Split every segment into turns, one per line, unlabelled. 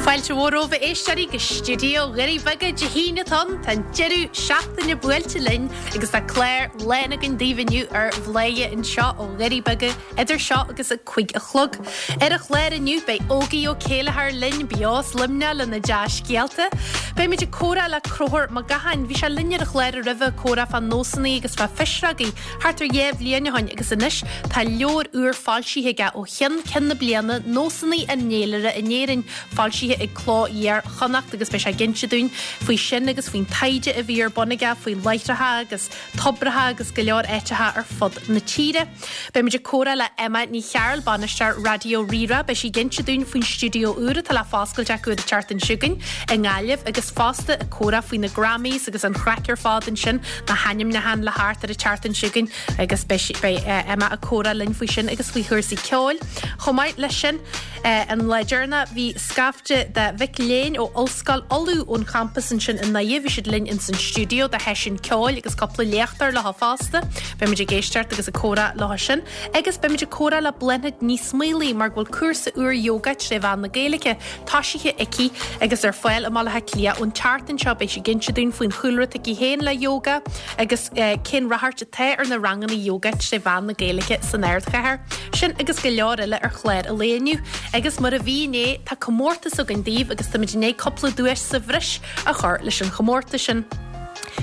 Fáilte mhór romhaibh a éisteoirí go stiúideo Dhoirí Beaga Dé hAoine atá ann. Tá an deireadh seachtaine buailte linn agus tá clár lán againn daoibh inniu ar Bhladhaire anseo ó Dhoirí Beaga idir seo agus a 5 a chlog. Ar an chlár inniu beidh Ógie Ó Céilleachair linn beo as Luimneach lena dea-scéalta. Beimid ag comhrá le Conchúr Mac Gacháin. Bhí sé linn ar an chlár roimhe ag comhrá fá nósanna agus fá phisreogaí thart ar dhéá bhliain ó shoin agus anois tá leabhar úr foilsithe aige ó cheann ceann na bliana, Nósanna an Fhéilire in Éirinn, foilsithe ag Cló Iar-Chonnacht agus beidh sé ag inse dúinn faoi sin agus faoin taighde a bhí ar bun aige faoi láithreacha agus tobracha agus go leor áiteacha ar fud na tíre. Beimid ag comhrá le Emma Ní Chearúil, bainisteoir Raidió Rí-Rá. Beidh sí ag inse dúinn faoin stiúideo úr atá le foscailt acu ar an tseachtain seo chugainn i nGaillimh agus fosta ag comhrá faoi na Grammys agus an chraic ar fad ansin, na hainmniúcháin le theacht ar an tseachtain seo chugainn agus beidh beidh Emma ag comhrá linn faoi sin agus faoi chúrsaí ceoil. Chomh maith leis sin, an lá deireanach bhí scaifte de mhic léinn ó Ollscoil Uladh ón champas ansin i nDoire, bhí siad linn ins an stiúideo do sheisiún ceoil agus cúpla léachtóir leo fosta. Beimid ag éisteacht agus ag comhrá leo sin agus beimid ag comhrá le Bláthnaid Ní Smaolaigh mar go bhfuil cúrsa úr yoga tré mheán na Gaeilge toisithe aici agus ar fáil i mBaile Átha Cliath ón tseachtain seo. Beidh sí ag inse dúinn faoin chúlra atá aici féin le yoga agus cén ráchairt atá ar na ranganna yoga tré mheán na Gaeilge san ardchathair. Sin agus go leor eile ar chlár an lae inniu. Agus mar a bhí inné, tá comórtas againn daoibh agus táimid i ndiaidh cúpla duais sa bhreis a chur leis an chomórtas sin.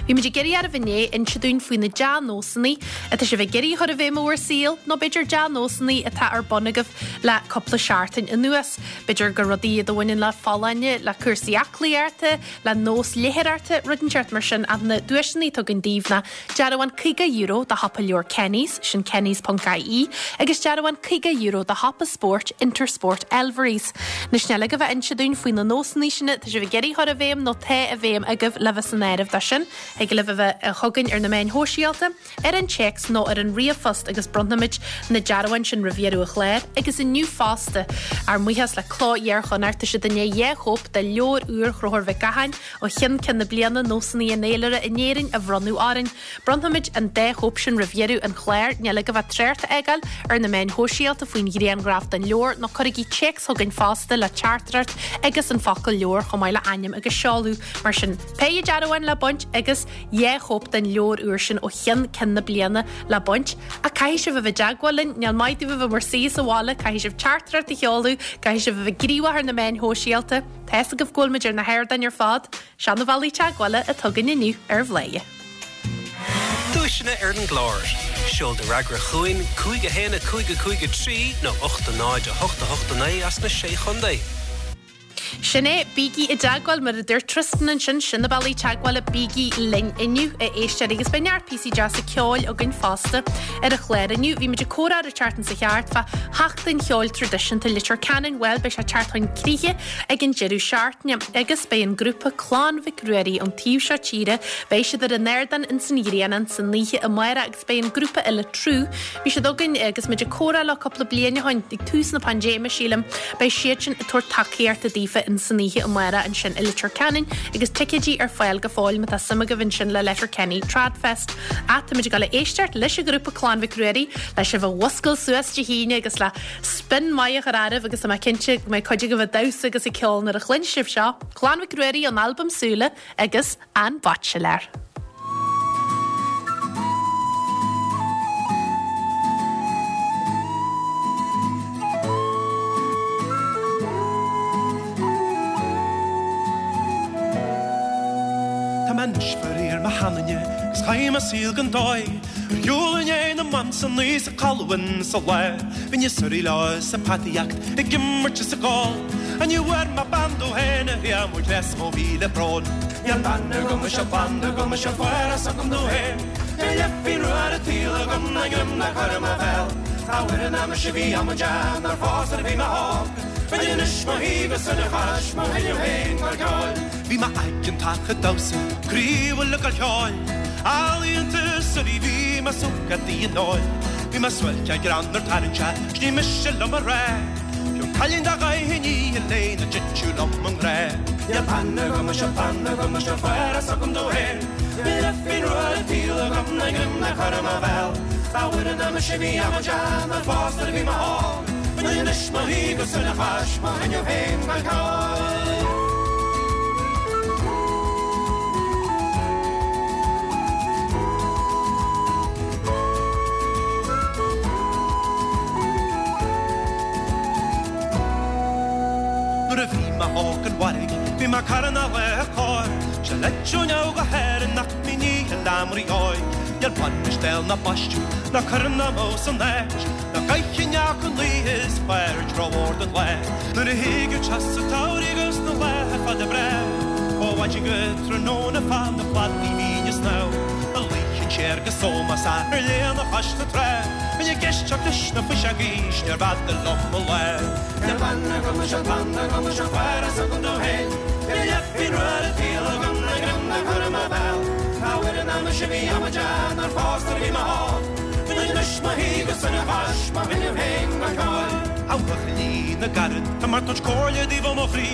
Bhí muid ag iarraidh oraibh inné inse dúinn faoi na dea-nósanna atá sibh ag iarraidh a chur i bhfeidhm i bhur saol, nó b'fhéidir dea-nósanna atá ar bun agaibh le cúpla seachtain anuas. B'fhéidir gur rudaí iad a bhaineann le folláine, le cúrsaí aclaíochta, le nós léitheoireachta, rud inteacht mar sin ach na duaiseanna atá againn daoibh ná dearbhán €50 do shiopa leabhar Kenny's, sin kennys.ie, agus dearbhán €50 do shiopa spóirt Intersport Elverys. Anois níl agaibh ach inse dúinn faoi na nósanna sin atá sibh ag iarraidh a chur i bhfeidhm nó tá i bhfeidhm agaibh le bheith san áireamh dó sin. Thig libh a bheith chugainn ar na meáin shóisialta. ar an téacs nó ar an ríomhphost agus bronnfaimid na dearbháin sin roimh dheireadh an chláir agus inniu fosta. Ár mbuíochas le Cló Iar-Chonnacht, tá siad i ndiaidh 2 chóip de leabhar úr Chonchúir Mhic Gacháin ó cheann ceann na bliana, Nósanna an Fhéilire in Éirinn a bhronnadh orainn. Bronnfaimid an dá chóip sin roimh dheireadh an chláir. Níl agaibh ach trácht a fhágáil ar na meáin shóisialta faoin ghrianghraf den leabhar nó cuirigí téacs chugainn fosta le teachtaireacht agus an focal leabhar chomh maith le ainm agus seoladh. Mar sin, péire dearbhán le baint agus. 2 chóip den leabhar úr sin ó cheann ceann na bliana le baint. Ach caithfidh sibh a bheith i dteagmháil linn, níl maith daoibh a bheith bhur suí sa bhaile, caithfidh sibh teachtaireacht a sheoladh, caithfidh sibh a bheith gníomhach ar na meáin shóisialta. Tá fhios agaibh go bhfuil muid ar na hardáin ar fad. Seo na bealaí teagmhála atá againn inniu ar Bhladhaire.
Duaiseanna ar an gclár. Seol do fhreagra chugainn, 5 1 5 5 3 nó 8 0 8 8 9 as na Sé Chontae.
Sin é, bígí i dteagmháil, mar a dúirt Tristan ansin, sin na bealaí teagmhála, bígí linn inniu, a éisteoirí, agus beidh neart píosaí deasa ceoil againn fosta ar an chlár inniu. Bhí muid ag comhrá ar an tseachtain seo thart fá Sheachtain Cheoil Traidisiúnta Leitir Ceanainn, bhuel, beidh sé ag teacht chun críche ag an deireadh seachtaine, agus beidh an grúpa Clann Mhic Ruairí ón taobh seo tíre, beidh siad ar an ardán ins an Ghrianán san oíche amárach agus beidh an grúpa eile Trú, bhí siad againn agus muid ag comhrá leo cúpla bliain ó shoin, ag tús na paindéime sílim, beidh siadsin ag tabhairt tacaíochta daofa in san oíche amárach ansin i Leitir Ceanainn agus ticéidí ar fáil go fóill má tá suim agaibh ansin le Letterkenny Tradfest. Ach táimid ag dul a éisteacht leis an ghrúpa Clann Mhic Ruairí le sibh a mhuscailt suas Dé hAoine agus le spin maith a chur oraibh agus tá mé cinnte go mbeidh cuid agaibh ag damhsa agus ag ceol nuair a chluin sibh seo, Clann Mhic Ruairí ón albam Súile agus An Baitsiléir.
Tá mé anois faraor mo sheanduine 'gus chaith mé saol gan dóigh Ar shiúl i ndiaidh na mban san oíche 's ag codladh ins an lá Bhínn ag suirí leo is ag peataíocht ag imirt is ag ól Ach ní bhfuair mé bean domh féin a thriail mo ghléas mo mhíle brón. Níl bean agam is níl clann agam is níl forás agam domh féin. Níl leithpingin rua ar an tsaol agam ná greim le cur i mo bhéal. Dá bhfuairinn mise bhí amaideach nár phós nuair a bhí mé óg. Bheinn anois mo shuí go sona chois mo thinneadh féin mar ceoil. Bhí mé aigeantach ag damhsa, croíúil ag gol ceoil. Ealaíonta suirí bhí mé sócadaí an óil. Bhí mé suáilce greannmhar tarraingteach, 's ní miste liom a rá. Fiú cailín dá gcaithfinn í a léigh na dtiteadh liom i ngrá. Níl bean agam is níl clann agam is níl forás agam domh féin. Níl leithphingin rua ar an tsaol agam ná greim le cur i mo bhéal. Dá bhfuairinn mise bhí amaideach nár phós nuair a bhí mé óg. Bheinn anois mo shuí go sona chois mo thinneadh féin gan ceol. Nuair a bhí mé óg an mhairg bhí mé carna le cor Se leitseoneamh go hÉirinn nach míní an leamraí óig Níl bainis béal ná baisteadh ná cuireann ná mó san áit Ná gcaithfinn ach an luí is fearr tráth den lae Nuair a thigeadh teas an tsamhraidh agus na laetha fada breá Ó mhaidin go tráthnóna fan na cladaí bhínn ag snámh A luífinn siar go sómás ar léana chois na trá Bhínn ag éisteacht leis na fuiseogaí 's níorbh fhada liom mo lá Níl plean agam is an plean agam is an fear is agam domh féin Níl leithpingin rua ar an tsaol agam ná greim le cur i mo bhéal Cá bhfuil an aimsir sin bhí amaideach nár phós nuair a bhí mé óg Bíonn anois mo shuí go sona chois mo thinneamh féin go ceoil. A bhuachaillí na gcarad, tá mé ag tabhairt comhairle daoibh ó mo chroí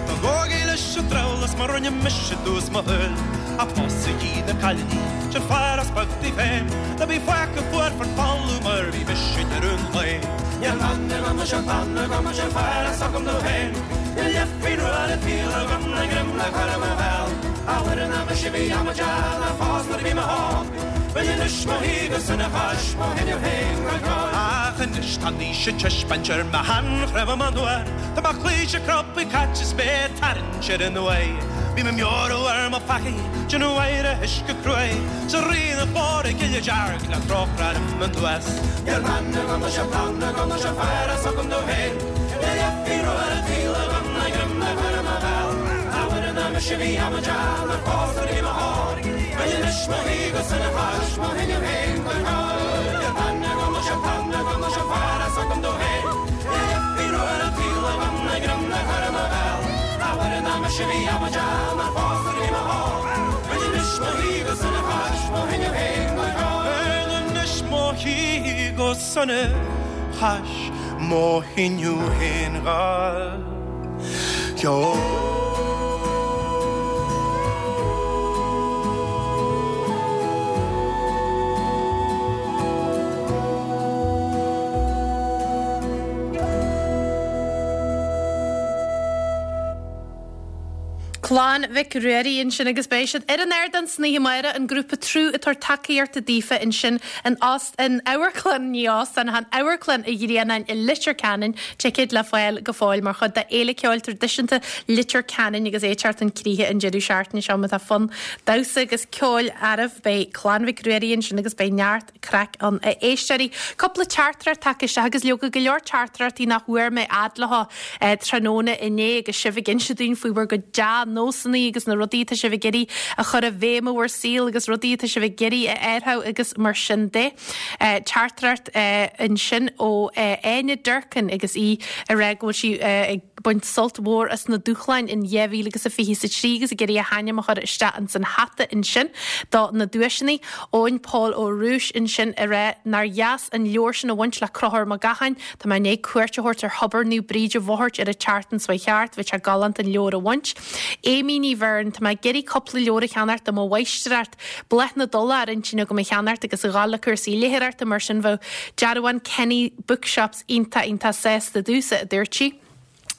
Ná gabhaigí leis an drabhlás mar rinne mise i dtús mo shaoil Ach pósaigí na cailíní, sin fear as beag daoibh féin Ná bí fágtha fuar fán talamh mar bhí mise i ndeireadh an lae. Níl plean agam is an plean agam is an fear is agam domh féin Níl leithpingin rua ar an tsaol agam ná greim le cur i mo bhéal A mhuire ná mise bhí amaideach nár phós nuair a bhí mé óg Bíonn anois mo shuí go sona chois mo thinneamh féin go ceoil. Ach anois tá an aois ag taispeáint ar mo sheanchnámha anoir Tá mo chluaise crobtha caite is mé ag tarraingt ar an uaigh Bím ag meabhrú ar mo pheacaí, déanamh adhradh uisce cruaidh 'S a Rí na glóire gile dearg le trócaire orm anuas. Níl plean agam is an plean agam is an fear is agam domh féin Níl leithpingin rua ar an tsaol agam ná greim le cur i mo bhéal A Mhuire ná mise bhí amaideach nár phós nuair a bhí mé óg Bíonn anois mo shuí go sona chois mo thinneamh féin go ceoil Níl plean agam is an plean agam is an fear is agam domh féin Níl leithpingin rua ar an tsaol agam ná greim le cur i mo bhéal A Mhuire ná mise bhí amaideach nár phós nuair a bhí mé óg Bíonn anois mo shuí go sona chois mo thinneamh féin go ceoil Bíonn anois mo shuí go sona chois mo thinneamh féin go ceoil.
Clann Mhic Ruairí ansin agus beidh siad ar an ardán san oíche amárach, an grúpa Trú ag tabhairt tacaíochta daofa ansin in óst, in amharclann, ní óstán, ach in Amharclann an Ghrianáin i Leitir Ceanainn, ticéid le fáil go fóill mar chuid de Fhéile Ceoil Traidisiúnta Leitir Ceanainn agus é ag teacht chun críche an deireadh seachtaine seo. Má tá fonn damhsa agus ceoil oraibh, beidh Clann Mhic Ruairí ansin agus beidh neart craic ann, a éisteoirí. Cúpla teachtaireacht tagtha isteach agus leoga go leor teachtaireachtaí nach bhfuair mé fhad leo tráthnóna inné agus sibh ag inse dúinn faoi bhur gcuid dea-nósanna agus na rudaí atá sibh ag iarraidh a chur i bhfeidhm i bhur saol agus rudaí atá sibh ag iarraidh a athrú agus mar sin de. Teachtaireacht ansin ó Áine Durkin agus í ag rá go bhfuil sí ag baint sult mhór as na dúshláin in 2023 agus ag iarraidh a hainm a chur isteach ins an hata ansin do na duaiseanna. Eoin Paul Ó Rúis ansin ag rá nár dheas an leabhar sin a bhaint le Conchúr Mac Gacháin. Tá mé i ndiaidh cuairt a thabhairt ar Thobar Naomh Bríd i bhFothairt ar an tseachtain seo thart. Bhí sé galánta an leabhar a bhaint. Amy Ní Bheirn, Tá mé ag iarraidh cúpla leabhar a cheannacht do mo mháistreacht. Bláth na dTulach ar intinn agam a cheannacht agus a dhul le cúrsaí léitheoireachta mar sin bheadh dearbhán Kenny Bookshops iontach iontach sásta domhsa, a dúirt sí.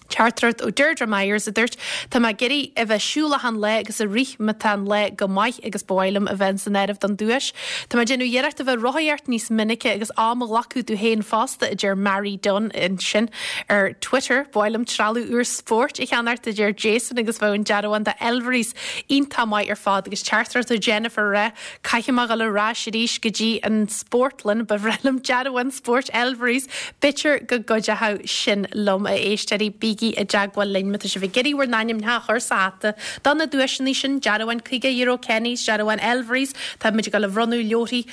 Teachtaireacht ó Deirdre Myers a dúirt, Tá mé ag iarraidh a bheith siúl achan lá agus ag rith má tá an lá go maith agus ba mhaith liom a bheith san áireamh don duais. Tá mé ag déanamh iarracht a bheith rothaíocht níos minice agus am a ghlacadh domh féin fosta, a deir Mary Dunne ansin ar Twitter. Ba mhaith liom trealamh úr spóirt a cheannacht, a deir Jason agus bheadh an dearbhán de Elvery's Iontach maith ar fad agus teachtaireacht ó Jennifer ag rá caithfidh mé dhul ar ais arís go dtí an spórtlann, ba bhreá liom dearbhán spóirt Elvery's, b'fhéidir go gcuideochadh sin liom, a éisteoirí, bígí i dteagmháil linn má tá sibh ag iarraidh bhur n-ainmneacha a chur sa hata do na duaiseanna sin, dearbhán €50 Kenny's, dearbhán Elvery's, tá muid ag dul a bhronnadh leabharthaí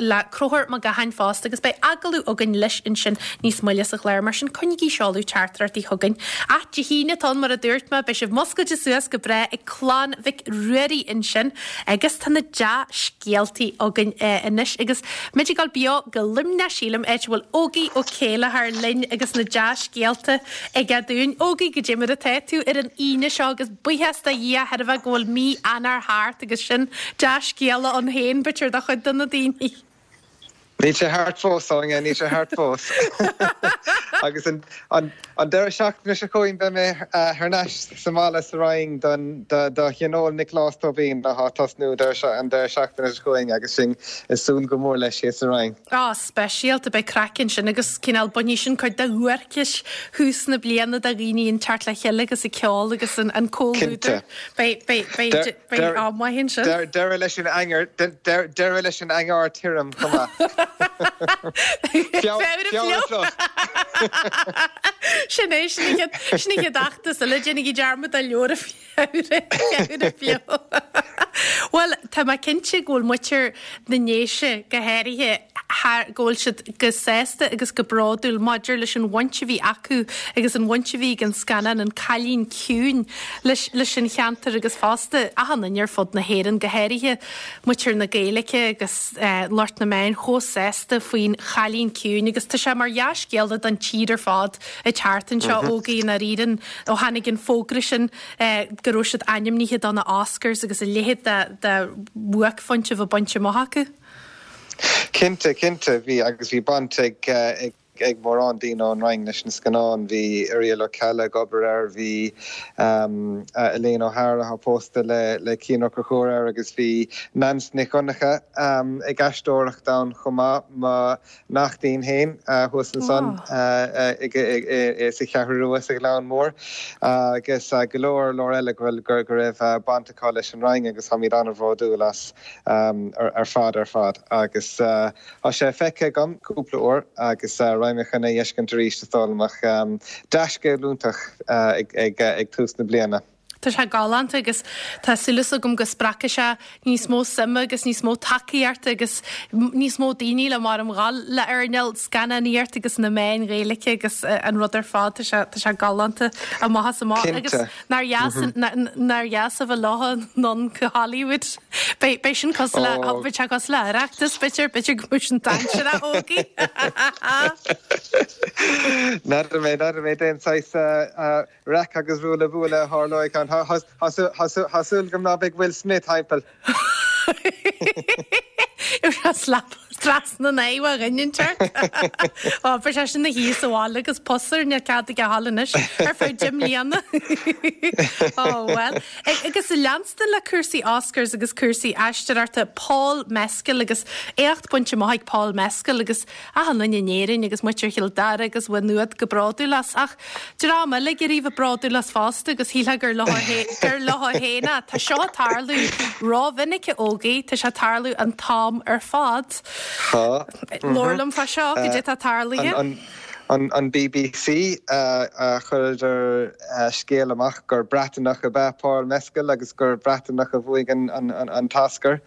le Conchúr Mac Gacháin fosta agus beidh agallamh againn leis ansin níos moille sa chlár, mar sin coinnigí seoladh teachtaireachtaí chugainn. Ach Dé hAoine atá ann mar a dúirt mé, beidh sibh muscailte suas go breá ag Clann Mhic Ruairí ansin agus tá na dea-scéaltaí againn anois agus muid ag dul beo go Luimneach sílim, áit a bhfuil Ógie Ó Céilleachair linn agus na dea-scéalta aige dúinn. Ógie, goidé mar atá tú ar an Aoine seo agus buíochas do Dhia thairbhe go bhfuil mí Eanáir thart agus sin dea-scéala ann féin, b'fhéidir, do chuid de na daoine.
Níl sé thart fós, Áine, níl sé thart fós. Agus an deireadh seachtaine seo chugainn beidh mé thar n-ais sa mbaile sa Rinn don do Thionól Nioclás Tóibín atá ag tosnú an deireadh seachtaine seo chugainn agus sinn ag súil go mór leis thíos sa Rinn.
Á, speisialta, beidh craic ansin agus cineál bainfidh sin cuid de dhuairceas thús na bliana de dhaoine ag teacht le chéile agus ag ceol agus an comhluadar. Beidh, beidh, beidh, beidh am maith ansin.
Deireadh leis an eangar, deireadh leis an eangar tirim chomh maith.
Feabhra fliuch! Sin é, sin an chéad, sin an chéad fheachtas eile, déanaigí dearmad de leabhar Feabhra, Feabhra fliuch. Bhuel, tá mé cinnte go bhfuil muintir na nDéise go háirithe thar, go bhfuil siad go sásta agus go bródúil maidir leis an bhaint a bhí acu agus an bhaint a bhí ag an scannán An Cailín Ciúin leis, leis an cheantar agus fosta achan duine ar fud na hÉireann, go háirithe muintir na Gaeilge agus lucht na meáin chomh sásta faoin Chailín Ciúin agus tá sé mar dhea-scéala don tír ar fad ag teacht anseo, Ógie, i ndáiríre. Ó tháinig an fógra sin go raibh siad ainmnithe do na Oscars agus a leithéid de bhuaicphointe a bheith bainte amach acu.
Cinnte, cinnte, bhí agus bhí baint ag ag mórán daoine ón Rinn leis an scannán. Bhí Irial Ó Ceallaigh ag obair air, bhí Elaine O'Hara atá pósta le le Cian Ó Conchúir air agus bhí Neans Nic Dhonncha ag aisteoireacht ann chomh maith. Mo neachtín féin thuas ansan sa Cheathrú Rua sa Ghleann Mór agus go leor leor eile go bhfuil go raibh baint acu leis an Rinn agus táimid an-bhródúil as ar fad ar fad agus tá sé feicthe agam cúpla uair agus raghaidh mé chun é a fheiscint arís is dóigh liom ach dea-scéal iontach ag tús na bliana.
Tá sé galánta agus tá súil agam go spreagfaidh sé níos mó suime agus níos mó tacaíochta agus níos mó daoine le mar a ghabháil le earnáil scannánaíocht agus na meáin Ghaeilge agus an rud ar fad. Tá sé, tá sé galánta amach is amach. Agus nár dheas, nár dheas a bheith leo anonn go Hollywood. Beidh, beidh sin cosúil le, beidh sé cosúil le Oireachtas, b'fhéidir, b'fhéidir go mbeidh sin dainséarach, Ógie.
N'fheadar mé, n'fheadar mé, déan saghas Raic agus ruaille buaille a tharlóidh ann. Tá súil agam ná beidh Will Smith thimpeall.
Gheobhaidh sé slap trasna an aghaidh ó dhuine inteacht. Ó, beidh sé sin ina shuí sa bhaile agus pus air, níl cead aige a ghabháil anois ar feadh deich mbliana. Ó, bhuel. Agus leanstan le cúrsaí Oscars agus cúrsaí aisteoireachta, Paul Mescal agus éacht bainte amach ag Paul Mescal agus achan duine in Éirinn agus muintir Chill Dara agus Mhaigh Nuad go bródúil as. Ach dream eile ag iarraidh a bheith bródúil as fosta agus shílfeá gur leo gur leo féin é. Tá seo ag tarlú rómhinic a Ógie, tá sé ag tarlú an t-am ar fad.
Tá.
Labhair liom fá seo, goidé atá tarlaithe.
An BBC a chuireadar scéal amach gur Breataineach ab ea Paul Mescal agus gur Breataineach a bhuaigh an t-Oscar.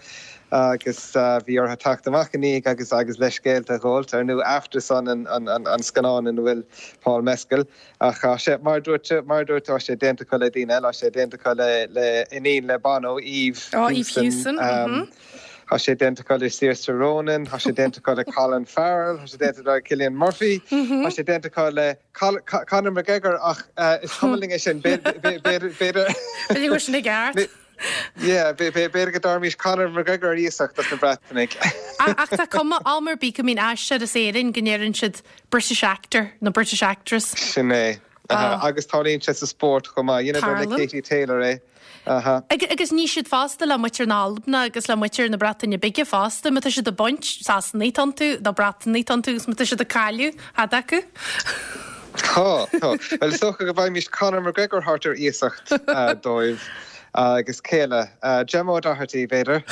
agus bhí orthu teacht amach ina dhiaidh agus agus leithscéalta a ghabháilt. Ar ndóigh Aftersun an an scannán ina bhfuil Paul Mescal ach tá sé mar a dúirt mar a dúirt tá sé déanta acu le daoine eile, tá sé déanta acu le le iníon le Bono, Eve
Oh, Eve Hewson.
mhm. Tá sé déanta acu le Saoirse Ronan, tá sé déanta acu le Colin Farrell, tá sé déanta le Cillian Murphy, tá sé déanta acu le Conor McGregor ach is cuma linn é sin, b'fhéidir
b'fhéidir go bhfuil sin i gceart.
Yeah, b'fhéidir go dtabharfaimis Conor McGregor ar iasacht dos na Breatanaigh.
Ach tá cuma am ar bith go mbíonn aisteoir as Éirinn go ndeireann siad British actor nó British actress.
Sin é. Agus tarlaíonn sé sa spórt chomh maith. Dheineadar le Katie Taylor é.
Agus ní siad fosta le muintir na hAlban agus le muintir na Breataine Bige fosta, má tá siad ag baint, Sasanaigh atá iontu, nó Breatanaigh atá iontu agus má tá siad ag cailleadh, cad acu?
Tá, tá. Bhuel, is dócha go bhfaighimís Conor McGregor thart ar iasacht dóibh agus cé eile? Gemma O'Doherty, b'fhéidir.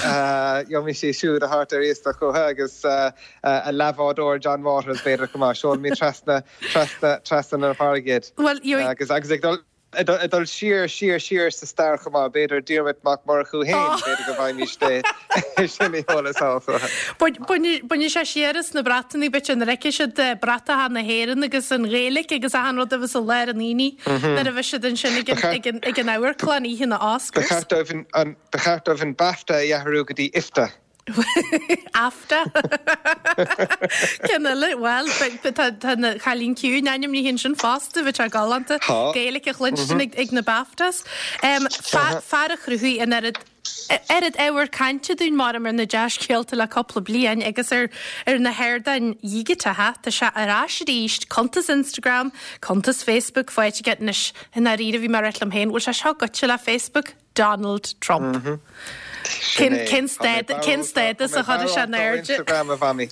Gheobhaimis í siúd a thabhairt ar iasacht chucu agus a leathbhádóir John Waters, b'fhéidir, chomh maith. Seolfaimid trasna, trasna, trasna na farraige iad.
Bhuel,
gheobhaidh. Agus, agus ag dul. Ag dul siar, siar, siar sa stair chomh maith, b'fhéidir Diarmuid Mac Murchú féin, b'fhéidir go bhfaighimís é sin a sheoladh sall chucu.
Bainfidh sé siar as na Breatanaigh, b'fhéidir, nuair a fheicfidh siad bratacha na hÉireann agus an Ghaeilge agus achan rud a bheas i lár an aonaigh nuair a bheas siad ansin ag an amharclann oíche na
Oscars. Ba cheart dóibh an BAFTA a athrú go dtí IFTA.
AFTA. Ceann eile, bhuel, tá An Cailín Ciúin ainmnithe ansin fosta, bheadh sé galánta Gaeilge a chluinstin ag na BAFTAs. Fear a chruthaigh an oiread. Oiread ábhar cainte dúinn maram ar na dea-scéalta le cúpla bliain agus ar ar na hardáin dhigiteacha, tá sé ar ais arís, cuntas Instagram, cuntas Facebook faighte aige anois. I ndáiríre, bhí mé ag ráit liom féin, bhfuil sé seo goitse le Facebook? Donald Trump. Cén cén cén stádas a chuirfidh sé in airde?
Instagram a mhamaí.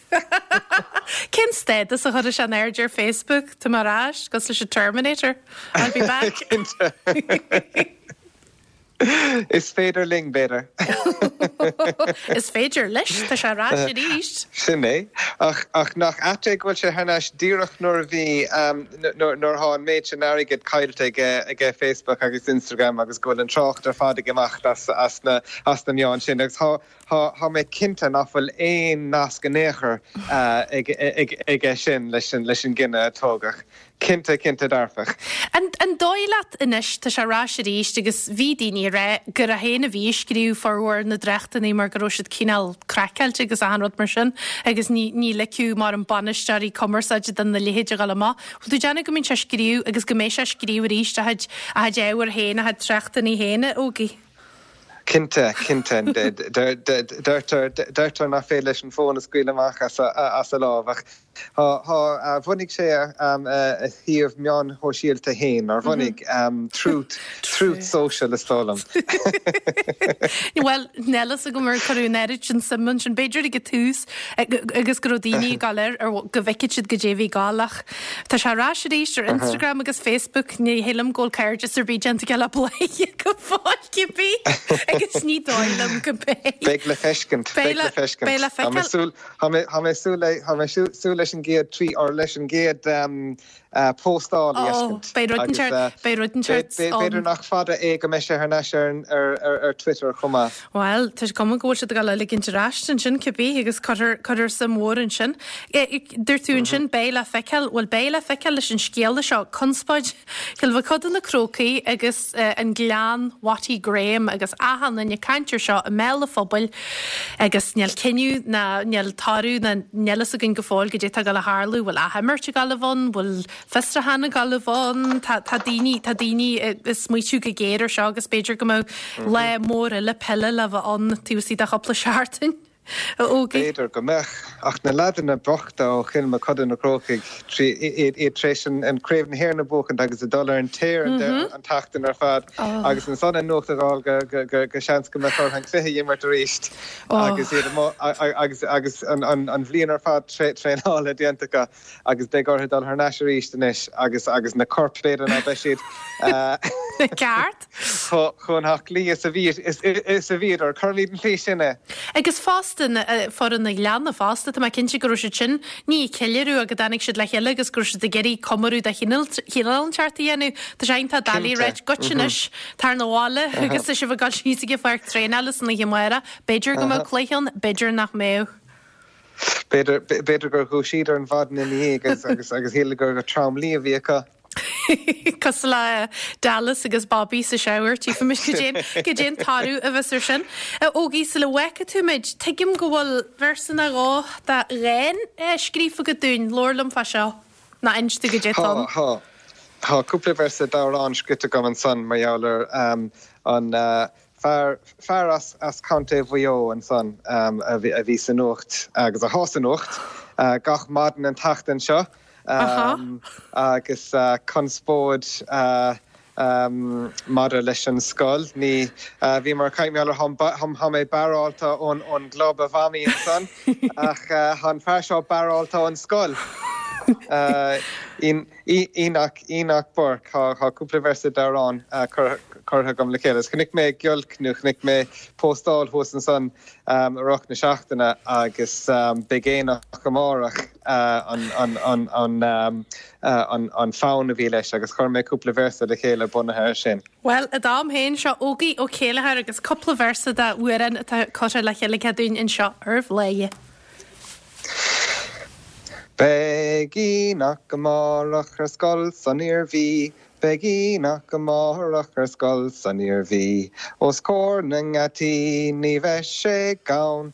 Cén stádas a chuirfidh sé in airde ar Facebook? Tá mé ar ais, cosúil leis an Terminator. I'll be back.
Cinnte. Is féidir linn, b'fhéidir.
Is féidir leis, tá sé ar ais arís.
Sin é. Ach, ach nach ait é go bhfuil sé thar n-ais díreach nuair a bhí, nuair atá an méid sin airgid caillte aige, aige Facebook agus Instagram agus go bhfuil an trácht ar fad ag imeacht as, as na, as na meáin sin. Agus tá, tá, tá mé cinnte nach bhfuil aon nasc in aon chor ag, ag, aige sin leis an, leis an gcinneadh a tógadh. Cinnte, cinnte dearfach.
An dóigh leat anois, tá sé ar ais arís agus bhí daoine ag rá gur é féin a bhí ag scríobh formhór na dtráchtanna mar go raibh siad cineál craiceáilte agus achan rud mar sin agus ní ní ligfeadh mar an bainisteoirí cumarsáide do na leithéid a dhul amach. Bhfuil tú ag déanamh go mbíonn sé ag scríobh agus go mbeidh sé ag scríobh arís a chuid a chuid ábhair féin, a chuid tráchtanna féin, a Ógie?
Cinnte, cinnte. Deirtear, deirtear nach féidir leis an bhfón a scaoileadh amach as a lámh ach Tá, tá. Bhunaigh sé a shuíomh meáin shóisialta féin, nár bhunaigh? Truth, Truth Social is dóigh liom.
Bhuel, níl fhios agam ar cuireadh an oiread sin suim ansin. B'fhéidir ag an tús agus go raibh daoine ag dul air ar go bhfeicfeadh siad goidé a bhí ag dul ach tá sé ar ais arís ar Instagram agus Facebook. Ní shílim go bhfuil cairdeas ar bith déanta aige le Bladhaire go fóill cibé agus ní dóigh liom go mbeidh.
Beidh le feiscint, beidh le feiscint.
Beidh le feiceáil.
Tá mé tá mé súil le tá mé súil leis an gcéad tweet or leis an gcéad póstáil a
fheiscint. Beidh rud inteacht beidh rud inteacht
B'fhéidir nach fada é go mbeidh sé thar n-ais ar ar ar Twitter chomh maith.
Bhuel, tá cuma go bhfuil siad ag dul a ligint ar ais ansin cibé agus cuirfear cuirfear suim mhór ansin. Dúirt tú ansin beidh le feiceáil, bhuel beidh le feiceáil leis an scéala seo, conspóid Chill Mochuda na Crócaigh agus an Gleann Watty Graham agus achan duine ag caint air seo i mbéal an phobail agus níl cinneadh ná níl toradh ná níl fhios againn go fóill goidé tá ag dul a tharlú, bhfuil athimirt ag dul a bheith ann, bhfuil fiosrúchán ag dul a bheith ann, tá tá daoine tá daoine ag smaoitiú go géar ar seo agus b'fhéidir go mbeadh lá mór eile peile le bheith ann taobh istigh de chúpla seachtain. A Ógie.
B'fhéidir go mbeadh, ach na leaideanna bochta ó Chill Mochuda na Crócaigh, iad tar éis an Craobh na hÉireann a bhuachaint agus ag dul ar an tear an tseachtain ar fad agus ansan an nuacht a fháil go seans go mbeadh orthu an cluiche a imirt arís agus iad agus agus an bhliain ar fad traenála déanta acu agus beidh orthu dul thar n-ais arís anois agus agus na coirp b'fhéidir ná beidh siad
Ceart.
chomh haclaí is a bhí is a bhíodar. Cuirimid an tslí sin é.
Agus fosta, foireann an Ghleanna fosta, tá mé cinnte go raibh siad sin, ní ag ceiliúradh ach go dtáinig siad le chéile agus go raibh siad ag iarraidh comóradh de chineál inteacht a dhéanamh. Tá sé iontach doiligh a ráit goitse anois, tar 'na bhaile agus tá sibh ag dul síos ag an pháirc traenála san oíche amárach. B'fhéidir go mbeadh cluiche ann, b'fhéidir nach mbeadh.
B'fhéidir, b'fhéidir gur dhúisíodar an mhaidin ina dhiaidh agus agus agus shíleadar gur trom luí a bhí acu.
Cosúil le Dallas agus Bobby sa shower, tchífimid goidé an toradh a bheas ar sin. A Ógie, sula bhfágfaidh tú muid, tuigim go bhfuil véarsa nó dhó de dhán scríofa agat dúinn, labhair liom fá seo, nó inis domh goidé atá ann.
Tá, tá. Tá cúpla véarsa d'amhrán scrite agam ansan mar gheall ar an fear, fear as, as Contae Mhaigh Eo ansan a bhí sa nuacht agus athá sa nuacht gach maidin an tseachtain seo. Agus conspóid maidir leis an scoil. Ní, bhíomar ag caint mar gheall ar, thá mé barrálta ón gclub a mhamaí ansan, ach thá an fear seo barrálta ón scoil. Enoch, Enoch Burke, thá cúpla véarsa d'amhrán curtha agam le chéile. Chonaic mé giolc nó chonaic mé póstáil thuas ansan i rith na seachtaine agus beidh aonach amárach. an fonn a bhí leis agus chuir mé cúpla véarsa le chéile bunaithe air sin.
Bhuel, i d'am féin, seo Ógie Ó Céilleachair agus cúpla véarsa d'amhrán atá curtha le chéile aige dúinn anseo ar Bhladhaire.
Beidh Enoch amárach ar scoil san Iarmhí, Beidh Enoch amárach ar scoil san Iarmhí, Os comhair na ngeataí ní bheidh sé gann.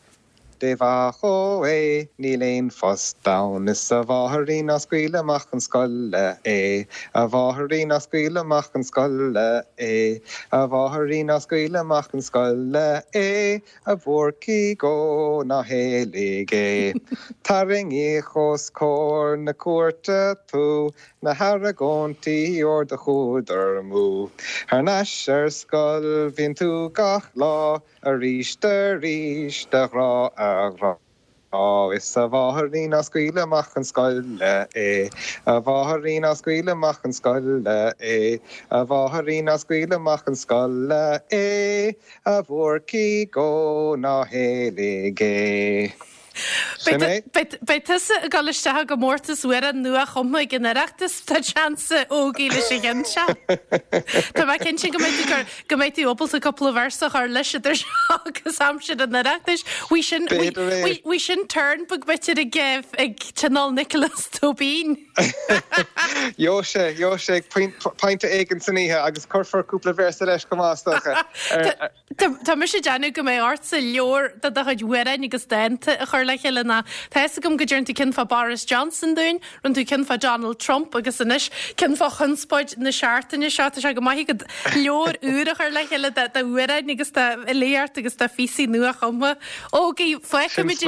Dé mhaith dhó é, níl aon phost ann. Is a mháithirín ná scaoil amach chun scoile é, A mháithirín ná scaoil amach chun scoile é, A mháithirín ná scaoil amach chun scoile é, A bhúrcaigh ó ná héalaigh é. Tarraingíodh os comhair na cúirte tú, Na hargóintí óir do chuadar amú. Thar n-ais ar scoil bhíonn tú gach lá, Arís arís a ghrá a ghrá Is a mháithirín ná scaoil amach chun scoile é A mháithirín ná scaoil amach chun scoile é A mháithirín ná scaoil amach chun scoile é A bhúrcaigh ó ná héalaigh é.
Sin é. Beidh tusa ag dul isteach i gcomórtas amhrán nua-chumtha ag an Oireachtas, tá seans a Ógie leis an gceann seo. Tá mé cinnte go mbeidh tú go mbeidh tú ábalta cúpla véarsa a chur leis idir seo agus aimsir an Oireachtais. Bhí sin B'fhéidir é. bhí sin turn beag b'fhéidir ag ag Tionól Nioclás Tóibín.
Gheobhaidh sé, gheobhaidh sé ag pointe éigin san oíche agus cuirfear cúpla véarsa leis chomh maith is
dócha. Tá mise ag déanamh go mbeidh ortsa leabhar de do chuid amhráin agus dánta a chur le chéile ná tá fhios agam go dtearn tú ceann fá Boris Johnson dúinn, rinne tú ceann fá Donald Trump agus anois ceann fá chonspóid na seachtaine seo. Tá sé go maith agat leabhar úr a chur le chéile d'amhráin agus d'fhilíocht agus de phíosaí nua-chumtha. Ógie, fágfaimid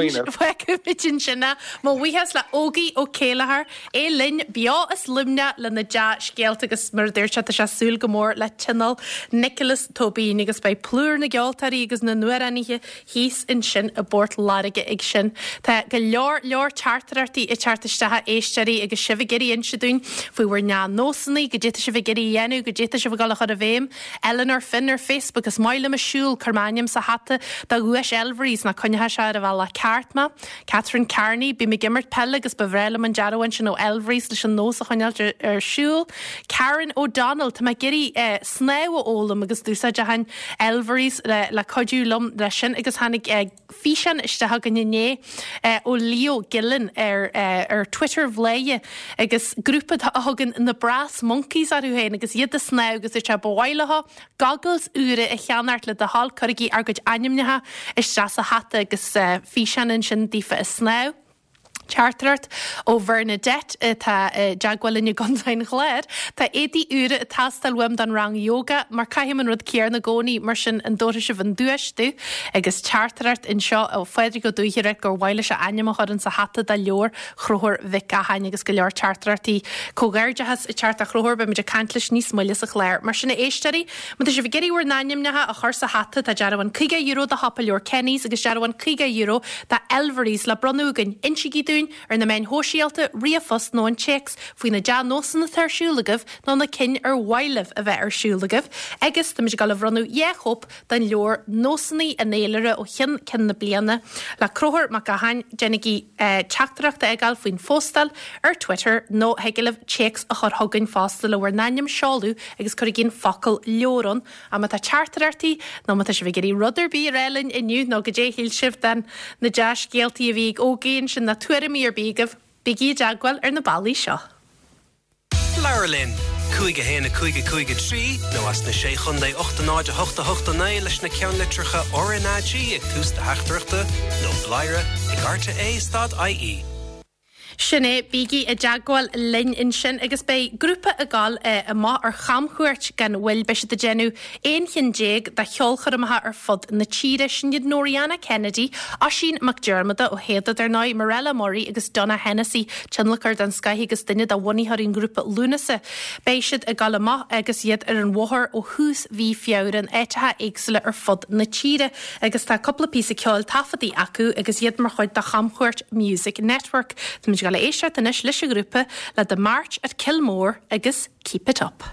ansin é. Mo bhuíochas le Ógie Ó Céilleachair. É linn beo as Luimneach le na dea-scéalta agus mar a dúirt sé tá sé ag súil go mór le Tionól Nioclás Tóibín agus beidh plúr na gceoltóirí agus na n-amhránaithe thíos ansin i bPort Láirge ag sin. Tá go leor leor teachtaireachtaí ag teacht isteach a éisteoirí agus sibh ag iarraidh inse dúinn faoi bhur ndea-nósanna, goidé tá sibh ag iarraidh a dhéanamh, goidé tá sibh ag dul a chur i bhfeidhm. Eleanor Finn ar Facebook, Is maith liom ag siúl, cuir m'ainm sa hata do dhuais Elvery's nó coinneoidh sé ar an bhealach ceart mé. Catherine Carney, Bím ag imirt peile agus ba bhreá liom an dearbhán sin ó Elvery's leis an nós a choinneáilt ar siúl. Karen O'Donnell, Tá mé ag iarraidh snámh a fhoghlaim agus d'úsáidfinn Elvery's le cuidiú liom leis sin agus tháinig físeán isteach againn inné ó Leo Gillen ar ar Twitter Bhladhaire agus grúpa a thugann na Brass Monkeys orthu féin agus iad ag snámh agus dúirt sé ba mhaith leo goggles úra a cheannacht le do thoil, cuirigí ár gcuid ainmneacha isteach sa hata agus físeán ansin daofa ag snámh. Teachtaireacht ó Bhernadette atá i dteagmháil linn i gContae an Chláir. Tá éadaí úra ag teastáil uaim don rang yoga mar caithim an rud céarna i gcónaí, mar sin an dtabharfaidh sibh an duais domh? Agus teachtaireacht anseo ó Phádraig Ó Dúichearra gur mhaith leis a ainm a chur insa hata do leabhar Chonchúir Mhic Gacháin agus go leor teachtaireachtaí comhghairdeachais ag teacht a Chonchúir, beimid ag caint leis níos moille sa chlár. Mar sin a éisteoirí, má tá sibh ag iarraidh bhur n-ainmneacha a chur sa hata, tá dearbhán €50 do Shiopa Leabhar Kenny's agus dearbhán €50 do Elvery's le bronnadh againn. Insígí dúinn ar na meáin shóisialta, ríomhphost nó an téacs faoi na dea-nósanna atá ar siúl agaibh nó na cinn ar mhaith libh a bheith ar siúl agaibh agus táimid ag dul a bhronnadh 2 chóip den leabhar Nósanna an Fhéilire ó cheann ceann na bliana le Conchúr Mac Gacháin, déanaigí teachtaireacht a fhágáil faoin phóstáil ar Twitter nó thig libh téacs a chur chugainn fosta le bhur n-ainm, seoladh agus cuirigí an focal leabhar ann. Ach má tá teachtaireachtaí nó má tá sibh ag iarraidh rud ar bith a rá linn inniu nó goidé a shíl sibh den na dea-scéaltaí a bhí ag Ógie ansin nó tuairimí ar bith agaibh, bígí i dteagmháil ar na bealaí seo.
Labhair linn! 5 1 5 5 3 nó as na Sé Chontae 8 0 8 8 9 leis na ceannlitreacha RnaG ag tús do theachtaireachta nó bladhaire ag rte stad ie.
Sin é, bígí i dteagmháil linn ansin agus beidh grúpa ag dul amach ar chamchuairt gan mhoill. Beidh siad ag déanamh 11 chinn de cheolchoirmeacha ar fud na tíre. Sin iad Noriana Kennedy, Oisín Mac Diarmada ó Shada, dar ndóigh, Mirella Murray agus Donogh Hennessy, tionlacóir den scoith agus duine de bhunaitheoirí an ghrúpa Lúnasa. Beidh siad ag dul amach agus iad ar an bhóthar ó thús mhí Feabhra in áiteacha éagsúla ar fud na tíre agus tá cúpla píosa ceoil taifeadta acu agus iad mar chuid de chamchuairt Music Network. Táimid ag dul a éisteacht anois leis an ghrúpa le The March at Kilmore agus Keep It Up.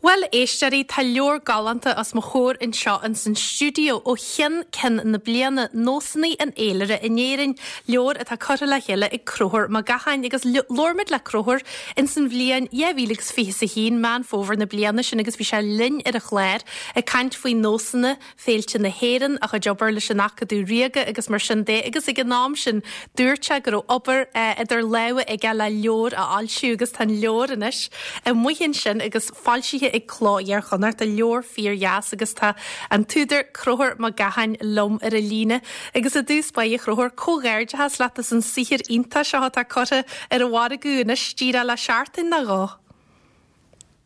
Bhuel, a éisteoirí, tá leabhar galánta os mo chomhair anseo ins an stiúideo, Ó Cheann Ceann na Bliana, Nósanna an Fhéilire in Éirinn, leabhar atá curtha le chéile ag Conchúr Mac Gacháin agus labhair muid le Conchúr ins an bhliain 2021, Meán Fómhair na bliana sin agus bhí sé linn ar an chlár ag caint faoi nósanna féilte na hÉireann, a chuid obair leis an Acadamh Ríoga agus mar sin de agus ag an am sin dúirt sé go raibh obair idir lámha aige le leabhar a fhoilsiú agus tá an leabhar anois amuigh ansin agus foilsithe ag Cló Iar-Chonnachta, leabhar fíor-dheas agus tá an t-údar Conchúr Mac Gacháin liom ar an líne agus i dtús báire a Chonchúir, comhghairdeachas leat as an saothar iontach seo atá curtha ar an mhargadh anois díreach le seachtain nó dhó.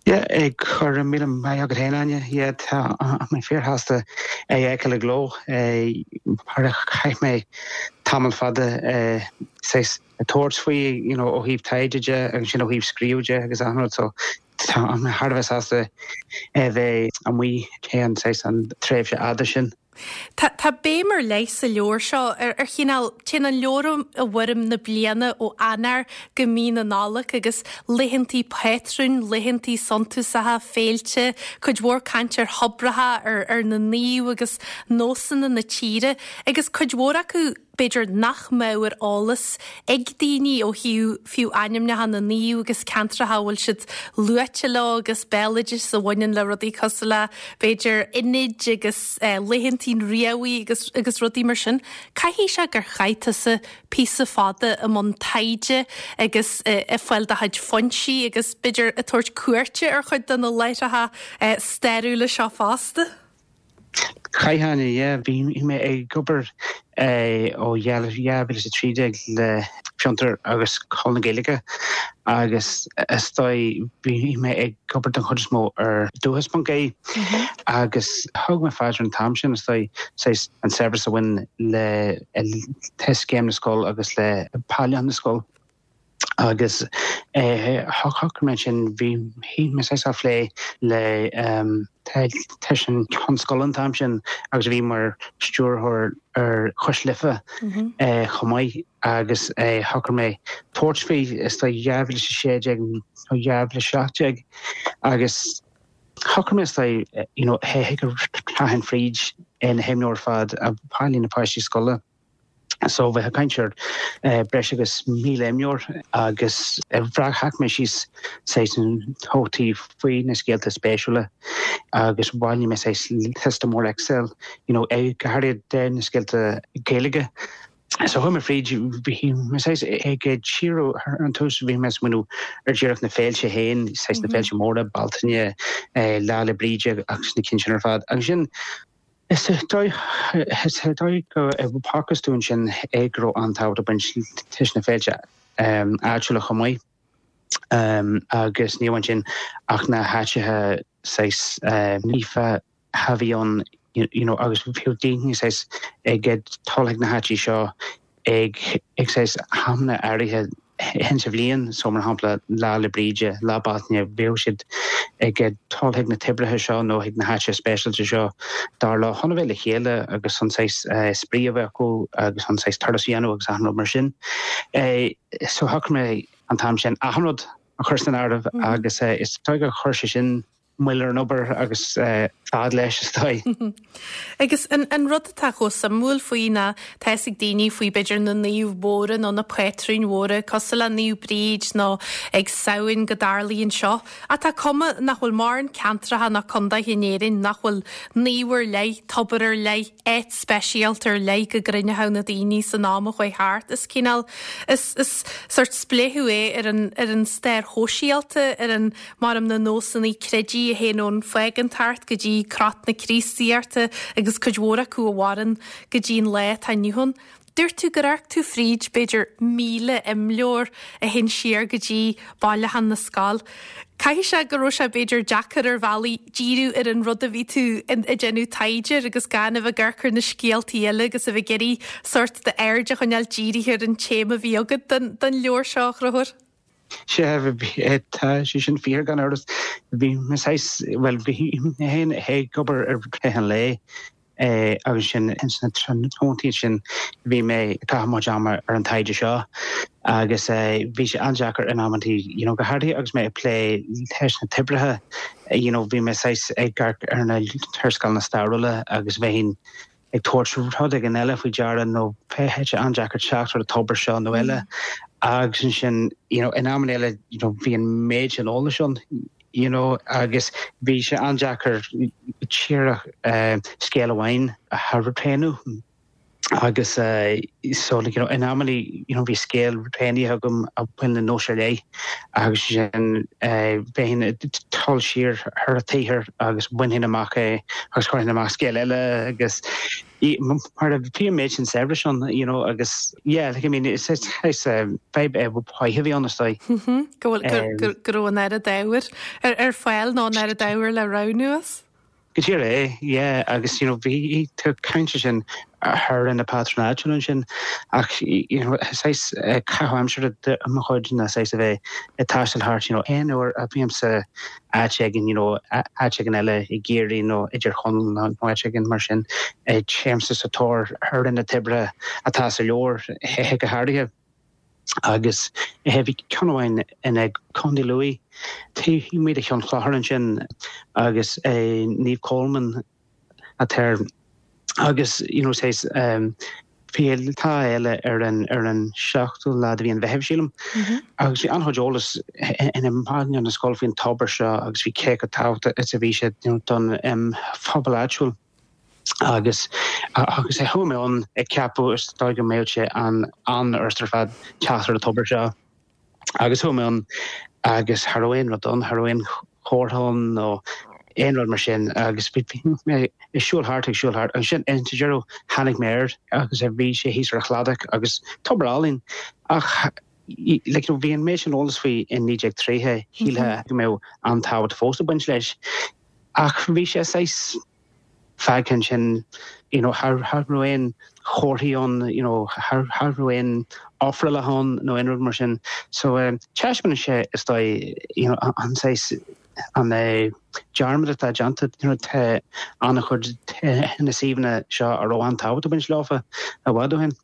Yeah, go raibh míle maith agat féin, Áine. Yeah, tá mé fíorshásta é a fheiceáil i gcló. Mar chaith mé tamall fada saghas ag tabhairt faoi, you know, ó thaobh taighde de agus ansin ó thaobh scríobh de agus achan rud. So tá mé thar a bheith sásta é a bheith amuigh théis an saghas an tréimhse fhada sin.
Tá tá béim ar leith sa leabhar seo ar ar chineál, téann an leabhar i bhfoirm na bliana ó Eanáir go mí na Nollag agus laethantaí pátrúin, laethantaí suntasacha, féilte, cuid mhór caint ar thobracha, ar ar na naoimh agus nósanna na tíre agus cuid mhór acu b'fhéidir nach mbeadh ar eolas ag daoine ó thaobh fiú ainmneacha na naomh agus ceantracha a bhfuil siad luaite leo agus béaloideas a bhaineann le rudaí cosúil le b'fhéidir Inid agus laethantaí an Riabhaigh agus agus rudaí mar sin. Caithfidh sé gur chaith tusa píosa fada i mbun taighde agus ag fáil do chuid foinsí agus b'fhéidir ag tabhairt cuairte ar chuid de na láithreacha stairiúla seo fosta.
Chaith, Áine, yeah. Bhí mé ag obair ó 2013 le Fiontar agus Scoil na Gaeilge agus is dóigh bhí mé ag obair den chuid is mó ar dúchas.ie agus thug mé faoi deara an t-am sin is dóigh saghas an saibhreas a bhain le Scéim na Scol agus le Bailiúchán na Scol. Agus shocraigh mé ansin, bhí mé saghas á phlé le leis an Cheann Scoile an t-am sin agus a bhí mar stiúrthóir ar Chois Life chomh maith agus shocraigh mé tabhairt faoi is dóigh 2016 nó 2017 agus shocraigh mé is dóigh you know go rachainn fríd na himleabhair ar fad a bhailigh na páistí scoile. So bheifeá ag caint ar breis agus 1,000 imleabhar agus bhreac mé síos saghas nótaí faoi na scéalta spéisiúla agus bhailigh mé saghas liosta mór Excel, you know, go háirithe de na scéalta Gaeilge. So chuaigh mé fríd, bhí mé saghas ag díriú ar an tús, bhí mé ag smaoineamh ar díreach na féilte féin, saghas na féilte móra, Bealtaine, Lá 'le Bríde agus na cinn sin ar fad. Agus sin, Is dóigh go bhfacthas dúinn sin é go raibh an-tábhacht ag baint leis na féilte áitiúla chomh maith agus ní amháin sin ach na háiteacha saghas naofa a bhí ann you know agus bhíodh daoine saghas ag dul chuig na háití seo ag ag saghas amanna áirithe sa bhliain, so mar shampla Lá 'le Bríde, Lá Bealtaine, bhíodh siad ag dul chuig na toibreacha seo nó chuig na háiteacha speisialta seo dar leo chun a bheith le chéile agus chun saghas spraoi a bheith acu agus chun saghas turas a dhéanamh agus achan rud mar sin. So shocraigh mé an t-am sin achan rud a chur san áireamh agus is dóigh gur chuir sé sin moill ar an obair agus fad leis, is dóigh.
Agus an rud atá chomh suimiúil faoi ná tá fhios ag daoine faoi b'fhéidir na naoimh mhóra nó na pátrúin mhóra cosúil le Naomh Bríd nó ag Samhain go dtarlaíonn seo ach tá cuma nach bhfuil mórán ceantracha ná condaetha in Éirinn nach bhfuil naomh ar leith, tobar ar leith, áit speisialta ar leith go gcruinneochadh na daoine san am a chuaigh thart. Is cineál, is, is sórt spléachadh é ar an, ar an stair shóisialta, ar an Maram na nósanna creidimh a théann ón phágántacht go dtí crot na Críostaíochta agus cuid mhór acu a mhaireann go dtí an lá atá inniu ann. Dúirt tú gur amharc tú fríd b'fhéidir 1,000 imleabhar a théann siar go dtí Bailiúchán na Scol. Caithfidh sé go raibh sé b'fhéidir deacair ar bhealaí díriú ar an rud a bhí tú ag déanamh taighde air agus gan a bheith ag amharc ar na scéaltaí eile agus a bheith ag iarraidh sórt d'aird a choinneáil dírithe ar an téama a bhí agat don leabhar seo, a Chonchúir.
Sea, tá sé sin fíor gan amhras. Bhí mé saghas, bhuel, bhí mé féin ag obair i rith an lae. Agus sin ins na tráthnóntaí sin bhí mé ag caitheamh mo chuid ama ar an taighde seo agus bhí sé an-deacair in amantaí, you know, go háirithe agus mé ag plé leis na toibreacha, you know, bhí mé saghas ag amharc ar na léarscáileanna stairiúla agus bheinn ag tabhairt rud éigin eile faoi deara nó bheadh sé an-deacair teacht ar an tobar seo nó eile agus ansin, you know, in amanna eile, you know, bhí an méid sin eolais ann, you know, agus bhí sé an-deacair díreach scéal amháin a roghnú agus so like, you know, in amannaí, you know, bhí scéal roghnaithe agam a bhain le nós ar leith agus sin bheinn ag dul siar ar an tsaothar agus bhainfinn amach é agus chuirfinn amach scéal eile agus mar a bhí an méid sin saibhris ann, you know, agus yeah, like, I mean, is is fadhb mhaith a bhí ann is dóigh.
Go bhfuil go raibh an oiread ábhair ar fáil nó an oiread ábhair le roghnú as.
Go díreach é, yeah, agus you know, bhí tú ag caint ansin ar na pátrúin áitiúla ansin ach you know, saghas caitheamh aimsire de mo chuid ná saghas a bheith ag taisteal thart, you know, aon uair a bhímse áit éigin, you know, áit éigin eile i gCiarraí nó i dTír Chonaill nó áit éigin mar sin, téimse sa tóir ar na toibreacha atá sa leabhar go háirithe. Agus bhí ceann amháin in Contae Lú, taobh amuigh de Cheann Chlochair ansin agus Naomh Colman atá air agus you know saghas bhí tá fhéile ar an ar an seachtú lá de mhí an Mheithimh sílim agus bhí an-chuid eolas ina manual na scoile faoin tobar seo agus bhí cé chomh tábhachtach is a bhí sé you know don phobal áitiúil agus agus chuaigh mé ann ag ceapadh is dóigh go mbeadh sé an an-fhurasta ar fad teacht ar an tobar seo. Agus chuaigh mé ann agus cha raibh aon rud ann, cha raibh aon chomhartha ann nó aon rud mar sin agus bhí mé ag siúl thart, ag siúl thart. Ansin sa deireadh tháinig mé air agus bhí sé thíos ar an chladach agus tobar álainn ach like, bhí an méid sin eolas faoi in 1930, shílfeá go mbeadh an-tábhacht fós ag baint leis ach bhí sé saghas fágtha ansin, you know, cha raibh aon chomharthaí ann, you know, cha raibh aon ofrálacha ann nó aon rud mar sin. So taispeánann sé is dóigh, you know, an saghas, an dearmad atá déanta, you know, tá an-chuid de na suíomhanna seo a raibh an-tábhacht ag baint leofa i bhfad ó shin.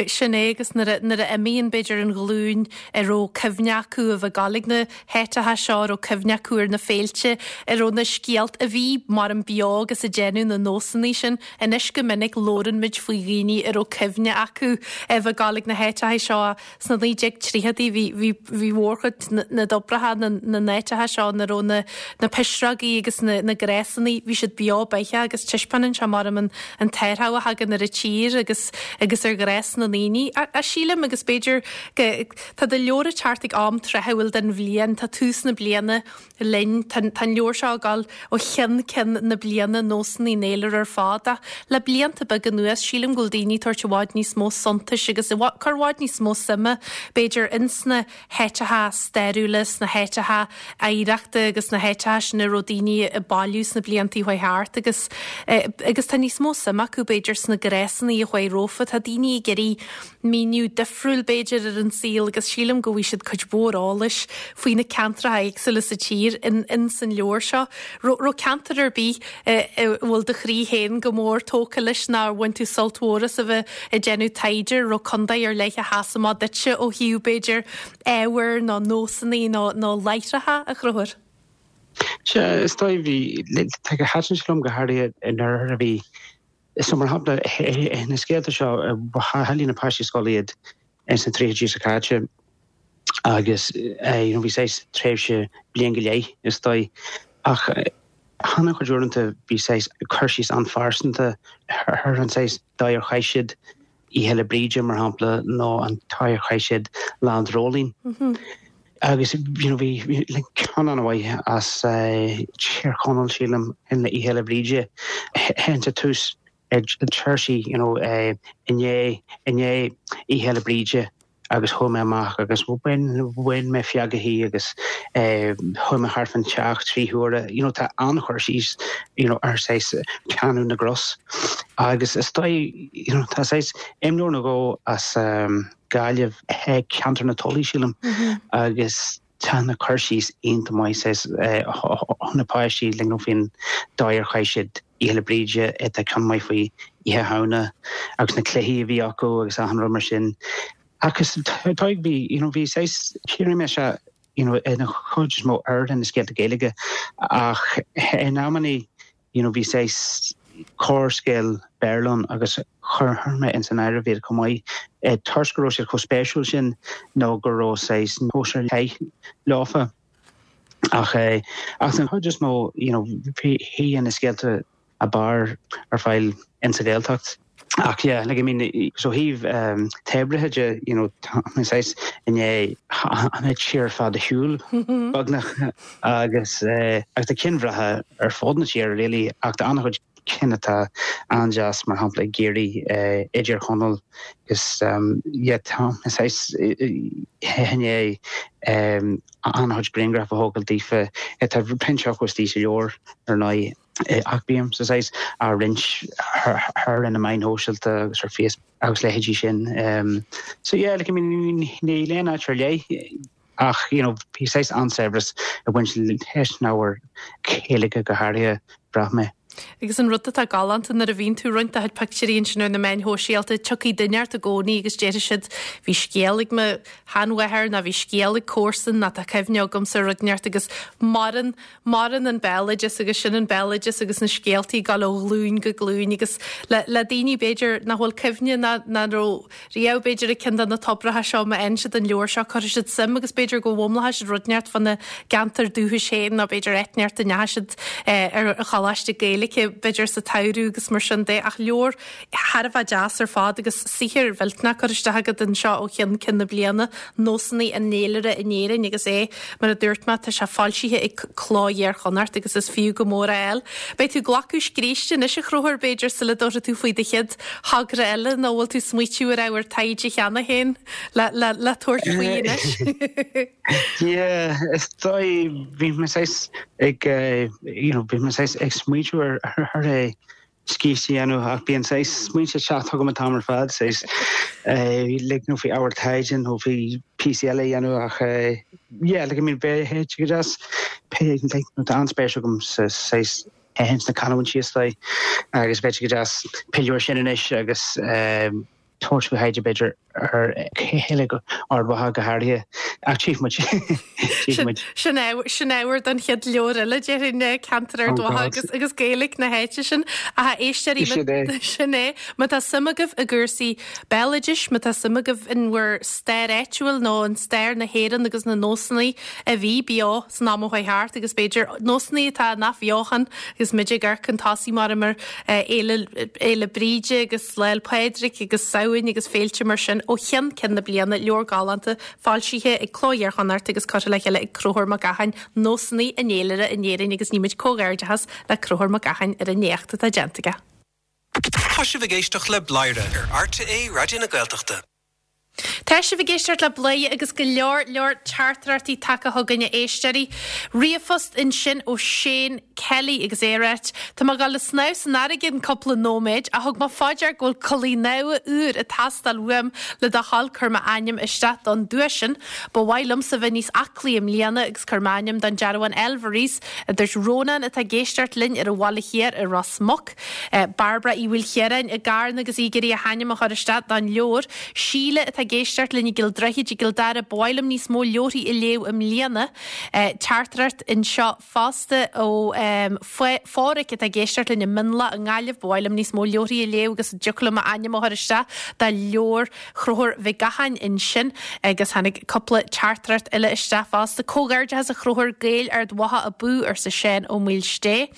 Sin é, agus nuair a imíonn, b'fhéidir, an ghlúin a raibh cuimhne acu a bheith ag gabháil ag na háiteacha seo, a raibh cuimhne acu ar na féilte, a raibh na scéalta, a bhí mar an beo agus ag déanamh na nósanna sin. Anois go minic labhrann muid faoi dhaoine a raibh cuimhne acu a bheith ag gabháil ag na háiteacha seo. Sna 1930idí bhí, bhí, bhí mhórchuid na dtobracha, na, na n-áiteacha seo ina raibh na, na pisreogaí agus na, na gnásanna, bhí siad beo beathach agus taispeánann sé mar an, an t-athrú a thagann ar an tír agus, agus ar ghnás na ndaoine. A, sílim agus b'fhéidir go, tá do leabhar ag teacht ag am tráthúil den bhliain, tá tús na bliana linn. Tá an leabhar seo ag dul ó cheann ceann na bliana, nósanna an fhéilire ar fad, ach le blianta beaga anuas, sílim go bhfuil daoine ag tabhairt i bhfad níos mó suntais agus ag cur i bhfad níos mó suime, b'fhéidir, ins na háiteacha stairiúla, sna háiteacha oidhreachta agus sna háiteacha sin a raibh daoine ag bailiú sna blianta a chuaigh thart agus agus tá níos mó suime acu, b'fhéidir, sna gnásanna a chuaigh rompu. Tá daoine ag iarraidh míniú difriúil, b'fhéidir, ar an saol agus sílim go bhfaighidh siad cuid mhór eolais faoi na ceantracha éagsúla sa tír in in san leabhar seo. Raibh ceantar ar bith a bhfuil do chroí féin go mór tógtha leis nó ar bhain tú sult mhór as a bheith ag déanamh taighde? Raibh contae ar leith a sheas amach duitse ó thaobh, b'fhéidir, ábhair nó nósanna nó nó láithreacha, a Chonchúir?
Sea, is dóigh, bhí, tá go thaitin sé liom go háirithe in oirthear a bhí So mar shampla, na scéalta seo, bhailigh na páistí scoile iad ins na tríochaidí seo caite agus you know bhí saghas tréimhse bliain go leith is dóigh ach an-chuid uaireanta bhí saghas cur síos an-phearsanta ar an saghas dóigh ar chaith siad Oíche Fhéile Bríde, mar shampla, nó an dóigh ar chaith siad Lá an Dreoilín. Agus you know bhí ceann an-mhaith as Tír Chonaill, sílim, in Oíche Fhéile Bríde, ins an tús deir sí you know i ndiaidh i ndiaidh Oíche Fhéile Bríde agus chuaigh mé amach agus bhain bhain mé feagachaí agus chuaigh mé thart fán teach 3 huaire. You know tá an-chur síos you know ar saghas teannadh na gcros agus is dóigh you know tá saghas imleabhar nó dhó as Gaillimh, ceantar na Tulaí sílim agus tá na cur síos iontach maith saghas ó na páistí like you know faoin dóigh ar chaith siad. Oíche Fhéile Bríde, tá ceann maith faoi Oíche Shamhna agus na cluichí a bhí acu agus achan rud mar sin. Agus tá, bhí, you know, bhí saghas, shíl mé sé, you know, ina chuid is mó ar na scéalta Gaeilge ach in amannaí, you know, bhí saghas corrscéal Béarla ann agus chuir mé ins an áireamh iad chomh maith toisc go raibh siad chomh spéisiúil sin nó go raibh saghas nós ar leith leofa. Ach ach den chuid is mó, you know, bhí na scéalta ab fhearr ar fáil insa Ghaeltacht. Ach yeah, like I mean, so thaobh t-oibrithe de, you know, tá mé saghas i ndiaidh an tír ar fad a shiúl beagnach agus agus tá cinn bhreátha ar fud na tíre really ach tá an-chuid cinn atá an-deas mar shampla i gCiarraí, i dTír Chonaill agus yeah tá mé saghas i ndiaidh an-chuid grianghraf a thógáil daofa. Tá roinnt acu istigh sa leabhar ar ndóigh. Ach bím saghas á roinnt ar na meáin shóisialta agus ar Facebook agus leithéidí sin. So yeah, like I mean níl aon áit ar leith ach you know bhí saghas an-saibhreas ag baint leis an ábhar Gaeilge go háirithe, bhraith mé.
Agus an rud atá galánta nuair a bhíonn tú ag roinnt do chuid pictiúirí ansin ar na meáin shóisialta, tiocfaidh duine ort i gcónaí agus déarfaidh siad bhí scéal ag mo sheanmháthair nó bhí scéal ag comharsan nó tá cuimhne agamsa ar rud inteacht agus maireann Maireann an béaloideas agus sin an béaloideas agus na scéaltaí ag dul ó ghlúin go glúin agus le le daoine b'fhéidir nach bhfuil cuimhne ná nach raibh riamh b'fhéidir ag ceann de na tobracha seo má fhaigheann siad an leabhar seo cuirfidh siad suim agus b'fhéidir go bhfoghlaimeoidh siad rud inteacht fána gceantar dúchais féin nó b'fhéidir áit inteacht a ndeachaigh siad ar choláiste Gaeilge b'fhéidir sa tsamhradh agus mar sin de ach leabhar thar a bheith deas ar fad agus saothar mhillteanach curtha isteach agat anseo ó cheann ceann na bliana, Nósanna an Fhéilire in Éirinn agus é, mar a dúirt mé, tá sé foilsithe ag Cló Iar-Chonnacht agus is fiú go mór é a fháil. Beidh tú ag glacadh scríste anois a Chonchúir, b'fhéidir, sula dtabharfaidh tú faoi do chéad thogra eile nó bhfuil tú ag smaoitiú ar ábhar taighde cheana féin le, le, le tabhairt faoi anois?
Yeah, is dóigh, bhí mé saghas ag, you know, bhí mé saghas ag smaoitiú ar, ar é scríste a dhéanamh ach bíonn saghas smaointe ag teacht chugam an t-am ar fad, saghas like nó faoi ábhar taighde nó faoi píosaí eile a dhéanamh ach yeah like I mean bheadh sé go deas pé like nó tá an-spéis agam sa saghas ins na canúintí is dóigh agus bheadh sé go deas pilleadh air sin anois agus tabhairt faoi thaighde b'fhéidir ar Ghaeilge Ard Mhacha go háirithe, ach tchífidh muid. Tchífidh
muid. Sin sin ábhar don chéad leabhar eile, déarfainn, ceantar Ard Mhacha agus agus Gaeilge na háite sin. Ach a éisteoirí, Sin é. sin é. Má tá suim agaibh i gcúrsaí béaloidis, má tá suim agaibh in bhur stair áitiúil nó in stair na hÉireann agus na nósanna a bhí beo san am a chuaigh thart agus b'fhéidir nósanna atá in athbheochan agus muid ag amharc chun tosaigh mar mar Fhéile Fhéile Bríde agus Lá 'le Pádraig agus Samhain agus féilte mar sin ó cheann ceann na bliana, leabhar galánta foilsithe ag Cló Iar-Chonnacht agus curtha le chéile ag Conchúr Mac Gacháin, Nósanna an Fhéilire in Éirinn agus nímid comhghairdeachas le Conchúr Mac Gacháin ar an éacht atá déanta aige.
Tá sibh ag éisteacht le Bladhaire ar RTÉ Raidió na Gaeltachta.
Tá sibh ag éisteacht le Bladhaire agus go leor leor teachtaireachtaí tagtha chugainn a éisteoirí. Ríomhphost ansin ó Shane Kelly agus é ag ráit, Tá mé ag dul ag snámh san fharraige in cúpla nóiméad ach thug mé fá dear go bhfuil culaith nua úr ag teastáil uaim le do thoil cuir m'ainm isteach don duais sin. Ba mhaith liomsa bheith níos aclaí i mbliana agus cuir m'ainm don dearbhán Elverys, a dúirt Rónán atá ag éisteacht linn ar an Bhaile Thiar i Ros Muc. Bairbre Uí Mhaoilchiaráin i gCarna agus í ag iarraidh a hainm a chur isteach don leabhar. Síle atá ag éisteacht linn i gCill Droichid i gCill Dara, Ba mhaith liom níos mó leabharthaí a léamh i mbliana. Teachtaireacht anseo fosta ó Phádhraic atá ag éisteacht linn i Mionlach i nGaillimh, Ba mhaith liom níos mó leabharthaí a léamh agus an dtiocfadh liom m'ainm a chur isteach do leabhar Chonchúir Mhic Gacháin ansin agus tháinig cúpla teachtaireacht eile isteach fosta. Comhghairdeachas a Chonchúir, Gaeil Ard Mhacha abú, arsa Seán Ó Maoilsté.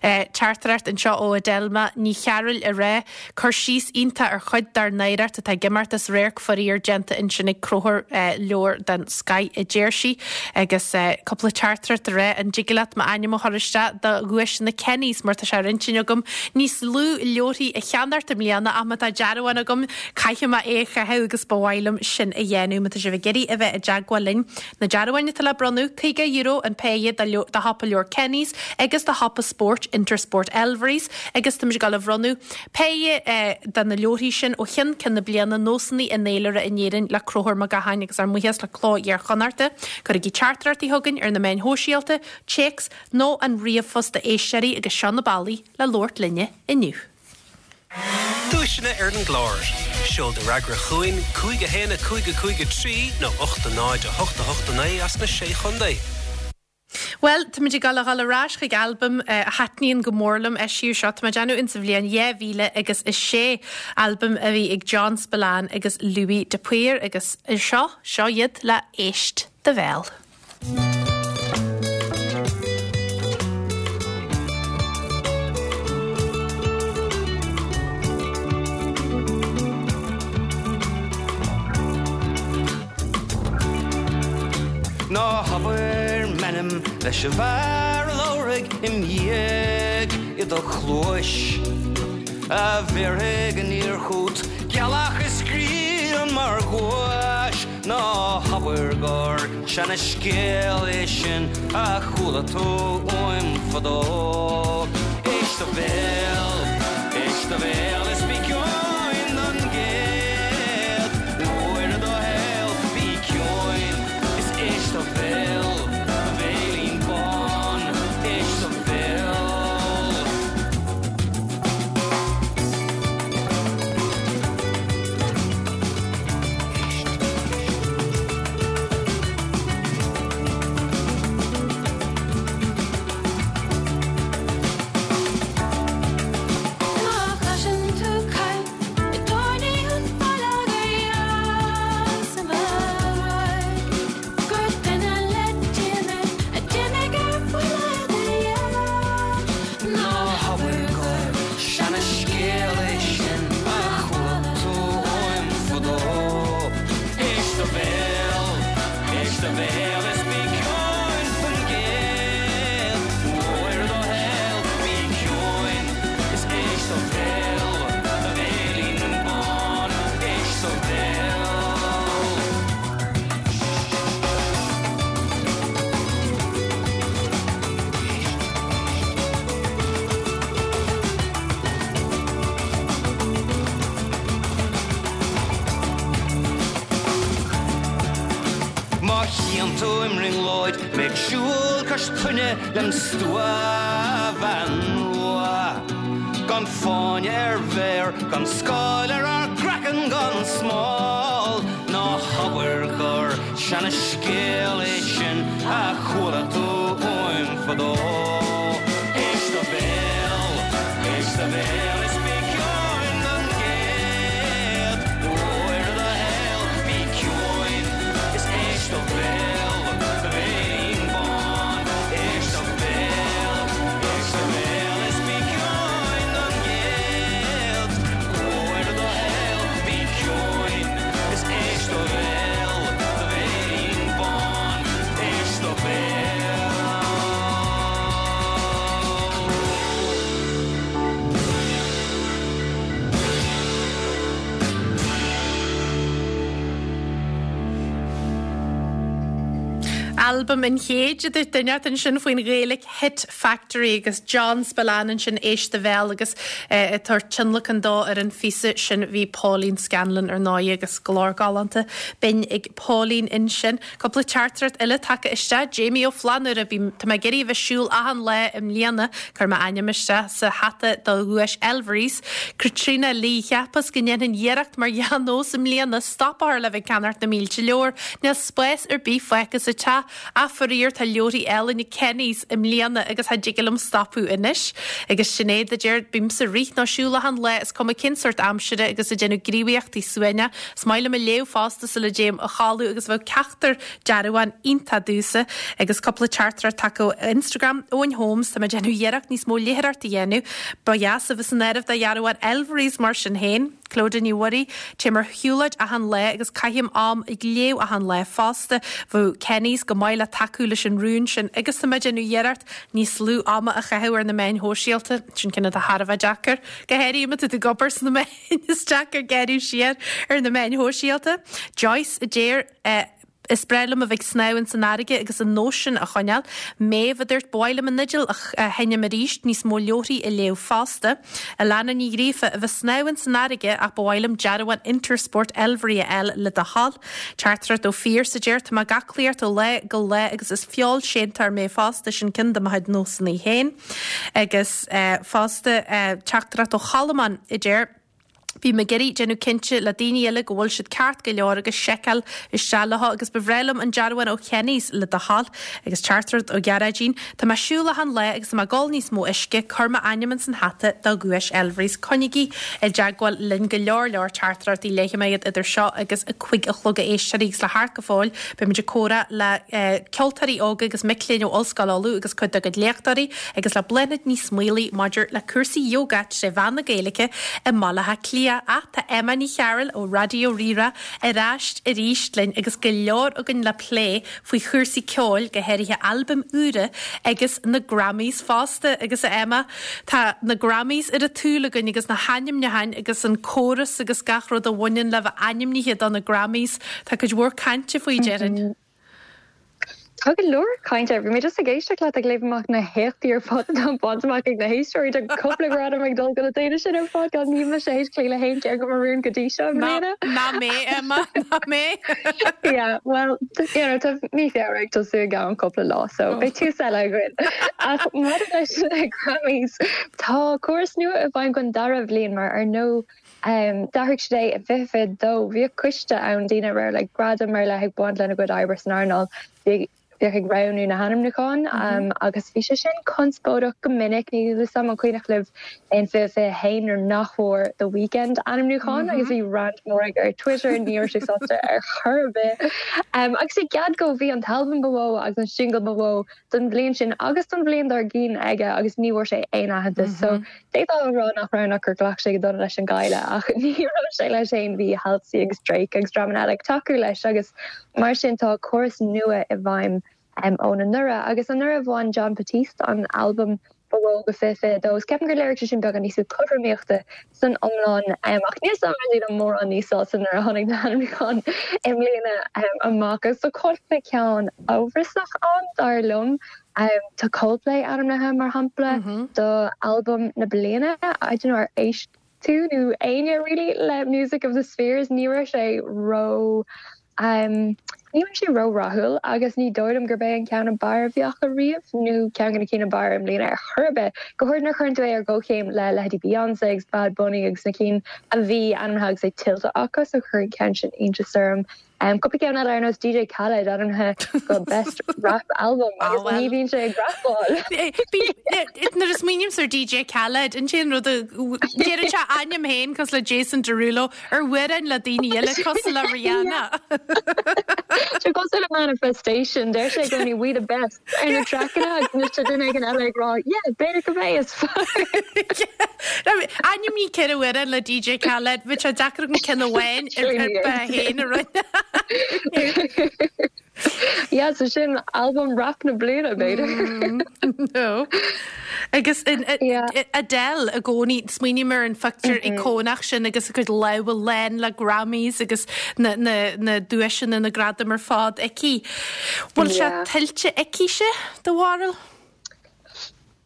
Teachtaireacht anseo ó Adelma Ní Chearúil ag rá, Cur síos iontach ar chuid dár n-oidhreacht atá ag imeacht as radharc faraor déanta ansin ag Conchúr, leabhar den scoith a deir sí. Agus cúpla teachtaireacht ag rá, an dtig leat m'ainm a chur isteach do dhuaiseanna Kenny's mar tá sé ar intinn agam níos lú leabharthaí a cheannacht i mbliana ach má tá dearbhán agam caithfidh mé é a chaitheamh agus ba mhaith liom sin a dhéanamh. Má tá sibh ag iarraidh a bheith i dteagmháil linn, Na dearbháin atá le bronnadh, €50 an péire do shiopa leabhar Kenny's agus do shiopa spóirt Intersport Elverys agus táimid ag dul a bhronnadh péire de na leabharthaí sin ó cheann ceann na bliana, Nósanna an Fhéilire. in Éirinn le Conchúr Mac Gacháin agus ár mbuíochas le Cló Iar-Chonnachta. Cuirigí teachtaireachtaí chugainn ar na meáin shóisialta, téacs nó an ríomhphost a éisteoirí agus seo na bealaí le labhairt linne inniu.
Duaiseanna ar an gclár. Seol do fhreagra chugainn, 5 1 5 5 3 nó 8 0 8 8 9 as na Sé Chontae.
Bhuel, táimid ag dul a dhul ar ais chuig albam a thaitníonn go mór liom, eisíodh seo, tá mé ag déanamh, insa bhliain 2006, albam a bhí ag John Spillane agus Louis de Paor agus seo, seo iad le Éist do Bhéal.
Ná habair m'ainm leis an bhfear a labharfaidh im dhiaidh i do chluais, A bhéarfaidh aniar chút gealach is grian mar ghuais, Ná habair gur seana-scéal é sin a chuala tú uaim fadó. Éist do bhéal, éist do bhéal is bí ciúin don gcéad uair i do shaol, bí ciúin is éist do bhéal, do bhéilín bán, éist do bhéal.
Má chloiseann tú caint i dtábhairne an bhaile gur dheas an rud gur duine le Dia mé a d'imigh ar buile i do dhiaidh.
Ná habair gur seana-scéal é sin a chuala tú uaim fadó. Éist do bhéal, éist do bhéal is bí ciúin don gcéad uair i do shaol, bí ciúin is éist do bhéal, do bhéilín bán, éist do bhéal. Má chíonn tú i mbrionglóid mé ag siúl cois toinne lem stuabhean rua, gan fáinne ar mhéar, gan scáil ar ár gcraiceann, gan smál, ná habair gur seana-scéal é sin a chuala tú uaim fadó. Éist do bhéal, éist do bhéal is bí ciúin don gcéad uair i do shaol, bí ciúin is éist do bhéal, do bhéilín bán, éist do bhéal, éist do bhéal is bí ciúin don gcéad uair i do shaol, bí ciúin is éist do bhéal, do bhéilín bán, éist do bhéal.
Albam an chéid a dúirt duine ansin faoin Ghaelic Hit Factory agus John Spillane ansin Éist do Bhéal agus ag tabhairt tionlacan dó ar an phíosa sin bhí Pauline Scanlon ar ndóigh agus glór galánta binn ag Pauline ansin. Cúpla teachtaireacht eile tagtha isteach. Jamie Ó Flannúra, Bím, tá mé ag iarraidh a bheith siúl achan lá i mbliana. Chuir m'ainm isteach sa hata do dhuais Elvery's. Caitríona Lee, Cheapas go ndéanfainn iarracht mar dhea-nós i mbliana stop a chur le bheith ag ceannacht na mílte leabhar. Níl spás ar bith fágtha sa teach. Ach faraor tá leabharthaí eile na Kenny's i mbliana agus cha dtig liom stopadh anois. Agus Sinéad a deir, Bímse ag rith nó siúl achan lá is cuma cén sórt aimsire agus ag déanamh gníomhaíochtaí suaimhneach. Is maith liom ag léamh fosta sula dtéim a chodladh agus bheadh ceachtar dearbhán iontach domhsa. Agus cúpla teachtaireacht tagtha ó Instagram, Eoin Holmes, tá mé ag déanamh iarracht níos mó léitheoireacht a dhéanamh. Ba dheas a bheith san áireamh do dhearbhán Elvery's mar sin féin. Clodagh Ní Mhuirí, Téim ar shiúlóid achan lá agus caithim am ag léamh achan lá fosta. Bheadh Kenny's go maith le tacú leis an rún sin agus tá mé ag déanamh iarracht níos lú ama a chaitheamh ar na meáin shóisialta. Sin ceann atá thar a bheith deacair, go háirithe má tá tú ag obair sna meáin. Is deacair gearradh siar ar na meáin shóisialta. Joyce a deir. Is breá liom a bheith ag snámh ins an fharraige agus an nós sin a choinneáil. Méabh a dúirt, Ba mhaith liom an fhidil a sheinm arís, níos mó leabharthaí a léamh fosta. Alana Ní Ghríofa, A bheith snámh ins an fharraige ach ba mhaith liom dearbhán Intersport Elvery a fháil le do thoil. Teachtaireacht ó Phearse a deir, Tá mé ag aclaíocht ó lá go lá agus is feoilséantóir mé fosta, sin ceann de mo chuid nósanna féin. Agus fosta teachtaireacht ó Cholmán a deir, Bím ag iarraidh déanamh cinnte le daoine eile go bhfuil siad ceart go leor agus seiceáil isteach leo agus ba bhreá liom an dearbhán ó Kenny's le do thoil. Agus teachtaireacht ó Ghearóidín, Tá mé ag siúl achan lá agus tá mé ag ól níos mó uisce, cuir m'ainm ins an hata do dhuais Elvery's. Coinnígí i dteagmháil linn go leor leor teachtaireachtaí léifidh mé iad idir seo agus a cuig a chlog a éisteoirí agus le theacht go fóill beimid ag comhrá le ceoltóirí óga agus mic léinn ó Ollscoil Uladh agus cuid dá gcuid léachtóirí agus le Bláthnaid Ní Smaolaigh maidir le cúrsaí ióga tré mheán na Gaeilge i mBaile Átha Cliath. Ach tá Emma Ní Chearúil ó Raidió Rí-Rá ar ais arís linn agus go leor againn le plé faoi chúrsaí ceoil, go háirithe albaim úra agus na Grammys fosta. Agus a Emma, tá na Grammys ar an tsúil againn agus na hainmniúcháin agus an córas agus gach rud a bhaineann le bheith ainmnithe do na Grammys. Tá cuid mhór cainte faoi, déarfainn.
Tá go leor cainte air. Bhí mé just ag éisteacht leat ag léamh amach na héachtaí ar fad atá bainte amach ag na héisteoirí. Tá cúpla gradam ag dul do na daoine sin ar fad. Gan níl mise théis cloí le haon cheann de mo rún go dtí seo i mbliana.
Ná mé, Emma, ná mé.
Yeah, well, you know, tá mí Feabhra ag tosú i gceann cúpla lá, so beidh tús eile againn. Ach maidir leis na Grammys, tá córas nua i bhfeidhm don dara bhliain mar ar ndóigh D'athraigh siad é i 2022. Bhíodh coiste ann, daoine a raibh like gradam ar leith ag baint lena gcuid oibre san earnáil, bhíodh ag roghnú na hainmniúcháin agus bhí sé sin conspóideach go minic. Níl a fhios agam an cuimhneach libh in 2021 nuair nach bhfuair The Weeknd ainmniúchán agus bhí rant mór aige ar Twitter, ní raibh sé sásta ar chor ar bith. Agus i gcead dó bhí an t-albam ba mhó agus an singil ba mhó don bhliain sin agus don bhliain dár gcionn aige agus ní bhfuair sé aon aitheantas. So d'fhéadfá a rá nach raibh ach gur ghlac sé go dona leis an gcailleadh ach ní raibh sé leis féin, bhí Halsey agus Drake agus dreamanna eile ag tacú leis agus mar sin tá córas nua i bhfeidhm ón anuraidh agus anuraidh bhain Jon Batiste an albam ba mhó do 2022 agus ceapaim gur léirigh sé sin beagán níos mó cothromaíochta san iomlán ach níl a fhios agam an raibh daoine mórán níos sásta nuair a tháinig na hainmniúcháin i mbliana amach agus tá cúpla ceann amhrasach ann dar liom. Tá Coldplay ainmnithe mar shampla do albam na bliana. I don't know ar éist tú nó éinne really le Music of the Spheres ní raibh sé ró Ní raibh sé ró-rathúil agus ní dóigh liom gurb é an ceann ab fhearr a bhí acu riamh nó ceann de na cinn ab fhearr i mbliana ar chor ar bith, go háirid nuair a chuireann tú é ar gcomhchéim le leithéidí Beyoncé agus Bad Bunny agus na cinn a bhí ainmnithe agus é tuillte acu, so chuir an ceann sin iontas orm. Cúpla ceann eile ar nós DJ Khaled ainmnithe do Best Rap Album agus ní bhíonn sé ag rapáil.
Nuair a smaoinímse ar DJ Khaled, an t-aon rud a deireann sé a ainm féin cosúil le Jason Derulo ar amhráin le daoine eile cosúil le Rihanna.
Sé cosúil le Manifestation, deir sé i gcónaí we the best ar na traiceanna agus anois tá duine éigin eile ag rá yeah b'fhéidir go mbeidh is fearr.
Ainmnigh ceithre amhrán le DJ Khaled, bheadh sé deacair agam ceann amháin ar bith féin a rinne.
Yeah, so sin albam rap na bliana, b'fhéidir.
No. Agus Adele i gcónaí, smaoiním ar an phictiúr íocónach sin agus a cuid lámha lán le Grammys agus na na duaiseanna, na gradaim ar fad aici. Bhfuil sé tuillte aicise, do bharúil?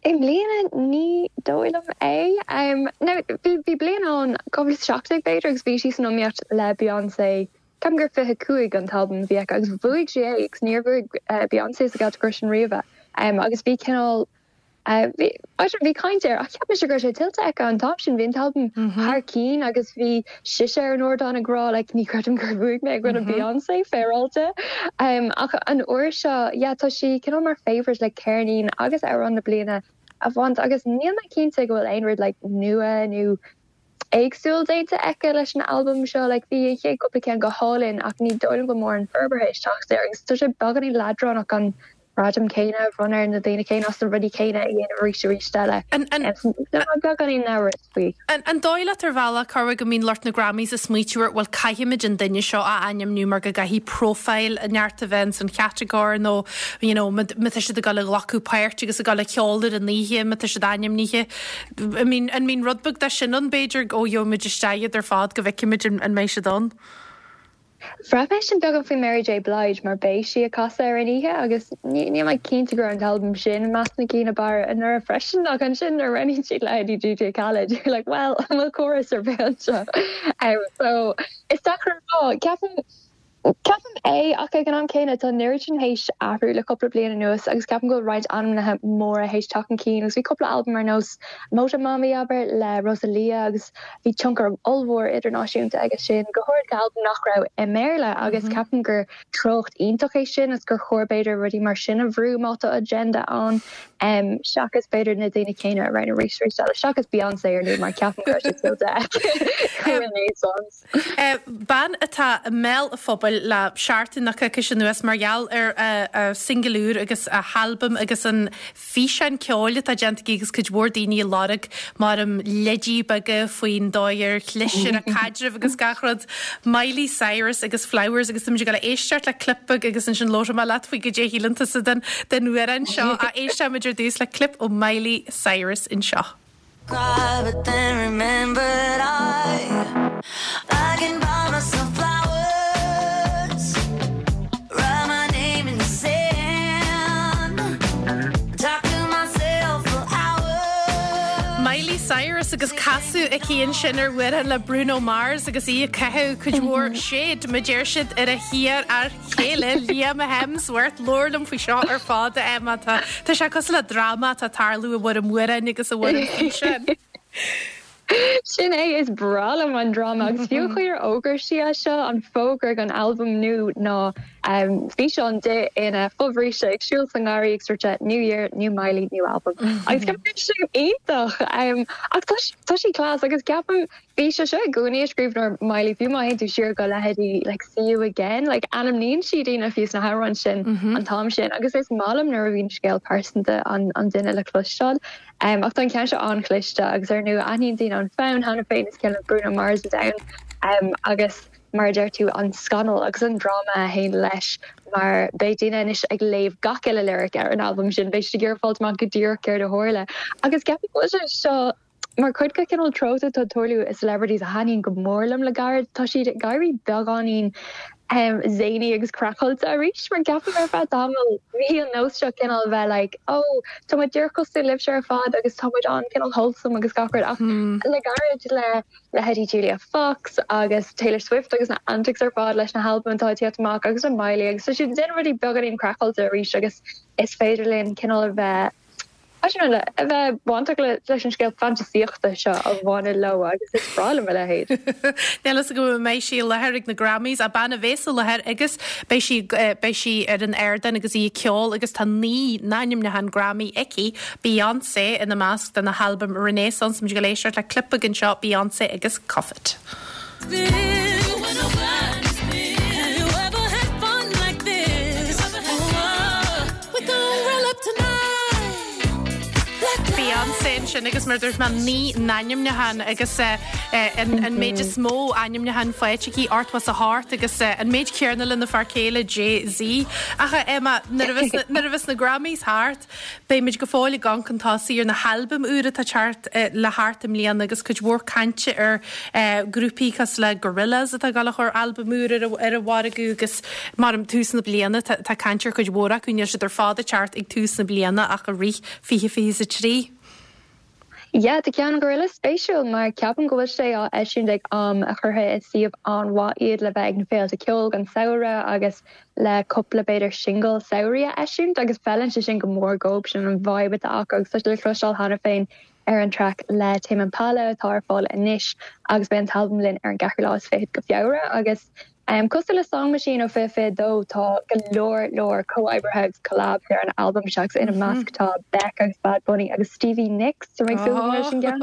I mbliana, ní dóigh liom é. Now, bhí bliain ann, 2017 b'fhéidir, agus bhí sí san iomaíocht le Beyoncé Ceapaim gur 25 an t-albam a bhí aici agus bhuaigh sí é agus níor bhuaigh Beyoncé sa gcatagóir sin riamh é. Agus bhí cineál, bhí, I don't know, bhí caint air ach cheap mise go raibh sé tuillte aici an t-am sin. Bhí an t-albam thar cinn agus bhí sise ar an ardán ag rá like ní chreidim gur bhuaigh mé i gcoinne Beyoncé, féaráilte. Ach an uair seo, yeah, tá sí cineál mar favourite le ceirnín agus amhrán na bliana a bhaint agus níl mé cinnte go bhfuil aon rud like nua nó éagsúil déanta aici leis an albam seo. Like bhí an chéad cúpla ceann go hálainn ach ní dóigh liom go mórán forbartha ag teacht air agus tá sé beagáinín leadránach an gradam céanna a bhronnadh ar na daoine céanna as na rudaí céanna a dhéanamh arís arís eile. Tá mé beagáinín amhrasach faoi.
An dóigh leat ar bhealach, Cormac, go mbíonn lucht na Grammys ag smaoitiú ar bhuel caithfimid an duine seo a ainmniú mar go gcaithfidh profile neart a bheith ins an chatagóir nó you know má tá siad ag dul a ghlacadh páirt agus ag dul a cheol ar an oíche má tá siad ainmnithe. An mbíonn rud beag de sin ann, b'fhéidir, ó gheobhaimid isteach iad ar fad go bhfeicfimid an mbeidh siad ann?
Bhraith mé sin beagán faoi Mary J Blige mar beidh sí ag casadh ar an oíche agus níl mé cinnte go raibh an t-albam sin i measc na gcinn ab fhearr anuraidh freisin ach ansin nuair a roghnaíonn siad leithéidí DJ Khaled you're like well an bhfuil córas ar bith anseo? So is deacair a rá. Ceapaim Ceapaim é ach ag an am céanna tá an oiread sin théis athrú le cúpla bliain anuas agus ceapaim go bhfuil roinnt ainmnithe móra théis teacht chun cinn agus bhí cúpla albam ar nós Motomami abair le Rosalía agus Bhí tionchar ollmhór idirnáisiúnta aige sin, go háirid go albam nach raibh i mBéarla agus ceapaim gur treocht iontach é sin agus gur chóir b'fhéidir rudaí mar sin a bhrú má tá agenda ann seachas b'fhéidir na daoine céanna a roghnú arís arís eile, seachas Beyonce ar ndóigh mar ceapaim go raibh sé tuillte aici Renaissance.
Bean atá i mbéal an phobail le seachtain nó coicís anuas mar gheall ar a singil úr agus a halbam agus an físeán ceoil atá déanta aici agus cuid mhór daoine ag lorg mar leidí beaga faoin dóigh ar chlis ar a caidreamh agus gach rud. Miley Cyrus agus Flowers agus táimid ag dul a éisteacht le clip beag agus ansin labhróidh mé leat faoi goidé a shíleann tusa den den amhrán seo. Ach éistfimid ar dtús le clip ó Miley Cyrus anseo. Cry but then remembered I I can buy myself flowers Write my name in the sand Talk to myself for hours Miley Cyrus agus casadh aici ansin ar amhrán le Bruno Mars agus í ag caitheamh cuid mhór shade, mar a deir siad, ar a hiar-fhear céile Liam Hemsworth, labhair liom faoi seo ar fad, a Emma. Tá tá sé cosúil le dráma atá ag tarlú i bhfoirm amhráin agus i bhfoirm físeáin.
Sin é, is breá liom an dráma agus fiú an chaoi ar fhógair sí é seo, an fógra don albam nua ná físeán di ina fobhríste ag siúl sa ngarraí ag sort New Year, New Miley, New Album. Agus ceapaim go sin iontach! Ach tá sí class agus ceapaim Bhí sé seo i gcónaí i scríbhneoir Miley, fiú má théann tú siar go leithéidí like See You Again, like ainmníonn sí daoine fiú sna hamhráin sin an t-am sin agus is maith liom nuair a bhíonn scéal pearsanta an an duine le cloisteáil. Um, ach tá an ceann seo an-chliste agus ar ndóigh aithníonn daoine an fonn cheana féin is ceann le Bruno Mars atá ann um, agus mar a deir tú an scannal agus an dráma a théann leis mar beidh daoine anois ag léamh gach uile lyric ar an albam sin, beidh siad ag iarraidh fáilt amach go díreach céard a tharla agus ceapaim go bhfuil sé seo Mar chuid de chineál treocht atá ag tarlú i celebrities a thaitníonn go mór liom le gairid, tá siad ag éirí beagáinín zany agus craiceáilte arís mar ceapaim ar feadh tamaill bhí an nós seo cineál bheith like oh tá muid díreach cosúil libhse ar fad agus tá muid an cineál wholesome agus gach rud ach le gairid le leithéidí Julia Fox agus Taylor Swift agus na antics ar fad leis na halbaim atá ag tíocht amach agus le Miley agus tá siad ag déanamh rudaí beagáinín craiceáilte arís agus is féidir linn cineál a bheith I don't know, a bheith bainteach leis an scéal fantasaíochta seo a bhaineann leo agus is breá liom a leithéid.
Níl a fhios agam an mbeidh sí i láthair ag na Grammys, ach bean a bhéas i láthair agus beidh sí, beidh sí ar an ardán agus í ag ceol agus tá 9 n-ainmniúchán Grammy aici, Beyoncé ina measc dona halbam Renaissance. Muid ag dul éisteacht le clip beag anseo, Beyoncé agus Cuff It. Beyoncé ansin agus mar a dúirt mé 9 n-ainmniúchán agus an méid is mó ainmniúchán faighte aici, 88 agus an méid céanna lena fear céile Jay-Z. Ach Emma, nuair a bheas na Grammys thart, Beimid go fóill ag amharc chun tosaigh ar na halbaim úra atá teacht le theacht i mbliana agus cuid mhór cainte ar grúpaí cosúil le Gorillaz atá ag dul a chur albam úr ar an mhargadh agus mar tús na bliana tá caint ar chuid mhór acu, níl siad ar fad ag teacht ag tús na bliana ach i rith 2023.
Yeah, tá ceann Gorillaz spéisiúil mar ceapaim go bhfuil sé á eisiúint ag am a chuirfidh i suíomh an-mhaith iad le bheith ag na féilte ceoil don samhradh agus le cúpla b'fhéidir singil samhraidh a eisiúint agus feileann sé sin go mór dhóibh, sin an vibe atá acu agus tá sé le cloisteáil cheana féin ar an traic le Tame Impala atá ar fáil anois agus beidh an t-albam linn ar an gceathrú lá is fichead go Feabhra agus Cosúil le Song Machine ó 2022, tá go leor leor comhoibrithe agus collabs ar an albam seo agus ina measc tá Beck agus Bad Bunny agus Stevie Nicks, tá mé ag súil go mór leis an gceann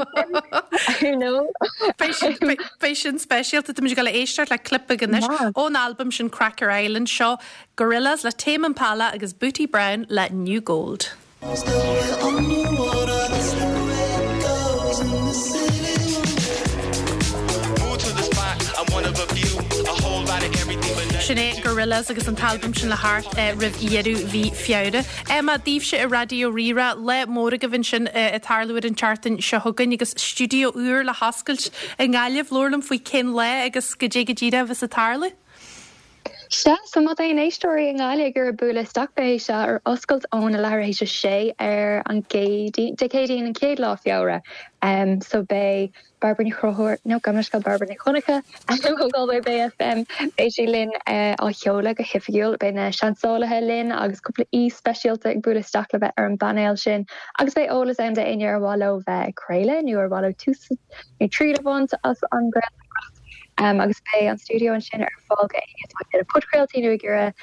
sin. I know.
Beidh sin speisialta. Táimid ag dul a éisteacht le clip beag anois ón albam sin Cracker Island. Seo Gorillaz le Tame Impala agus Booty Brown le New Gold. Sin é Gorillaz agus an t-albam sin le theacht roimh dheireadh mhí Feabhra. Emma, daoibhse i Raidió Rí-Rá, lá mór agaibh ansin ag tarlú ar an tseachtain seo chugainn agus stiúideo úr le hoscailt i nGaillimh. Labhair liom faoi cén lá agus goidé go díreach a bheas ag tarlú.
Sea, so má tá aon éisteoirí i nGaillimh ag iarraidh bualadh isteach beidh sé ar oscailt óna leathuair théis a sé ar an gCéadaoin, Dé Céadaoin an chéad lá Feabhra. So beidh Bairbre Ní Chonchúir, nó gabh mo leithscéal Bairbre Nic Dhonncha ó Galway Bay FM, beidh sí linn á sheoladh go hoifigiúil. Beidh na seansálaithe linn agus cúpla aoi speisialta ag bualadh isteach le bheith ar an bpainéal sin agus beidh eolas ann d'éinne ar mhaith leo bheith ag craoladh nó ar mhaith leo tús nó triail a bhaint as an gcraoltóireacht. Agus beidh an stiúideo ansin ar fáil go éinne atá ag déanamh podchraoltaí nó ag iarraidh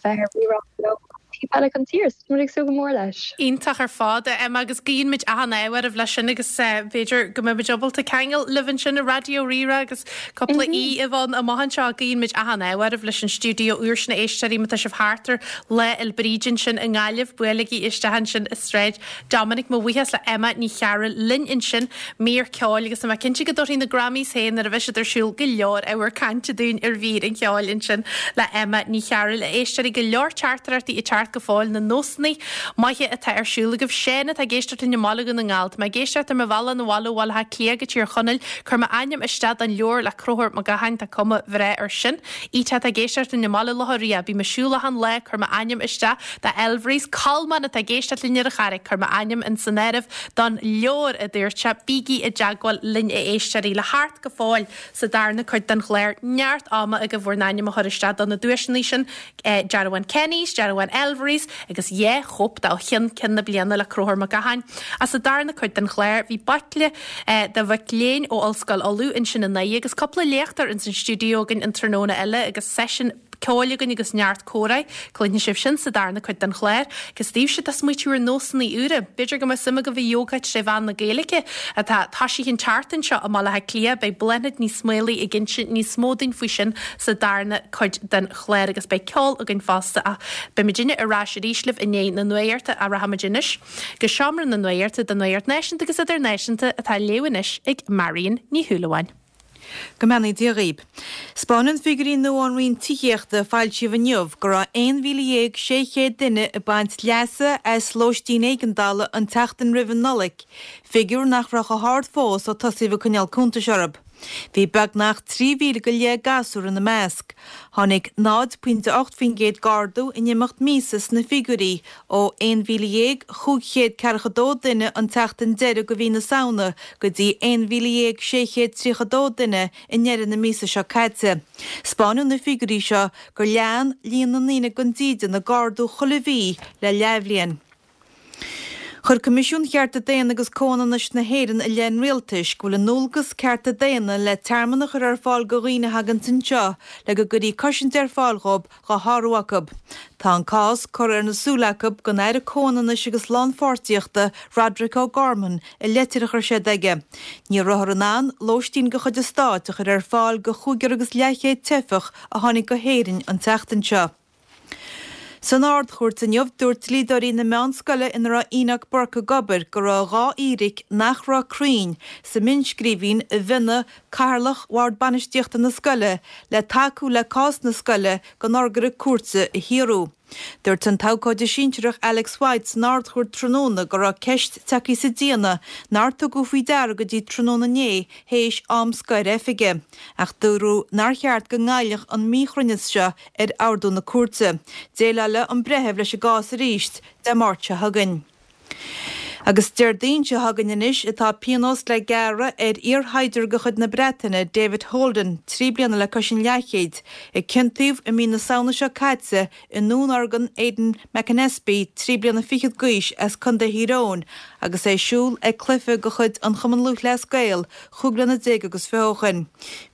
bheith ar Rí-Rá leo taobh eile den tír. So tá muid ag súil go mór leis.
Iontach ar fad, a Emma, agus guíonn muid achan ádh oraibh leis sin agus b'fhéidir go mbeidh muid ábalta ceangal libh ansin i Raidió Rí-Rá agus cúpla aoi a bheith ann amach anseo. Guíonn muid achan ádh oraibh leis an stiúideo úr sin a éisteoirí má tá sibh thart ar Lá Fhéil Bríde ansin i nGaillimh, buailigí isteach ansin i Sráid Dominic, Mo bhuíochas le Emma Ní Chearúil linn ansin, mír ceoil agus tá mé cinnte go dtabharfaidh na Grammys féin nuair a bheidh siad ar siúl go leor ábhar cainte dúinn ar mhír an cheoil ansin le Emma Ní Chearúil. A éisteoirí, go leor teachtaireachtaí ag teacht go fóill, na nósanna maithe atá ar siúl agaibh. Seán atá ag éisteacht linn i mBaile Dhún na nGall. Tá mé ag éisteacht ar mo bhealach 'na bhaile ó Bhaile Átha Cliath go Tír Chonaill. Cuir m'ainm isteach don leabhar le Conchúr Mac Gacháin, tá cuma bhreá air sin. Ita atá ag éisteacht linn i mBaile Locha Riach. Bím ag siúl achan lá, cuir m'ainm isteach do Elvery's. Colmán atá ag éisteacht linn ar an Charraig, cuir m'ainm in san áireamh don leabhar, a dúirt sé. Bígí i dteagmháil linn a éisteoirí. Le theacht go fóill sa darna cuid den chlár, neart ama agaibh bhur n-ainm a chur isteach do na duaiseanna sin, dearbhán Kenny's, dearbhán Elvery's agus 2 chóip de Ó Cheann Ceann na Bliana le Conchúr Mac Gacháin. Ach sa darna cuid den chlár, bhí baicle de mhic léinn ó Ollscoil Uladh ansin inné agus cúpla léachtóir ins an stiúideo againn an tráthnóna eile agus seisiún ceoil againn agus neart comhrá. Cluinfidh sibh sin sa darna cuid den chlár. Agus daoibhse atá ag smaoitiú ar nósanna úra, b'fhéidir go mbeadh suim agaibh i Yoga tré mheán na Gaeilge atá toisithe an tseachtain seo i mBaile Átha Cliath. Beidh Bláthnaid Ní Smaolaigh ag inse níos mó dúinn faoi sin sa darna cuid den chlár agus beidh ceol againn fosta ach beidh muidinne ar ais arís libh i ndiaidh na nuachta ach rachaimid anois go seomra na nuachta don nuacht náisiúnta agus idirnáisiúnta atá á léamh anois ag Marion Ní Shúilleabháin.
Go mbeannaí Dia dhaoib. 'Spáineann figiúirí nua ón Roinn Tithíochta a foilsíodh inniu go raibh 11,600 duine ag baint leasa as lóistín éigeandála an tseachtain roimh an Nollaig, figiúr nach raibh chomh hard fós ó tosaíodh ag coinneáil cuntais orthu. Bhí beagnach 3,000 go leith gasúr ina measc. Tháinig 0.8% d'ardú in imeacht míosa sna figiúirí, ó 11,542 duine an tseachtain deiridh de mhí na Samhna go dtí 11,632 duine i ndeireadh na míosa seo caite. 'Spáineann na figiúirí seo gur lean líon na ndaoine gan dídean ag ardú chuile mhí le leathbhliain. Chuir Coimisiún Chearta Daonna agus Comhionannais na hÉireann i leith an Rialtais go bhfuil a ndualgas cearta daonna le tearmann a chur ar fáil go dhaoine a thaganns anseo le go gcuirí cosaint ar fáil dhóibh dhá shárú acu. Tá an cás curtha ar na súile acu don Aire Comhionannais agus Lánpháirtíochta Roderic O'Gorman i leitir a chuir siad aige. Ní rabhthar in ann lóistín de chuid an stáit a chur ar fáil go chúigear agus leathchéad teifeach a tháinig go hÉirinn an tseachtain seo. San Ard-Chúirt inniu, dúirt dlíodóirí na meánscoile ina raibh Enoch Burke ag obair go raibh 2 fhíric nach raibh cruinn sa mhionnscríbhinn a mhionnaigh Cathaoirleach Bhord Bainistíochta na scoile le tacú le cás na scoile don urghaire cúirte a shaothrú. Dúirt an t-abhcóide sinsearach Alex White san Ard-Chúirt tráthnóna go raibh ceist tagtha sa déanamh nár tugadh faoi deara go dtí tráthnóna inné théis am scoir oifige, ach dúradh nár cheart go ngoillfeadh an míchruinneas seo ar ordú na cúirte. Déileálfaidh an breitheamh leis an gcás arís Dé Máirt seo chugainn. Agus Déardaoin seo chugainn anois atá pionós le gearradh ar iarshaighdiúir de chuid na Breataine, David Holden, 3 bliana le cois an leathchéid, a ciontaíodh i mí na Samhna seo caite i ndúnorgain Aidan McAnespie, 3 bliana fichead d'aois, as Contae Thír Eoghain, agus é ag siúl ag cluiche de chuid an Chumann Lúthchleas Gael chúig bliana déag agus fiche ó shoin.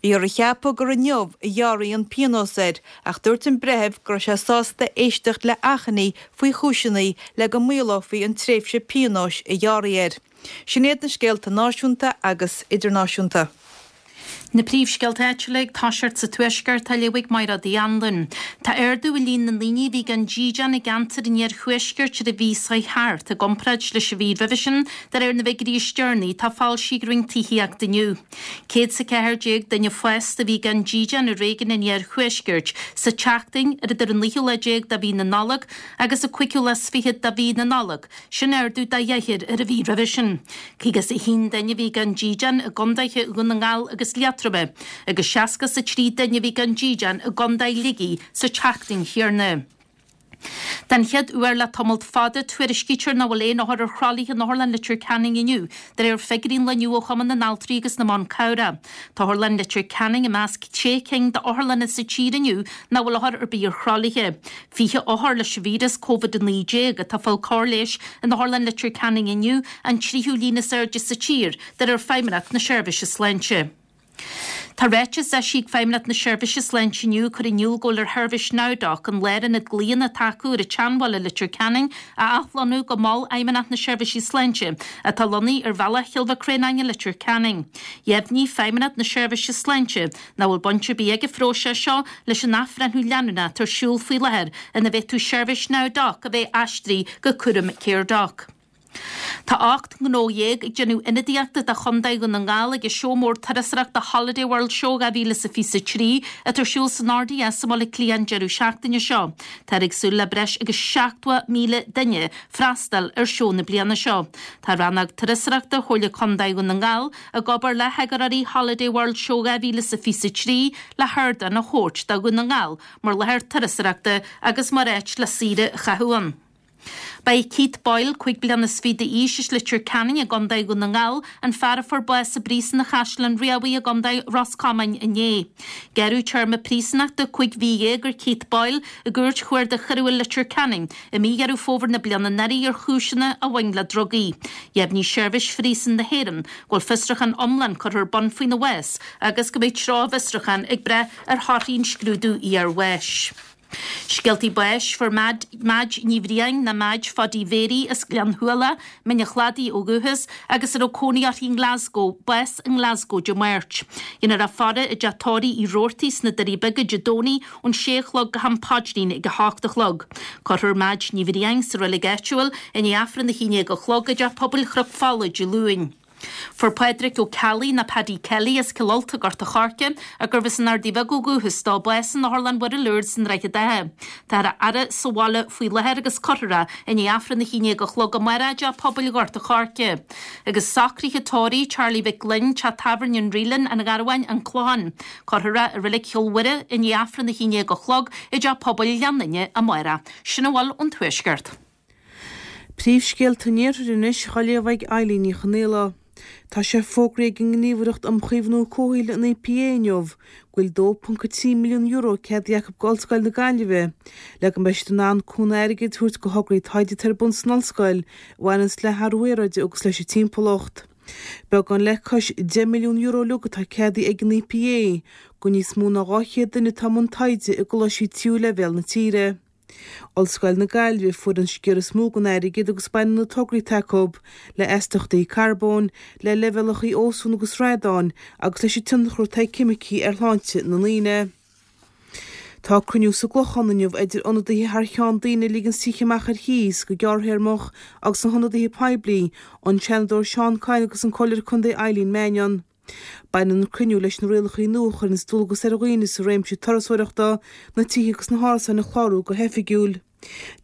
Bhíothar a cheapadh gur inniu a ghearrfaí an pionós air ach dúirt an breitheamh go raibh sé sásta éisteacht le achainí faoi chúiseanna le go maolófaí an tréimhse pionóis a gearradh air. Sin iad na scéalta náisiúnta agus idirnáisiúnta.
Na príomhscéalta áitiúla ag toiseacht sa Tuaisceart á léamh ag Mairéad Uí Anluain. Tá ardú i líon na ndaoine a bhí gan dídean i gceantar an Iarthuaiscirt ar an mhí seo thart i gcomparáid leis an mhí roimhe sin, de réir na bhfigiúirí is deireanaí atá foilsithe ag Roinn Tithíochta inniu. 114 duine fásta a bhí gan dídean i réigiún an Iarthuaiscirt sa tseachtain ar idir an naoú lá déag de mhí na Nollag agus an cúigiú lá is fichead de mhí na Nollag, sin ardú de dheich ar an mhí roimhe sin. 51 duine a bhí gan dídean i gcontaetha Dhún na nGall agus Liatroma. Liatroma agus 63 duine a bhí gan dídean i gContae Shligigh sa tseachtain chéanna. Den chéad uair le tamalt fada, tuairiscítear nach bhfuil aon othar ar thralaithe in Otharlann Leitir Ceanainn inniu, de réir figiúirí an lae inniu ó Chumann na nAltraí agus na mBan Cabhrach. Tá Otharlann Leitir Ceanainn i measc sé cinn d'otharlanna sa tír inniu nach bhfuil othar ar bith ar thralaithe. 20 othar leis an víreas Covid-19 atá ag fáil cóir leighis in Otharlann Leitir Ceanainn inniu, an tríú líon is airde sa tír, de réir Feidhmeannacht na Seirbhíse Sláinte. Tá ráiteas eisithe ag Feidhmeannacht na Seirbhíse Sláinte inniu ag cur in iúl go bhfuil ar sheirbhís NowDoc, an lárionad glaonna atá acu ar an tSeanbhaile i Leitir Ceanainn, a athlonnú go Mol Fheidhmeannacht na Seirbhíse Sláinte, atá lonnaithe ar Bhealach Chill Mhic Réanáin i Leitir Ceanainn. Dheimhnigh Feidhmeannacht na Seirbhíse Sláinte nach bhfuil baint ar bith ag an phróiseas seo leis an athbhreithniú leanúnach atá ar siúl faoi láthair ina bhféadfadh seirbhís NowDoc a bheith aistrithe go cúram Caredoc. Tá 18 ngnó ag déanamh ionadaíochta do Chontae Dhún na nGall ag an seó mór turasóireachta Holiday World Show 2023 atá ar siúl san RDS i mBaile Átha Cliath an deireadh seachtaine seo. Táthar ag súil le breis agus 70,000 duine freastal ar seó na bliana seo. Tá Rannóg Turasóireachta Chomhairle Contae Dhún na nGall ag obair le heagarthóirí Holiday World Show 2023 le hardán a thabhairt do Dhún na nGall mar láthair turasóireachta agus mar áit le saoire a chaitheamh ann. Ba é Keith Boyle, 25 bliana d'aois, as Leitir Ceanainn i gContae Dhún na nGall, an fear a fuair bás i bPríosún Chaisleán Riabhaigh i gContae Ros Comáin inné. Gearradh téarma príosúnachta 15 mhí ar Keith Boyle i gCúirt Chuarda Choiriúil Leitir Ceanainn i mí Dheireadh Fómhair na bliana anuraidh ar chúiseanna a bhain le drugaí. Dheimhnigh Seirbhís Phríosúin na hÉireann go bhfuil fiosrúchán iomlán curtha ar bun faoina bhás agus go mbeidh treo an bhfiosrúcháin ag brath ar thorthaí an scrúdú iarbháis. Scéaltaí báis, Fuair Madge Ní Bhriain, nó Madge Phaidí Mhéirí as Gleann Shuala, Mín an Chladaigh ó dhúchas, agus a raibh cónaí uirthi i nGlasgow, bás i nGlasgow Dé Máirt. Déanfar a faire i dteach tórraimh Uí Robhartaigh sna Doirí Beaga Dé Domhnaigh ón sé a chlog go ham paidrín ag a hocht a chlog. Cuirfear Madge Ní Bhriain sa reilig áitiúil i ndiaidh Aifreann a 11 a chlog i dTeach Pobail Chnoc Fola Dé Luain. Fuair Pádraic Ó Ceallaigh, nó Paddy Kelly, as Cill Ulta, Gort a' Choirce, ach gurbh as an Ardaidh Bheag ó dhúchas dó, bás in Otharlann Mhuire Lourdes i nDroichead Átha. Táthar á fhaire sa bhaile faoi láthair agus cuirfear é i ndiaidh Aifreann a 11 a chlog amárach i dTeach Pobail Ghort a' Choirce. Agus socruithe tórraimh Charlie Mhic Gloinn, Teach Tábhairne an Reelin, An Gharbháin, An Clochán. Cuirfear é i Reilig Chill Mhuire i ndiaidh Aifreann a 11 a chlog i dTeach Pobail Ghleann Fhinne amárach. Sin a bhfuil ón Tuaisceart.
Príomhscéalta an Iarthair anois á léamh ag Eilín Ní Chonaola. Tá sé fógraithe ag an nGníomhaireacht um Chaomhnú Comhshaoil, an EPA, inniu go bhfuil €2.3 milliún ceadaithe acu go Ollscoil na Gaillimhe le go mbeidh siad in ann cúnamh airgid a thabhairt go thograí taighde atá ar bun san ollscoil a bhaineanns le hathrú aeráide agus leis an timpeallacht. Beagán le cois €10 milliún uilig atá ceadaithe ag an EPA go níos mó ná 200 duine atá i mbun taighde i gcoláistí tríú leibhéal na tíre. Ollscoil na Gaillimhe a fuair an sciar is mó den airgead agus baineann na tograí atá acu le astaíochtaí carbóin, le leibhéalacha ósóin agus radáin agus leis an tionchar atá ag ceimicí ar shláinte na ndaoine. Tá cruinniú sa gClochán inniu idir ionadaithe thar cheann daoine a ligeanns tithe amach ar chíos go gearrthéarmach agus na hionadaithe poiblí, an Seanadóir Seán Kyne agus an Comhairleoir Contae Eileen Mannion. Baineann an cruinniú leis na rialacha nua a chuireanns dualgas ar dhaoine sa réimse turasóireachta na tithe agus na hárasáin a chlárú go hoifigiúil.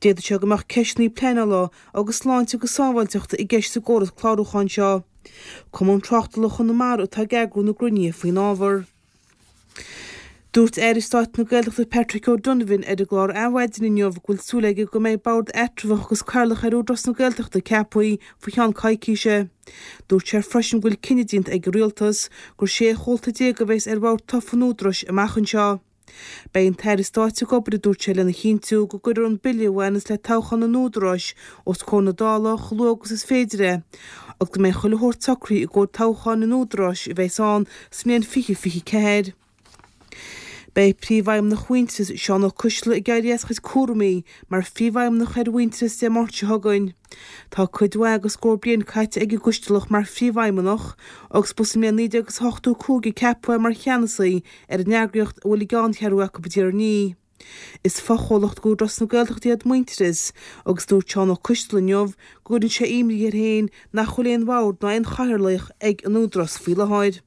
D'fhéadfadh sé go mbeadh ceisteanna pleanála agus sláinte agus sábháilteachta i gceist sa gcóras clárúcháin seo. Cumann Tráchtála Chonamara atá ag eagrú na gcruinnithe faoin ábhar. Dúirt Aire Stáit na Gaeltachta Patrick O'Donovan ar an gclár Adhmhaidin inniu go bhfuil súil aige go mbeidh bord eatramhach agus cathaoirleach ar Údarás na Gaeltachta ceaptha faoi cheann coicíse. Dúirt sé freisin go bhfuil cinneadh déanta ag an Rialtas gur 16 chomhalta a bheas ar bhord tofa an Údaráis amach anseo. Beidh an tAire Stáit ag obair, a dúirt sé, lena chinntiú go gcuirfear an bille a bhaineas le toghchán an Údaráis os comhair na Dála chomh luath agus is féidir é agus go mbeidh chuile shórt socraithe i gcomhair toghcháin an Údaráis a bheas ann sa mbliain 2024. Beidh Príomhfheidhmeannach Mhuintearas, Seán Ó Coistealbha ag éirí as a chuid cúraimí mar Phríomhfheidhmeannach ar Mhuintearas Dé Máirt seo chugainn. Tá cuid mhaith agus scór bliain caite ag an gCoistealach mar Phríomhfheidhmeannach agus ba sa mbliain 1985 a ceapadh é mar cheannasaí ar an eagraíocht a bhfuil a gceanncheathrú acu i dTír an Fhia. Is fochomhlacht d'Údarás na Gaeltachta iad Muintearas agus dúirt Seán Ó Coistealbha inniu go gcuireann sé imní air féin nach bhfuil aon bhord ná aon chathaoirleach ag an Údarás faoi láthair.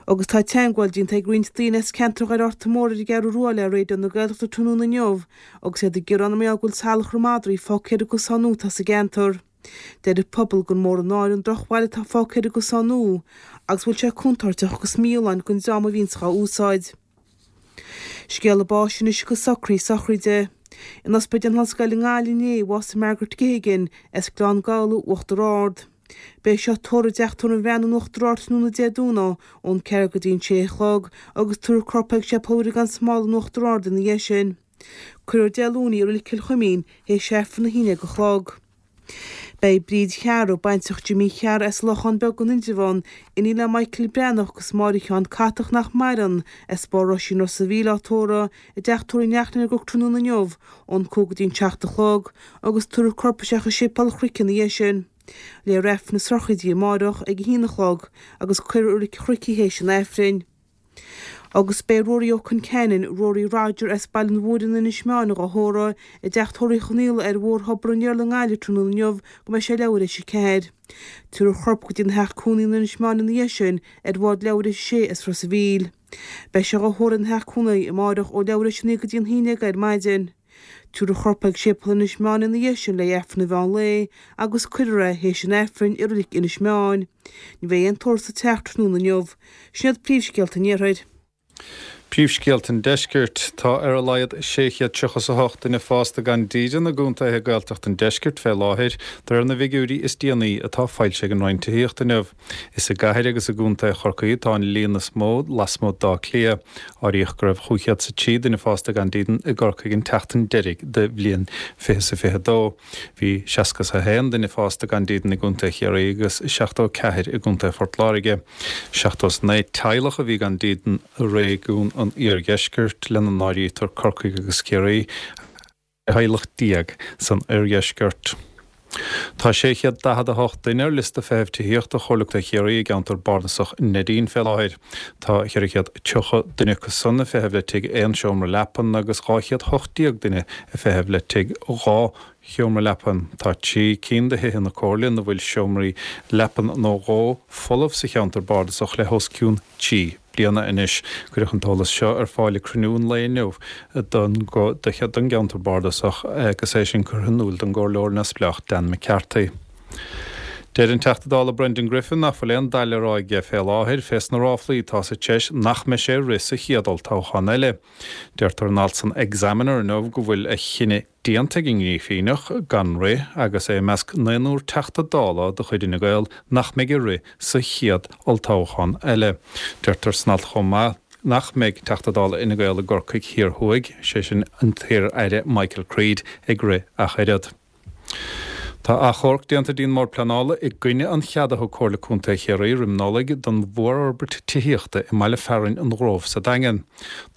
Agus tá teagmháil déanta ag roinnt daoine as ceantar Dhoire Fhearta Mór ar an gCeathrú Rua le Raidió na Gaeltachta tráthnóna inniu agus iad ag gearán mar gheall go bhfuil salachar madraí fágtha ar an gcosán nua atá sa gceantar. Deir an pobal gur mór an náire an drochbhail atá fágtha ar an gcosán nua agus go bhfuil sé contúirteach agus mífholláin don dream a bhíonns dhá úsáid. Scéala báis anois agus socraí sochraide. In Ospidéal na hOllscoile i nGaillimh inné a bhásaigh Margaret Geoghegan as Gleann Gabhla, Uachtar Ard. Beidh sí á tórramh i dTeach Tórraimh an Bhreathnaigh in Uachtar Ard tráthnóna Dé Domhnaigh ón 4 go dtí an 6 a chlog agus tabharfar a corp chuig Séipéal Mhuire gan Smál in Uachtar Ard ina dhiaidh sin. Cuirfear Dé Luain í i Reilig Chill Chuimín théis Aifreann 11 a chlog. Beidh Bríd Chearra, baintreach Jimí Chearra as Lochán Beag in Indreabhán, iníon le Michael Breathnach agus Máire Sheáin Catach nach maireann, as Barr Roisín Ros a' Mhíl á tórramh i dTeach Tórraimh Neachtain ar an gCnoc tráthnóna inniu ón 5 go dtí an 7 a chlog agus tabharfar a corp isteach i Séipéal an Chnoic ina dhiaidh sin. Léifear Aifreann na sochraide di amáireach ag a haon a chlog agus cuirfear i Reilig an Chnoic í théis an Aifrinn. Agus beidh Ruairí Ó Conceanainn, Rory Roger, as Baile an Mhúire in Inis Meáin dhá thórramh i dTeach Tórraimh Uí Chonaola ar Bhóthar Thobar an Iarla i nGaillimh tráthnóna inniu go mbeidh sé leathuair théis 4. Tabharfar a chorp go dtí an theach cónaí in Inis Meáin ina dhiaidh sin ar bhád leathuair théis a sé as Ros a' Mhíl. Beidh sé dhá thórramh ina theach cónaí amáireach ó leathuair théis a 9 go dtí an 11 ar maidin. Tabharfar a chorp chuig Séipéal Inis Meáin ina dhiaidh sin le hAifreann an mheán lae agus cuirfear é théis an Aifrinn i Reilig Inis Meáin. Ní bheidh aon tórramh sa teach tráthnóna inniu. Sin iad príomhscéalta an Iarthair.
Príomhscéalta an Deiscirt. Tá ar a laghad 638 duine fásta gan dídean i gcontaetha Gaeltachta an Deiscirt fé láthair, de réir na bhfigiúirí is déanaí atá foilsithe ag an Roinn Tithíochta inniu. Is i gcathair agus i gcontae Chorcaí atá an líon is mó lasmuigh d'Áth Cliath. Áiríodh go raibh 503 duine fásta gan dídean i gCorcaigh an tseachtain deiridh de bhliain 2022. Bhí 61 duine fásta gan dídean i gcontae Chiarraí agus 74 i gcontae Phort Láirge. 79 teaghlach a bhí gan dídean i réigiún an iardheiscirt, lena n-áirítear Corcaigh agus Ciarraí. theaghlach san oirdheisceart. Tá 648 duine ar liosta feithimh tithíochta Chomhairle Contae Chiarraí i gceantar bardasach Neidín fé láthair. Tá 430 duine acu san ag feitheamh le tigh aon seomra leapan agus 218 duine ag feitheamh le tigh 2 sheomra leapan. Tá 3 cinn de thithe na Comhairle ina bhfuil seomraí leapan nó dhó folamh sa cheantar bardasach le hos cionn 3 bliana anois. Cuireadh an t-eolas seo ar fáil ag cruinniú an lae inniu don don gceantar bardasach agus é sin curtha in iúl don gComhairleoir neamhspleách Dan McCarthy. Deir an Teachta Dála Brendan Griffin nach bhfuil aon dath le rá aige fé láthair fés na ráflaí atá sa treis nach mbeidh sé ag rith sa chéad olltoghchán eile. Deirtear in alt san Examiner inniu go bhfuil a chinneadh déanta ag an nGrífíneach gan rith agus é i measc naonúr Teachta Dála de chuid Fhine Gael nach mbeidh ag rith sa chéad olltoghchán eile. Deirtear san alt chomh maith nach mbeidh Teachta Dála Fhine Gael i gCorcaigh Thiar Thuaidh, sé sin an t-iar-aire Michael Creed, ag rith ach oiread. Tá achomharc déanta dtí'n mBord Pleanála i gcoinne an chead a thug Comhairle Contae Chiarraí roim Nollaig don mhórfhorbairt tithíochta i mbaile fearainn an Ghrove sa Daingean.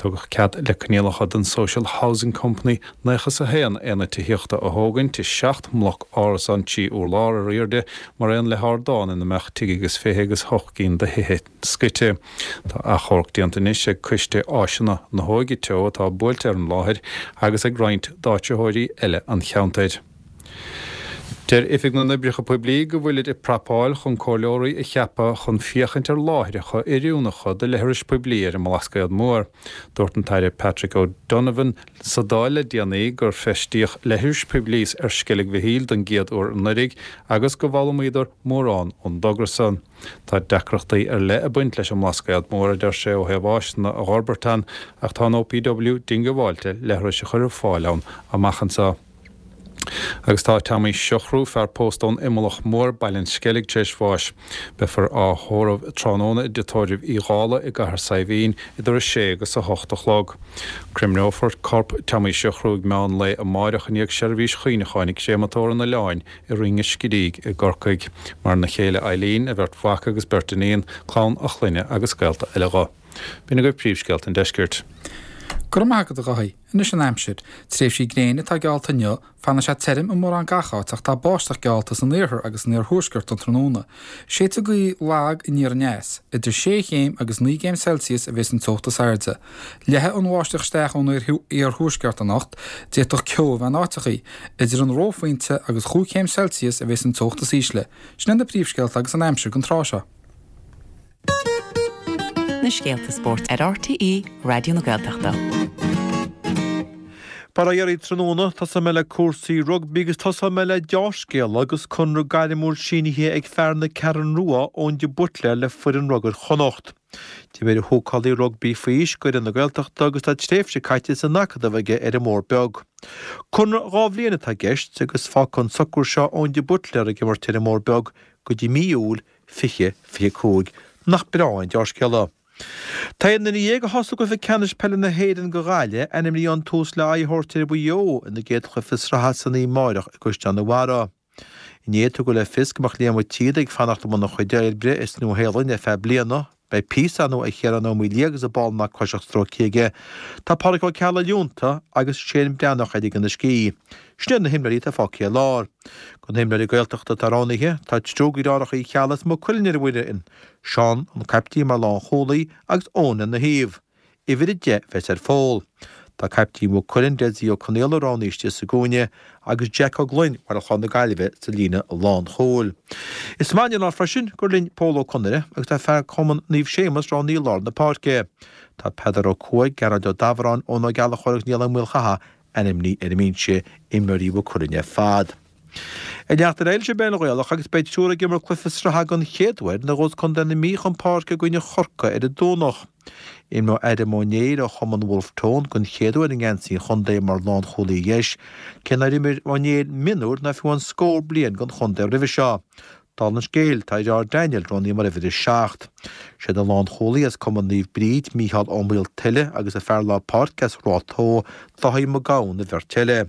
Tugadh cead le coinníollacha don Social Housing Company 91 aonad tithíochta a thógaint i 7 mbloc árasán 3 urlár ar airde mar aon le hardán ina mbeadh tigh agus fiche agus hocht gcinn de thithe scoite. Tá achomharc déanta anois ag Coiste Áiseanna na hÓige Teo atá buailte ar an láthair agus ag roinnt d'áitritheoirí eile an cheantair. Deir Oifig na nOibreacha Poiblí go bhfuilid ag prapáil chun comhairleoirí a cheapadh chun féachaint ar láithreacha oiriúnacha do leithris poiblí ar an mBlascaod Mór. Dúirt an tAire Patrick O'Donovan sa Dáil le déanaí gur feistíodh leithris poiblí ar Sceilg Mhichíl don gcéad uair anuraidh agus go bhfoghlaimíodar mórán ón dtogra san. Tá deacrachtaí ar leith ag baint leis an mBlascaod Mór, a deir sé, ó thaobh áiseanna a dh'fhorbairt ann, ach tá an OPW diongbháilte leithris a chur ar fáil ann amach anseo. Agus tá Tommy Siochrú, fear pósta ón Imeallach Mór, Baile an Sceilg, tar éis bháis. Beifear á thórramh tráthnóna i dTigh Tórraimh Uí Dhálaigh i gCathair Saidhbhín idir 6 agus 8 a chlog. Creimneofar corp Tommy Siochrú ag meán lae amáireach i ndiaidh seirbhís chuimhneacháin ag Créamatóir an Oileáin i Rinn an Screígh i gCorcaigh. Maireann a chéile Eileen, a bheirt mhac agus beirt iníon, clann a chlainne agus gaolta eile dho. B'in agaibh príomhscéalta an deiscirt.
Go raibh maith agat a Dháithí. Anois an aimsir. Tréimhsí gréine atá geallta inniu, fanfaidh sé tirim i mórán gach áit ach tá báisteach geallta san iarthar agus san iarthuaisceart don tráthnóna. Séidfidh gaoth lag aniar aneas. Idir sé chéim agus naoi gcéim Celsius a bheas an teocht is airde. Leathfaidh an bháisteach isteach ón iarthuaisceart anocht, d'fhéadfadh ceo a bheith in áiteachaí. Idir an reophointe agus chúig chéim Celsius a bheas an teocht is ísle. Sin iad na príomhscéalta agus an aimsir don tráth seo.
Na scéalta spóirt ar RTÉ Raidió na Gaeltachta. Bail ó Dhia oraibh tráthnóna, tosóidh mé le cúrsaí rugbaí agus tosóidh mé le deá-scéala agus conradh gairmiúil sínithe ag fear na Ceathrún Rua, Eoin de Buitléar le foireann rugair Chonnacht. D'imir an húcálaí rugbaí faoi aois d'fhoireann na Gaeltachta agus tá tréimhse caite san Acadamh aige ar an mBóthar Beag. Conradh 2 bhliain atá i gceist agus fágfaidh an socrú seo Eoin de Buitléar ag imirt ar an mBóthar Beag go dtí mí Iúil 2025. Nach breá an deá-scéala? Tá aon duine dhéag a thosaigh i gcluiche ceannais peile na hÉireann do Ghaillimh ainmnithe chun tús le aghaidh a thabhairt ar Mhaigh Eo ina gcéad chluiche sraithe san oíche amáireach i gCaisleán an Bharraigh. Inné tugadh le fios go mbeadh Liam Ó Tíoda ag fanacht i mbun a chuid oibre sa Nua-Shéalainn ar feadh bliana. Beidh píosa ar ndóigh ar Chiarán Ó Maoildhia agus an ball nach cloisfeadh stróicthe aige. Tá Pádraic Ó Ceallaigh leonta agus Shane Breathnach ag ligean a scíth. Sin iad na himreoirí atá fágtha ar lár. De na himreoirí Gaeltachta atá roghnaithe, tá triúr de dheartháireacha Uí Cheallaigh as Maigh Cuilinn ar an bhfoireann, Seán, an caiptín mar lánchúlaí agus Eoin lena thaobh. Uimhir 10 a bheas ar Phól. Tá caiptín Mhaigh Cuilinn, Dessie Ó Conaola roghnaithe istigh sa gcúinne agus Jack Ó Gloinn Bhaile Chláir na Gaillimhe sa líne lánchúil. Is maith an lá freisin gur linn Pól Ó Conaire agus tá fear Chumann Naomh Séamus roghnaithe i lár na páirce. Tá Peadar Ó Cuaig, Gearóid Ó Dabhráin, Eoin Ó Gallchóir agus Niall Ó Maolchatha ainmnithe ar an mbinse, imreoirí Mhaigh Cuilinn ar fad. Ag leanacht ar aghaidh leis an bpeil Ghaelach agus beidh triúr ag imirt cluiche sraithe den chéad uair nuair a ghabhfas Contae na Mí chun páirce i gcoinne Chorcaí ar an Domhnach. Imreoidh Adam Ó Néill ó chumann Wolfe Tone den chéad uair i ngeansaí an chontae mar lánchúlaí dheis, cé nár imir Ó Néill mionúr ná fiú amháin scór bliain don chontae roimhe seo. Dála an scéil, tá a dheartháir Daniel roghnaithe mar uimhir 7. Siad an lánchúlaí as Cumann Naomh Bríd, Mícheál Ó Maoltuile agus an fear lár páirce as Ráth Tó, Dáithí Mac Gabhann an bheirt eile.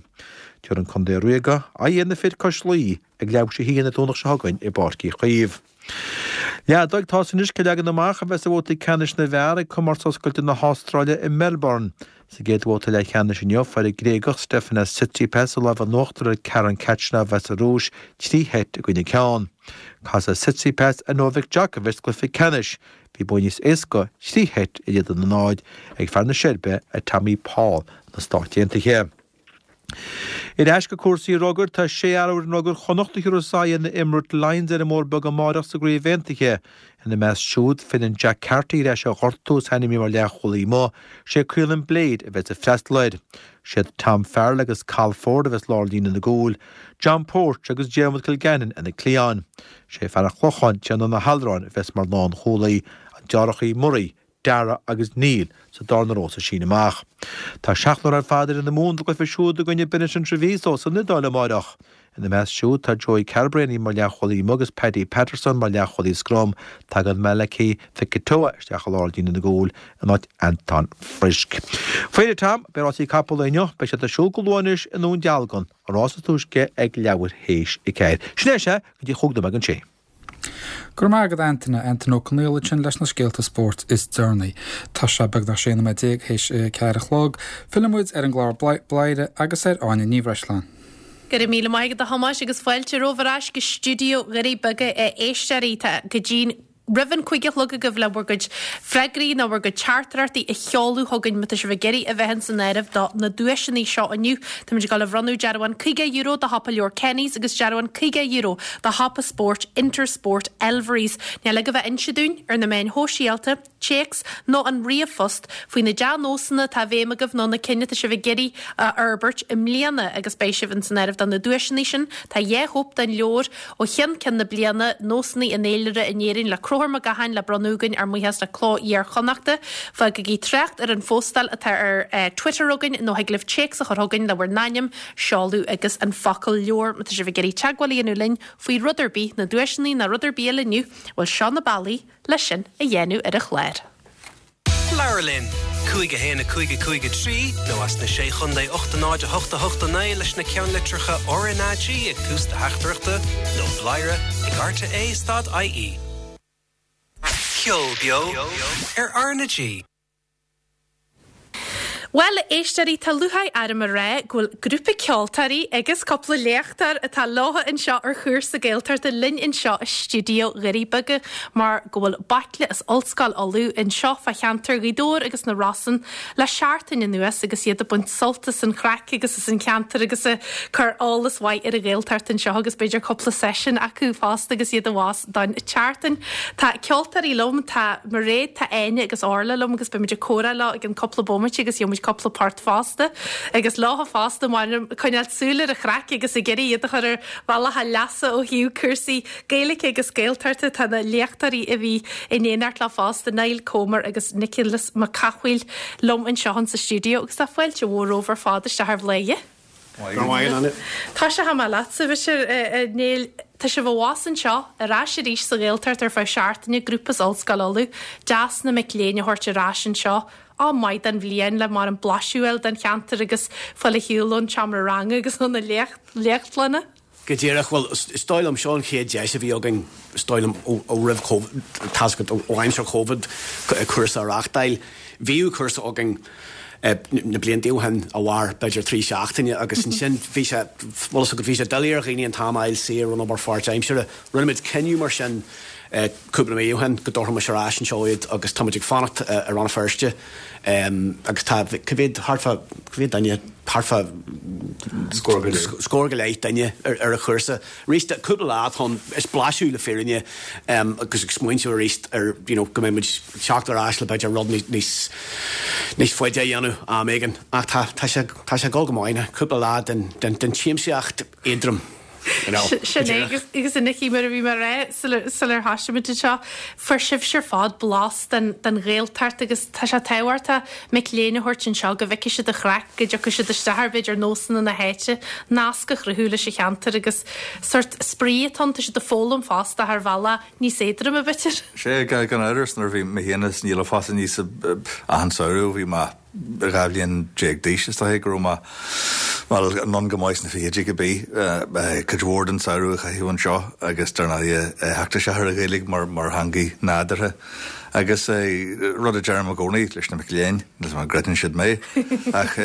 Tabharfaidh an Contae Ríoga aghaidh ar na fir cois Laoi ag leathuair tar éis a haon an Domhnach seo chugainn i bPáirc Uí Chaoimh. Leath don tá's anois cén leagan amach a bheas ar bhabhtaí ceannais na bhfear ag Comórtas Oscailte na hAstráile i Melbourne. Sa gcéad bhabhta leathcheannais inniu, fuair an Gréagach Stefanos Tsitsipas an lámh in uachtar ar Karen Khachanov as an Rúis, 3 sheit i gcoinne ceann. Casfaidh Tsitsipas ar Novak Djokovic sa gcluiche ceannais. Bhí bua níos éasca, 3 sheit in éadan a 0, ag fear na Seirbe ar Tommy Paul na Stáit Aontaithe. Ar ais go cúrsaí rugair, tá sé fhear ó fhoireann rugair Chonnacht a thabharfas aghaidh ar na Emirates Lions ar an mBóthar Beag amáireach sa gCraobh Aontaithe. Ina measc siúd, filleann Jack Carty ar ais ó ghortú is ainmnithe mar leathchúlaí amuigh. Sé Caolin Blade a bheas ag freastal air. Siad Tom Farrell agus Cathal Forde a bheas lár líne na gcúil, John Porch agus Diarmuid Kilgannon ar na cliatháin. Sé fear an Chlocháin, Tiarnán Ó hAllmhuráin a bheas mar lánchúlaí, an deartháireacha Murray, Dara agus Neil sa darna ró sa síneadh amach. Tá seachtar ar fad ar fhoireann na Mumhan don gcluiche siúd i gcoinne Benetton Treviso san Iodáil amáireach. Ina measc siúd tá Joey Carbery mar leathchúlaí amuigh agus Paddy Patterson mar leathchúlaí scrum. Tagann Malakai Fekitoa isteach i lár líne na gcúl in áit Anton Frisk. Faoi dheireadh Tom, beidh rásaí capall inniu. Beidh siad ar siúl go luath anois i nDún Dealgan, an rás is túisce ag leathuair théis a ceathair. Sin é sea, go dtí chúig nóiméad don sé.
Go raibh maith agat Antaine, Antaine Ó Conaola ansin leis na scéalta spóirt is deireanaí. Tá sé beagnach 16 nóiméad théis a 4 a chlog. Filleann muid ar an gclár Bladhaire agus ar Áine Ní Bhreisleáin.
Go raibh míle maith agat a Thomáis agus fáilte romhaibh ar ais go stiúideo Dhoirí Beaga a éisteoirí. Tá go dtí roimh an 5 a chlog agaibh le bhur gcuid freagraí nó bhur gcuid teachtaireachtaí a sheoladh chugainn má tá sibh ag iarraidh a bheith ins an áireamh do na duaiseanna seo inniu. Táimid ag dul a bhronnadh dearbhán €50 do shiopa leabhar Kenny's agus dearbhán €50 do shiopa spóirt Intersport Elverys. Níl agaibh ach inse dúinn ar na meáin shóisialta, téacs nó an ríomhphost faoi na dea-nósanna atá i bhfeidhm agaibh nó na cinn atá sibh ag iarraidh a fhorbairt i mbliana agus beidh sibh ins an áireamh do na duaiseanna sin. Tá 2 chóip den leabhar ó cheann ceann na bliana, Nósanna an Fhéilire in Éirinn le Conchúr Mac Gacháin le bronnadh againn ár mbuíochas le Cló Iar-Chonnachta. Fágaigí trácht ar an phóstáil atá ar Twitter againn nó thig libh téacs a chur chugainn le bhur n-ainm, seoladh agus an focal leabhar má tá sibh ag iarraidh teagmháil a dhéanamh linn faoi rud ar bith, na duaiseanna ná rud ar bith eile inniu, bhuel seo na bealaí le sin a dhéanamh ar an chlár.
Labhair linn! 5 1 5 5 3 nó as na Sé Chontae 8 0 8 8 9 leis na ceannlitreacha RnaG ag tús do theachtaireachta nó bladhaire ag rte stad ie. Ceol beo ar RnaG.
Bhuel, a éisteoirí, tá lúcháir orm a rá go bhfuil grúpa ceoltóirí agus cúpla léachtóir atá leobhtha anseo ar chúrsa Gaeltachta linn anseo i stiúideo Dhoirí Beaga mar go bhfuil baicle as Ollscoil Uladh anseo fá cheantar Ghaoth Dobhair agus na Rosann le seachtain anuas agus iad ag baint sult as an chraic agus as an cheantar agus ag cur eolas mhaith ar an Ghaeltacht anseo agus b'fhéidir cúpla seisiún acu fosta agus iad abhus don tseachtain. Tá ceoltóirí liom, tá Mairéad, tá Áine agus Orla liom agus beimid ag comhrá leo i gceann cúpla bomaite agus gheobhaimid. cúpla port fosta agus leofa fosta m'anam ag coinneáil súil ar an chraic agus ag iarraidh iad a chur ar bhealach a leasa ó thaobh cúrsaí Gaeilge agus Gaeltachta. Tá na léachtóirí a bhí in éineacht leo fosta, Niall Comer agus Nioclás Mac Cathmhaoil liom anseo in sa stiúideo agus tá fáilte mhór romhaibh ar fad isteach ar Bhladhaire. Tosóidh mé leatsa, b'fhéidir, a Néill. Tá sibh abhus anseo, ar ais arís sa Ghaeltacht ar feadh seachtaine, grúpa as Ollscoil Uladh. Deas na mic léinn a thabhairt ar ais anseo. Am maith den bhliain le mar an blaiseadh a fháil den cheantar agus fáil ar shiúl ón tseomra ranga agus ó na léachtlanna.
Go díreach. Bhuel, is dóigh liom, seo an chéad deis a bhí againn, is dóigh liom, ó roimh Covid, tá's agat, ó aimsir Covid, cúrsa a reáchtáil. Bhíodh cúrsa againn na blianta ó shin a mhair b'fhéidir 3 seachtaine agus ansin bhí sé, bhfuil fhios agat, bhí sé doiligh ar dhaoine an t-am a fháil saor ón obair pháirtaimseartha. Rinne muid cinneadh mar sin cúpla mí ó shin go dtabharfaimis ar ais anseo iad agus tá muid ag fanacht i Rann na Feirste agus tá, cá mhéad, thart fá, cá mhéad duine, thart fá scór go leith duine ar an chúrsa. Arís, cúpla lá atá ann, is blaiseadh le fírinne agus ag smaointiú arís ar you know go mbeidh muid ag teacht ar ais le b'fhéidir rud níos níos faide a dhéanamh am éigin. Ach tá tá sé tá sé ag dul go maith, cúpla lá den den den tsiamsaíocht éadrom.
Sin é agus a Nicky mar a bhí mé a rá sular thoisigh muid anseo, fuair sibhse ar fad blas den Ghaeltacht agus tá sé tábhachtach mic léinn a thabhairt anseo go bhfeicfidh siad an chraic, go dtiocfaidh siad isteach ar b'fhéidir nósanna na háite, nasc a chruthú leis an cheantar agus sórt spraoi atá ann, tá siad ag foghlaim fosta ar bhealach níos éadroime b'fhéidir.
Sea, gan amhras nuair a bhí mé féin is Niall ag fás aníos achan samhradh bhí mé 12 bhliain d'aois, is dóiche go raibh mé, bhuel, anonn go maith sna fichidí cibé, cuid mhór den samhradh a chaitheamh anseo agus dar ndóighe theacht isteach ar an Ghaeilge mar mar theangaidh nádúrtha. Agus rud a deirim i gcónaí leis na mic léinn, níl 's agam an gcreideann siad mé, ach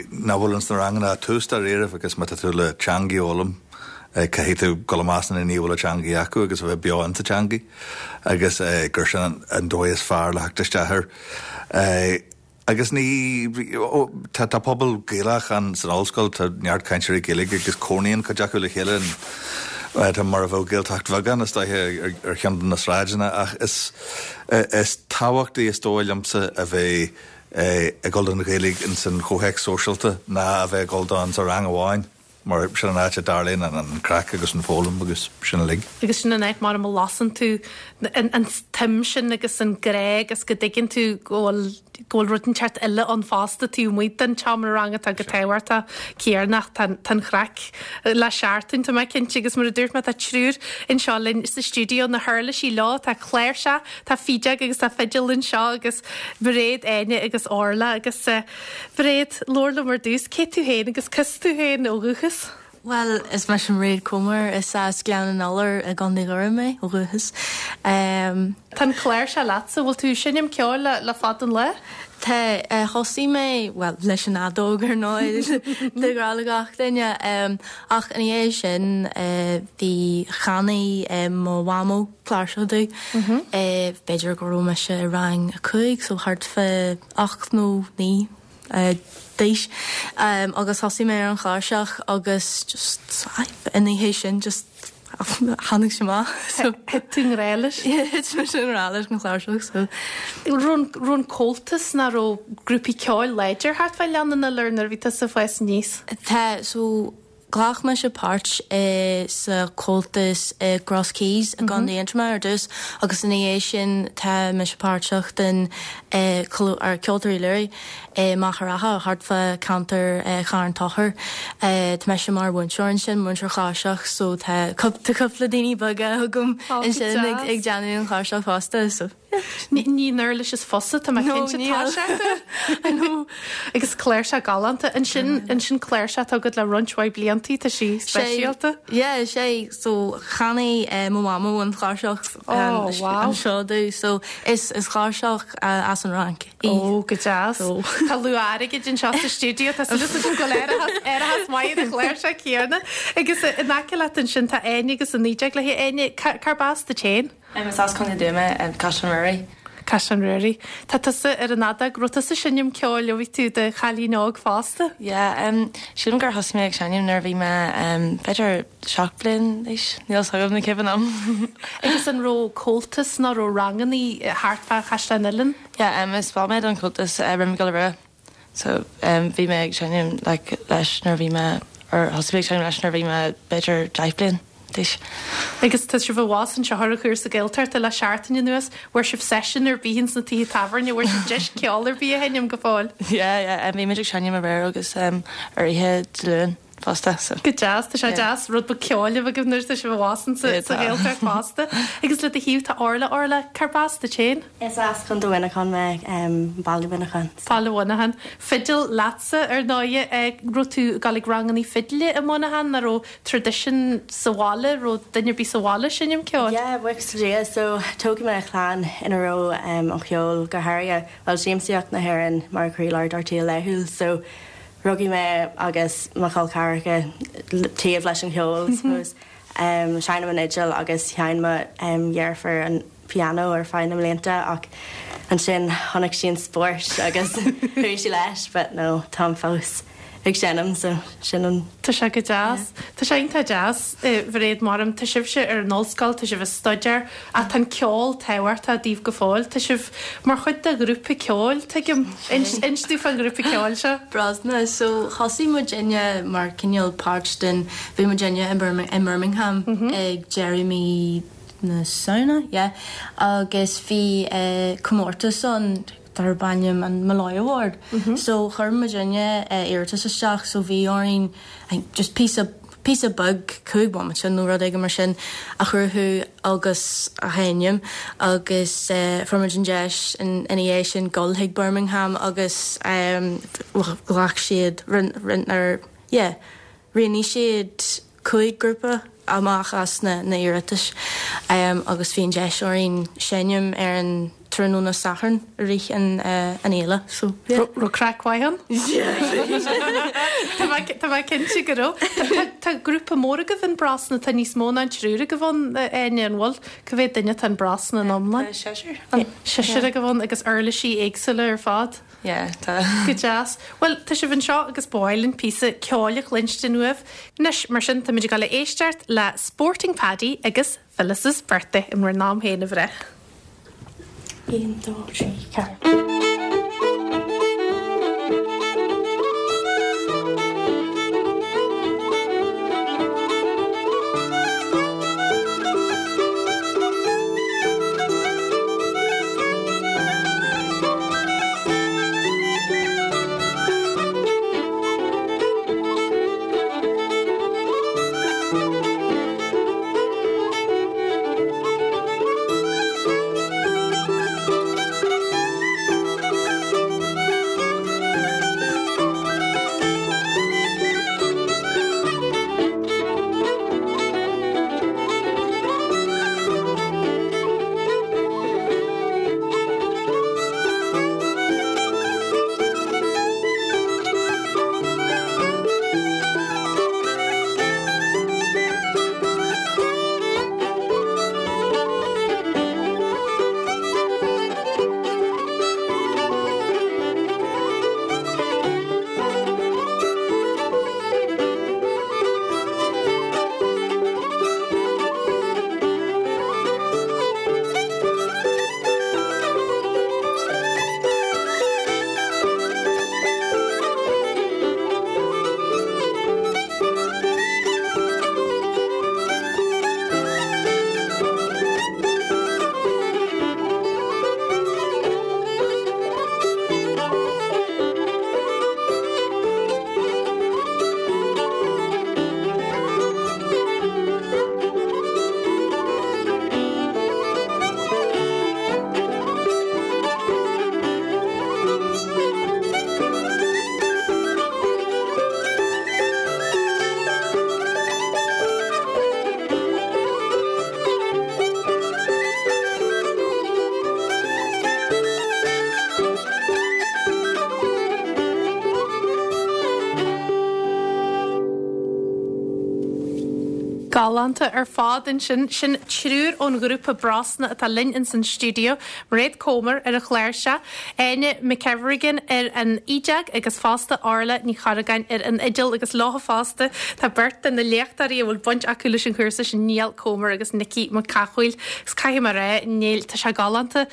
nach bhfuil ins na ranganna ach tús dáiríribh agus má tá tú le teangaidh a fhoghlaim, caithfidh tú dul i measc na ndaoine a bhfuil an teangaidh acu agus a bheith beo insa teangaidh agus gur sin an dóigh is fearr le theacht isteach air. Agus ní, tá, tá pobal Gaelach ann san ollscoil, tá neart cainteoirí Gaeilge agus cónaíonn cuid acu le chéile in, tá mar a bheadh Gaeltacht bheag ann is dóiche ar cheann de na sráideanna ach is, is tábhachtaí is dóigh liomsa a bheith ag dul don Ghaeilge ins an chomhthéacs sóisialta ná a bheith ag dul dó insa rang amháin. Mar sin an áit a dtarlaíonn an craic agus an foghlaim agus sin uilig.
Agus sin an áit mar a lasann tú an tsuim sin agus an grá agus go dtuigeann tú go bhfuil go bhfuil rud inteacht eile ann fosta taobh amuigh den tseomra ranga atá go tábhachtach céarnach tá an chraic le seachtain tá mé cinnte agus mar a dúirt mé tá triúr anseo linn sa stiúideo na huirlisí leo tá cláirseach tá fídeog agus tá fidil anseo agus Mairéad Áine agus Orla agus Mairéad, labhair liom ar dtús, cé tú féin agus cá as tú féin ó dhúchas?
Bhuel, is mise Mairéad Comer, is as Gleann an Iolair i gContae Dhoire mé ó dhúchas.
Tá an chláirseach leatsa, bhfuil tú ag seinm ceoil le fada an lá?
Tá, thosaigh mé, bhuel, leis an fheadóg ar ndóigh, de ghnáth le gach duine, ach ina dhiaidh sin bhí, cheannaigh mo mhamó cláirseach domh, b'fhéidir go raibh mise i rang a cúig, so thart fá 8 nó 9 d'aois agus thosaigh mé ar an chláirseach agus just ina dhiaidh sin just tháinig sé amach
so. Thit tú i ngrá leis?
Yeah, thit mise i ngrá leis an chláirseach
so. Raibh an Comhaltas nó raibh grúpaí ceoil láidir thart fá Ghleann an Iolair nuair a bhí tusa ag fás aníos?
Tá, so Ghlac mise páirt i sa Chomhaltas i gCross Keys i gContae Aontroma ar dtús agus ina dhiaidh sin tá mise páirteach den Ceoltóirí Learaí i Machaire Rátha thart fá ceantar Charn Tóchair. Tá mise mar mhúinteoir ansin, múinteoir cláirseach so tá cúpla daoine beaga agam ansin ag déanamh an chláirseach fosta so.
Ní an uirlis is fusa, tá mé cinnte. Tá sé. I know. Agus cláirseach galánta. Ansin, ansin cláirseach atá agat le roinnt mhaith bliantaí, tá sí speisialta.
Yeah, sé. So, cheannaigh mo mhamó an chláirseach Oh, wow. anseo domh. So, is, is cláirseach as an Fhrainc
í. Oh, go deas. So. Tá luach airgid anseo sa stiúideo, tá súil agam go bhfuil árachas, árachas maith ar an chláirseach céanna. Agus in aice leat ansin tá Áine agus an fhídeog léi. Áine, cárb as duit féin?
Is as Contae an Dúin mé, Caisleán Ruairí.
Caisleán Ruairí. Tá tusa ar an fheadóg. Raibh tusa ag seinm ceoil ó bhí tú i do chailín óg fosta?
Yeah, sílim gur thosaigh mé ag seinm nuair a bhí mé b'fhéidir 7 bliain d'aois, níl 'fhios agam ní cuimhin liom.
Agus an raibh comhaltas nó raibh rangannaí thart fá Chaisleán Uidhilín?
Yeah, is ball mé den Chomhaltas Rinn Mhic Giolla Rua. So bhí mé ag seinm like leis nuair a bhí mé, or thosaigh mé ag seinm leis nuair a bhí mé b'fhéidir 10 bliain d'aois.
Agus tá sibh abhus anseo ar an chúrsa Gaeltachta le seachtain anuas, bhfuair sibh seisiún ar bith ins na tithe tábhairne, bhfuair sibh deis ceol ar bith a sheinm go fóill?
Yeah, yeah, bhí muid ag seinm aréir agus ar oíche Dé Luain fosta, so.
Go deas, tá sé deas rud beag ceoil a bheith agaibh nuair atá sibh abhus insa Ghaeltacht fosta. Agus le do thaobh tá Orla, Orla, cárb as duit féin?
Is as Contae Mhuineacháin mé, Baile Mhuineacháin.
Baile Mhuineacháin. Fidil leatsa, ar ndóighe. Raibh tú ag dul ag rangannaí fidile i Muineachán nó raibh traidisiún sa bhaile, raibh duine ar bith sa bhaile ag seinm ceoil?
Yeah, buíochas le Dia. So, tógadh mé i chlann ina raibh an cheol, go háirithe, bhuel, siamsaíocht na hÉireann mar chroílár dár saol laethúil. So, rugadh mé agus mo chol ceathracha taobh leis an cheol, I suppose. Seinnim an fhidil agus sheinn mo dheirfiúr an pianó ar feadh na mblianta ach ansin chonaic sí an spórt agus chuaigh sí leis but no táim fós ag seinm so sin an.
Tá sé go deas. Tá sé iontach deas, a Mhairéad Maram. Tá sibhse ar an ollscoil, tá sibh ag staidéar ach tá an ceol tábhachtach daoibh go fóill. Tá sibh mar chuid de ghrúpa ceoil, tuigim. Inis domh fán ghrúpa ceoil seo.
Brosna, So thosaigh muidinne mar cineál páirt den, bhí muidinne i mBirmingham ag deireadh mí na Samhna, yeah, agus bhí comórtas ann darb ainm an Molloy Award. So chuir muidinne iarratas isteach so bhí orainn I think just píosa píosa beag, 5 bomaite nó rud éigin mar sin, a chruthú agus a sheinm agus fuair muid an deis ina dhiaidh sin dul chuig Birmingham agus ghlac siad, rinne, yeah, roghnaigh siad 5 grúpa amach as na hiarratais agus bhí an deis orainn seinm ar an tráthnóna Sathairn i rith an fhéile so
yeah. Raibh craic mhaith ann? Tá mé cinnte go raibh. Tá grúpa mór agaibh in Brosna, tá níos mó ná an triúr agaibh ann, Áine, an bhfuil? Cá mhéad duine atá in Brosna in iomlán?
Tá seisear ann.
Seisear agaibh ann agus uirlisí éagsúla ar fad?
Yeah, tá.
Go deas. Bhuel, tá sibh anseo agus ba mhaith linn píosa ceoil a chluinstin uaibh. Anois, mar sin, táimid ag dul a éisteacht le Sporting Paddy agus Phyllis's Birthday in bhur n-am féin, a mhná.
1, 2, 3, 4.
Galánta ar fad ansin. Sin triúr ón ghrúpa Brosna atá linn ins an stiúideo, Mairéad Comer ar an chláirseach, Áine McKevergan ar an fhídeog agus fosta Orla Ní Chorragáin ar an fhidil agus leo fosta tá beirt de na léachtóirí a bhfuil baint acu leis an chúrsa sin, Niall Comer agus Nicky Mac Cathmhaoil. Agus caithfidh mé a rá, Niall, tá sé galánta.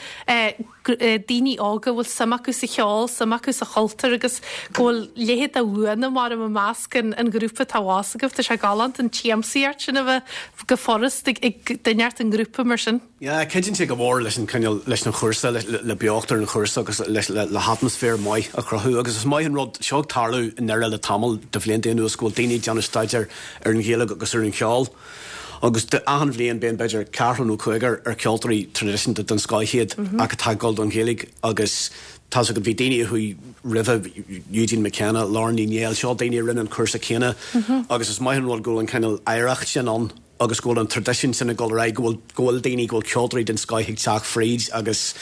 daoine óga a bhfuil suim acu sa cheol, suim acu sa chultúr agus go bhfuil leithéid de bhuanna mar i measc an ghrúpa atá abhus agaibh. Tá sé galánta an tsiamsaíocht sin a bheith go furast ag duine inteacht i ngrúpa mar sin.
Yeah, cuidíonn sé go mór leis an cineál, leis an chúrsa, le beocht ar an chúrsa agus leis, le hatmaisféar maith a chruthú agus is maith an rud, seo ag tarlú i nDoire le tamall de bhlianta anuas go bhfuil daoine ag déanamh staidéar ar an Ghaeilge agus ar an cheol. Agus achan bhliain bíonn b'fhéidir ceathrar nó cúigear ar ceoltóirí traidisiúnta den scoth iad ach atá ag dul don Ghaeilge agus tá's agat bhí daoine a chuaigh roimhe, Eugene McKenna, Lauren Ní Néill, seo daoine a rinne an cúrsa céanna agus is maith an rud go bhfuil an cineál oidhreacht sin ann agus go bhfuil an traidisiún sin ag dul ar aghaidh, go bhfuil, go bhfuil daoine, go bhfuil ceoltóirí den scoth ag teacht fríd agus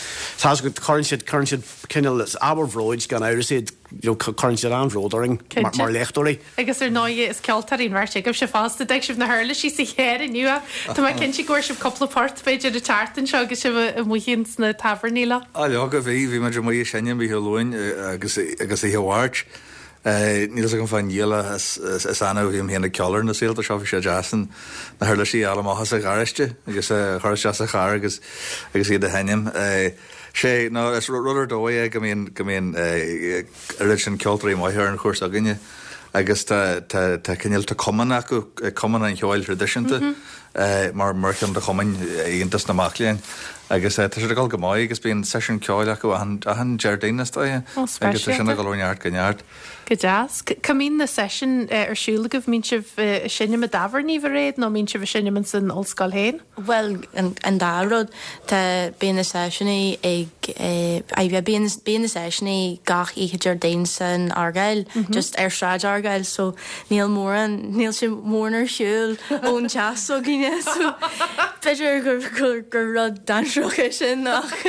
tá's agat cuireann siad, cuireann siad cineál, is ábhar bhróid gan amhras iad, you know, cuireann siad an-bhród orainn mar léachtóirí.
Agus ar ndóigh is ceoltóirí an bheirt agaibhse fosta. D'fhág sibh na huirlisí sa charr inniu ach tá mé cinnte go bhfuair sibh cúpla port b'fhéidir an tseachtain seo agus sibh amuigh ins na tábhairní leo.
Á leoga bhí, bhí muid amuigh ag seinm oíche Luain agus agus oíche Mháirt. Níl fhios agam fán Niall ach is is annamh a bhím féin ag ceol ar na saolta seo, bhí sé deas an na huirlisí a fháil amach as an gharáiste agus a chur isteach sa charr agus agus iad a sheinm. Sé, nó is rud ar dóigh é go mbíonn go mbíonn oiread sin ceoltóirí maithe ar an chúrsa againne agus tá tá tá cineál tá cumann acu, Cumann an Cheoil Thraidisiúnta mar mar cheann de chumainn Aontas na Mac Léinn agus tá siad ag dul go maith agus bíonn seisiún ceoil acu achan achan Déardaoin is dóigh agus tá sin ag dul ó neart go neart.
Go deas. Cá mbíonn na seisiúin ar siúl agaibh? Mbíonn sibh ag seinm i dtábhairní, a Mhairéad, nó mbíonn sibh ag seinm ins an ollscoil féin?
Bhuel, an dá rud. Tá, bíonn na seisiúnaí ag, eh, bíonn, bíonn na seisiúnaí gach oíche Déardaoin san Argyle, just ar Sráid Argyle, so níl mórán, níl sé mórán ar shiúl ón teach s'againne, so b'fhéidir gur, gur, gur rud dainséarach é sin ach,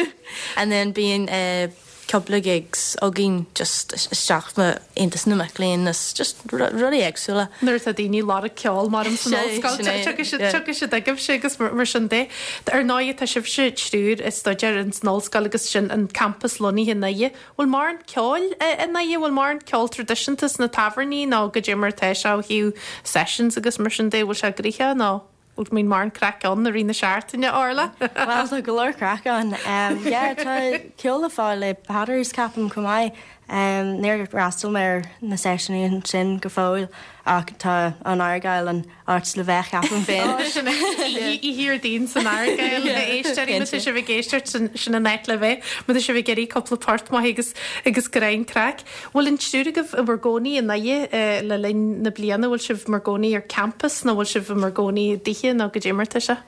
and then bíonn, eh, cúpla gigs againn just isteach i Aontas na Mac Léinn is just rudaí éagsúla.
Nuair atá daoine ag lorg ceoil mar san ollscoil tiocfaidh siad chugaibhse agus mar sin de. Ar ndóigh tá sibhse triúr ag staidéar ins an ollscoil agus sin an campas lonnaithe i nDoire. Bhfuil mórán ceoil i nDoire? Bhfuil mórán ceol traidisiúnta sna tábhairní nó goidé mar atá sé ó thaobh sessions agus mar sin de? Bhfuil sé gnoitheach nó? Bhfuil mbíonn mórán craic ann i rith na seachtaine, Orla?
Bhuel, tá go leor craic ann. Yeah, tá ceol le fáil i Peadars, ceapaim, chomh maith. Níor fhreastail mé ar na seisiúnaí ansin go fóill ach tá an Argyle an áit le bheith, ceapaim féin.
Ó, sin é. Oíche Dhéardaoin san Argyle, a éisteoirí, má tá sibh ag éisteacht, sin an áit le bheith. Má tá sibh ag iarraidh cúpla port maith agus agus greim craic. Bhfuil an triúr agaibh i bhur gcónaí i nDoire le linn na bliana? Bhfuil sibh mar gcónaí ar campas nó bhfuil sibh i bhur gcónaí i dtithe nó goidé mar atá sé?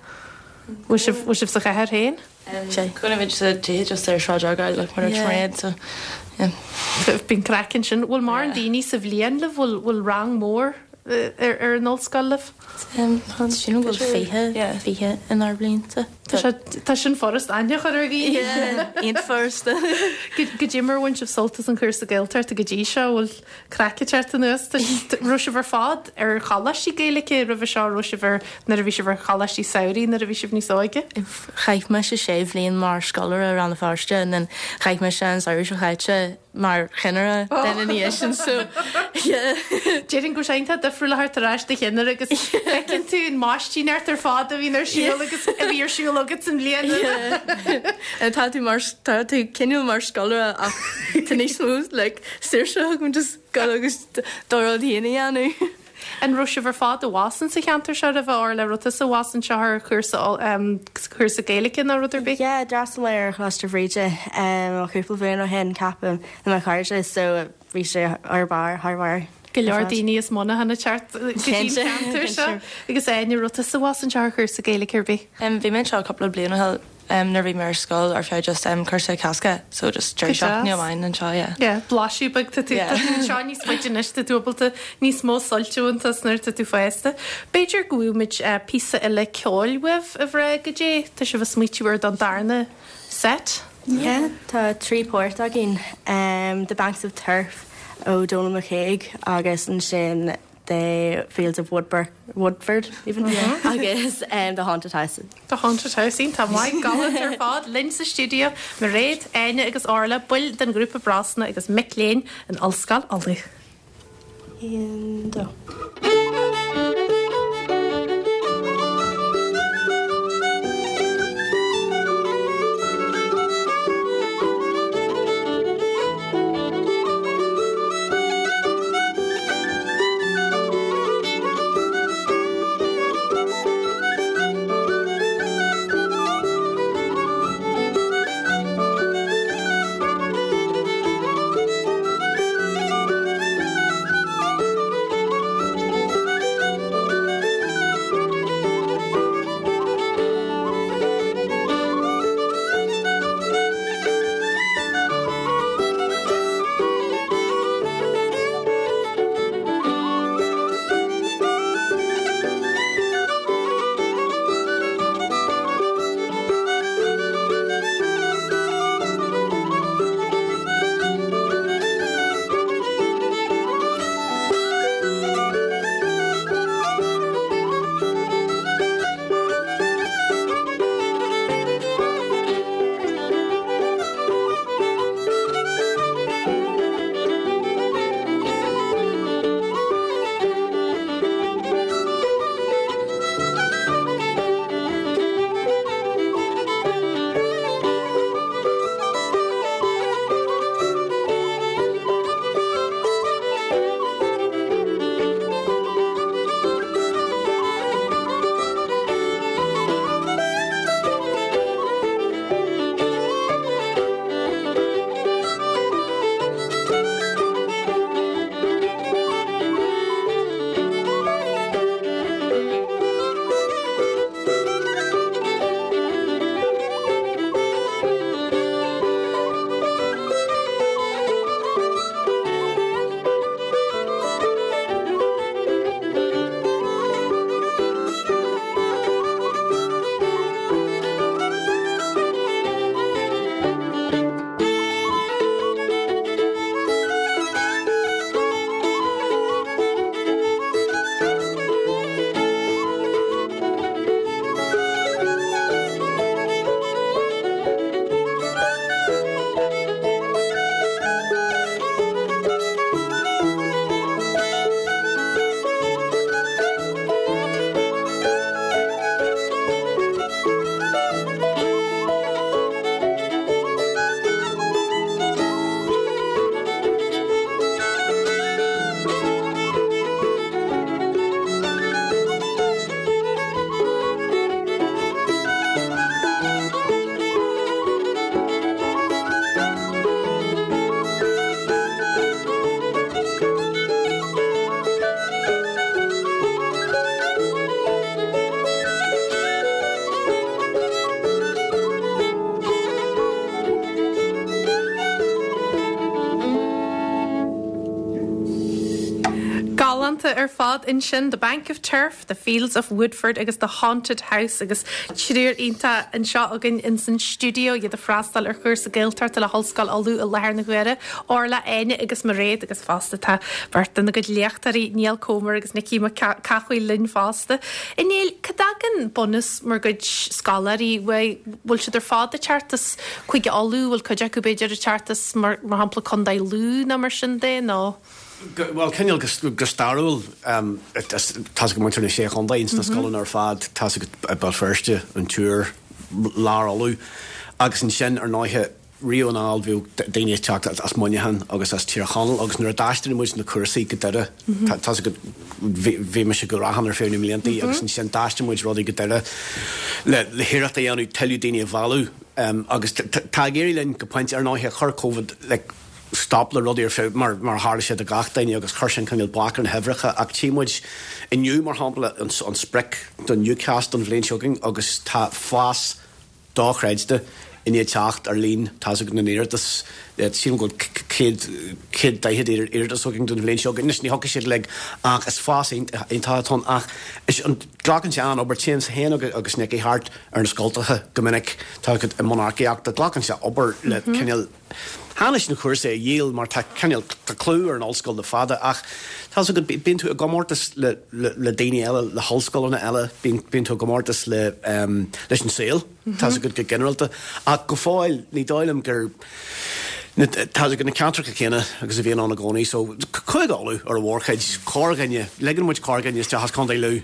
Bhfuil sibh, bhfuil sibh sa chathair féin?
Cónaímid sa tithe just ar Shráid Argyle like mar a dúirt Mairéad so yeah.
Bíonn craic ansin. Bhfuil mórán daoine sa bhliain libh? Bhfuil, bhfuil rang mór ar an ollscoil libh?
Sílim go bhfuil 20, 20 inár mblianta.
Tá sé, tá sin furast aithne a chur ar dhaoine.
Yeah, iontach furasta.
Goidé mar a bhain sibh sult as an chúrsa Gaeltachta go dtí seo, bhfuil craic ag teacht anuas? Tá, raibh sibh ar fad ar choláistí Gaeilge roimhe seo, raibh sibh ar, nuair a bhí sibh ar choláistí samhraidh nuair a bhí sibh níos óige?
Chaith mise sé bhliain mar scoláire i Rann na Feirste and then chaith mise an samhradh seo chaite mar chinnire then ina dhiaidh sin so yeah.
Déarfainn go bhfuil sé iontach difriúil a theacht ar ais do chinnire agus feiceann tú an maistíneacht ar fad a bhíonn ar siúl agus a bhí ar siúl agat san bhliain roimhe.
Yeah. Tá tú mar tá tú cineál mar scoláire ach tá níos mó like saoirse agam just dul agus do rud féin a dhéanamh.
An raibh sibh ar fad abhus insa cheantar seo roimhe, Orla? Raibh tusa abhus anseo ar chúrsa chúrsa Gaeilge nó rud ar bith?
Yeah, d'fhreastail mé ar Choláiste Bhríde cúpla bliain ó shin, ceapaim, le mo chairde, so bhí sé thar barr, thar barr.
Go leor daoine as Muineachán ag teacht go dtí an ceantar seo. Agus Áine, raibh tusa abhus anseo ar chúrsa Gaeilge ar bith?
Bhí mé anseo cúpla bliain ó shin. nuair a bhí mé ar scoil ar feadh just cúrsa Cásca so just deireadh seachtaine amháin anseo yeah.
Yeah, blaiseadh beag tá tú tá tú anseo níos faide anois tá tú ábalta níos mó suilt a bhaint as nuair atá tú fásta. B'fhéidir go bhfaighimid píosa eile ceoil uaibh a mhná goidé tá sibh ag smaoitiú ar don darna set?
Yeah, tá 3 port againn, The Banks of Turf ó Donal McCague agus ansin The Fields of Woodburn, Woodford even, agus The Haunted House.
The Haunted House, iontach maith, galánta ar fad, linn sa stiúideo, Mairéad, Áine agus Orla, baill den ghrúpa Brosna agus mic léinn in Ollscoil Uladh.
1, 2.
ar fad ansin, The Bank of Turf, The Fields of Woodford agus The Haunted House agus triúr iontach anseo againn ins an stiúideo, iad ag freastal ar chúrsa Gaeltachta le hOllscoil Uladh i láthair na huaire, Orla, Áine agus Mairéad agus fosta tá beirt dena gcuid léachtóirí, Niall Comer agus Nicky Mac Cathmhaoil linn fosta. A Néill, cá dtagann bunús bhur gcuid scoláirí uaidh? Bhfuil siad ar fad ag teacht as Cúige Uladh, bhfuil cuid acu b'fhéidir ag teacht as mar shampla Contae Lú nó mar sin de nó?
Bhuel, cineál go stairiúil, tá's agat muintir na Sé Chontae ins na scoileanna ar fad, tá's agat Béal Feirste, an Iúr, Lár Uladh agus ansin ar ndóighe riamh anall bhíodh daoine ag teacht as Muineachán agus as Tír Chonaill agus nuair a d'aistrigh muid na cúrsaí go Doire, tá's agat bhí mise i gCurrachán ar feadh na mblianta agus ansin d'aistrigh muid rudaí go Doire le hiarracht a dhéanamh tuilleadh daoine a mhealladh agus tá ag éirí linn go pointe. Ar ndóighe chuir Covid like stop le rudaí ar feadh mar mar a tharla sé do gach duine agus chuir sin cineál bac ar na huimhreacha ach tchí muid inniu mar shampla an sprioc don UCAS don bhliain seo chugainn agus tá fás dochreidte i ndiaidh teacht ar líon tá's agat na n-iarratas. Sílim go bhfuil 140 iarratas againn don bhliain seo chugainn. Anois ní thiocfaidh siad uilig ach is fás iontach atá ann ach is an glacann sé an-obair. Téimse féin agus Nicky thart ar na scoltacha go minic tá i mbun earcaíochta. Glacann sé obair le cineál Chan leis na cúrsaí a dhíol mar tá cineál, tá clú ar an ollscoil le fada ach tá's agat, bíonn tú i gcomórtas le, le daoine eile, le hollscoileanna eile, bíonn, bíonn tú i gcomórtas le, leis an saol, tá's agat go ginearálta. Ach go fóill ní dóigh liom gur, na, tá's agat na ceantracha céanna agus a bhíonn ann i gcónaí so Cúige Uladh ar a mhórchuid, corrdhuine, ligeann muid corrdhuine isteach as Contae Lú.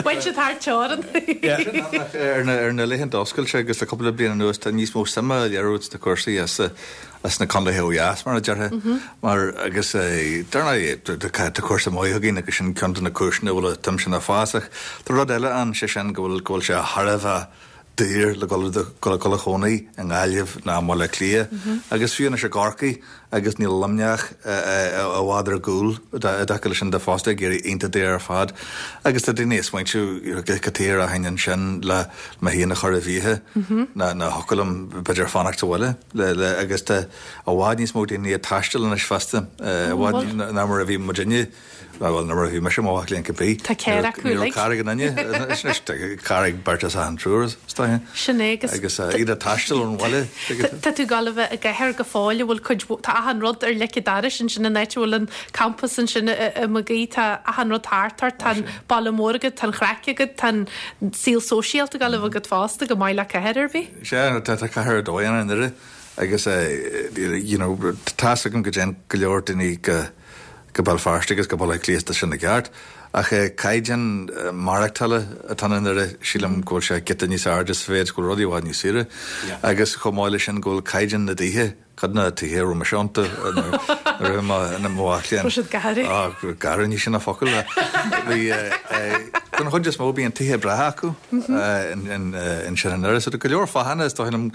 Bhain siad thar teorainn.
Ar na laethanta oscailte agus le cúpla bliain anuas tá níos mó suime á léiriú sna cúrsaí as na contaetha ó dheas, mar a déarfá. Mar agus dar ndóigh tá cúrsa maith againn agus sin ceann de na cúiseanna a bhfuil an tsuim sin ag fás ach tá rud eile ann, sé sin go bhfuil go bhfuil sé thar a bheith daor le dul dul a chónaí i nGaillimh ná i mBaile Átha Cliath agus fiú anois i gCorcaigh agus níl Luimneach i bhfad ar gcúl i dtaca leis sin de fosta ag éirí iontach daor ar fad agus tá daoine ag smaointiú cad chuige a rachainn ansin le mé féin a chur i bhfiacha ná ná thiocfadh liom b'fhéidir fanacht sa bhaile le agus tá i bhfad níos mó daoine ag taisteal anois fosta i bhfad ná mar a bhí muidinne. Bhuel, nuair a bhí mise i mo mhac léinn cibé.
Tá carr acu
uilig. Ní raibh carr ag aon duine. Anois tá carr ag beirt as achan triúr, is dóiche.
Sin é
agus. Agus iad ag taisteal ón bhaile.
Tá tú ag gabháil a bheith i gcathair go fóill a bhfuil cuid, tá achan rud ar leic an dorais ansin an áit a bhfuil an campas ansin i Mag Aoidh, tá achan rud thart ort, tá an baile mór agat, tá an chraic agat, tá an saol sóisialta ag gabháil a bheith agat fosta, chomh maith le cathair ar bith.
Sea, tá cathair ar dóigh ann i nDoire agus you know tá's agam go dtéann go leor daoine go go Béal Feirste agus go Baile Átha Cliath tá sin i gceart. Ach caighdeán maireachtála atá i nDoire, sílim go bhfuil sé giota níos airde sa mhéid go bhfuil rudaí i bhfad níos saoire. Agus chomh maith leis sin go bhfuil caighdeán na dtithe, cuid de na tithe a raibh mise iontu nuair a bhí mé i mo mhac léinn.
Raibh siad garbh.
Á, garbh, ní sin an focal. Bhí, don chuid is mó bíonn tithe breátha acu ansin i nDoire. So tá go leor fáthanna is dóigh liom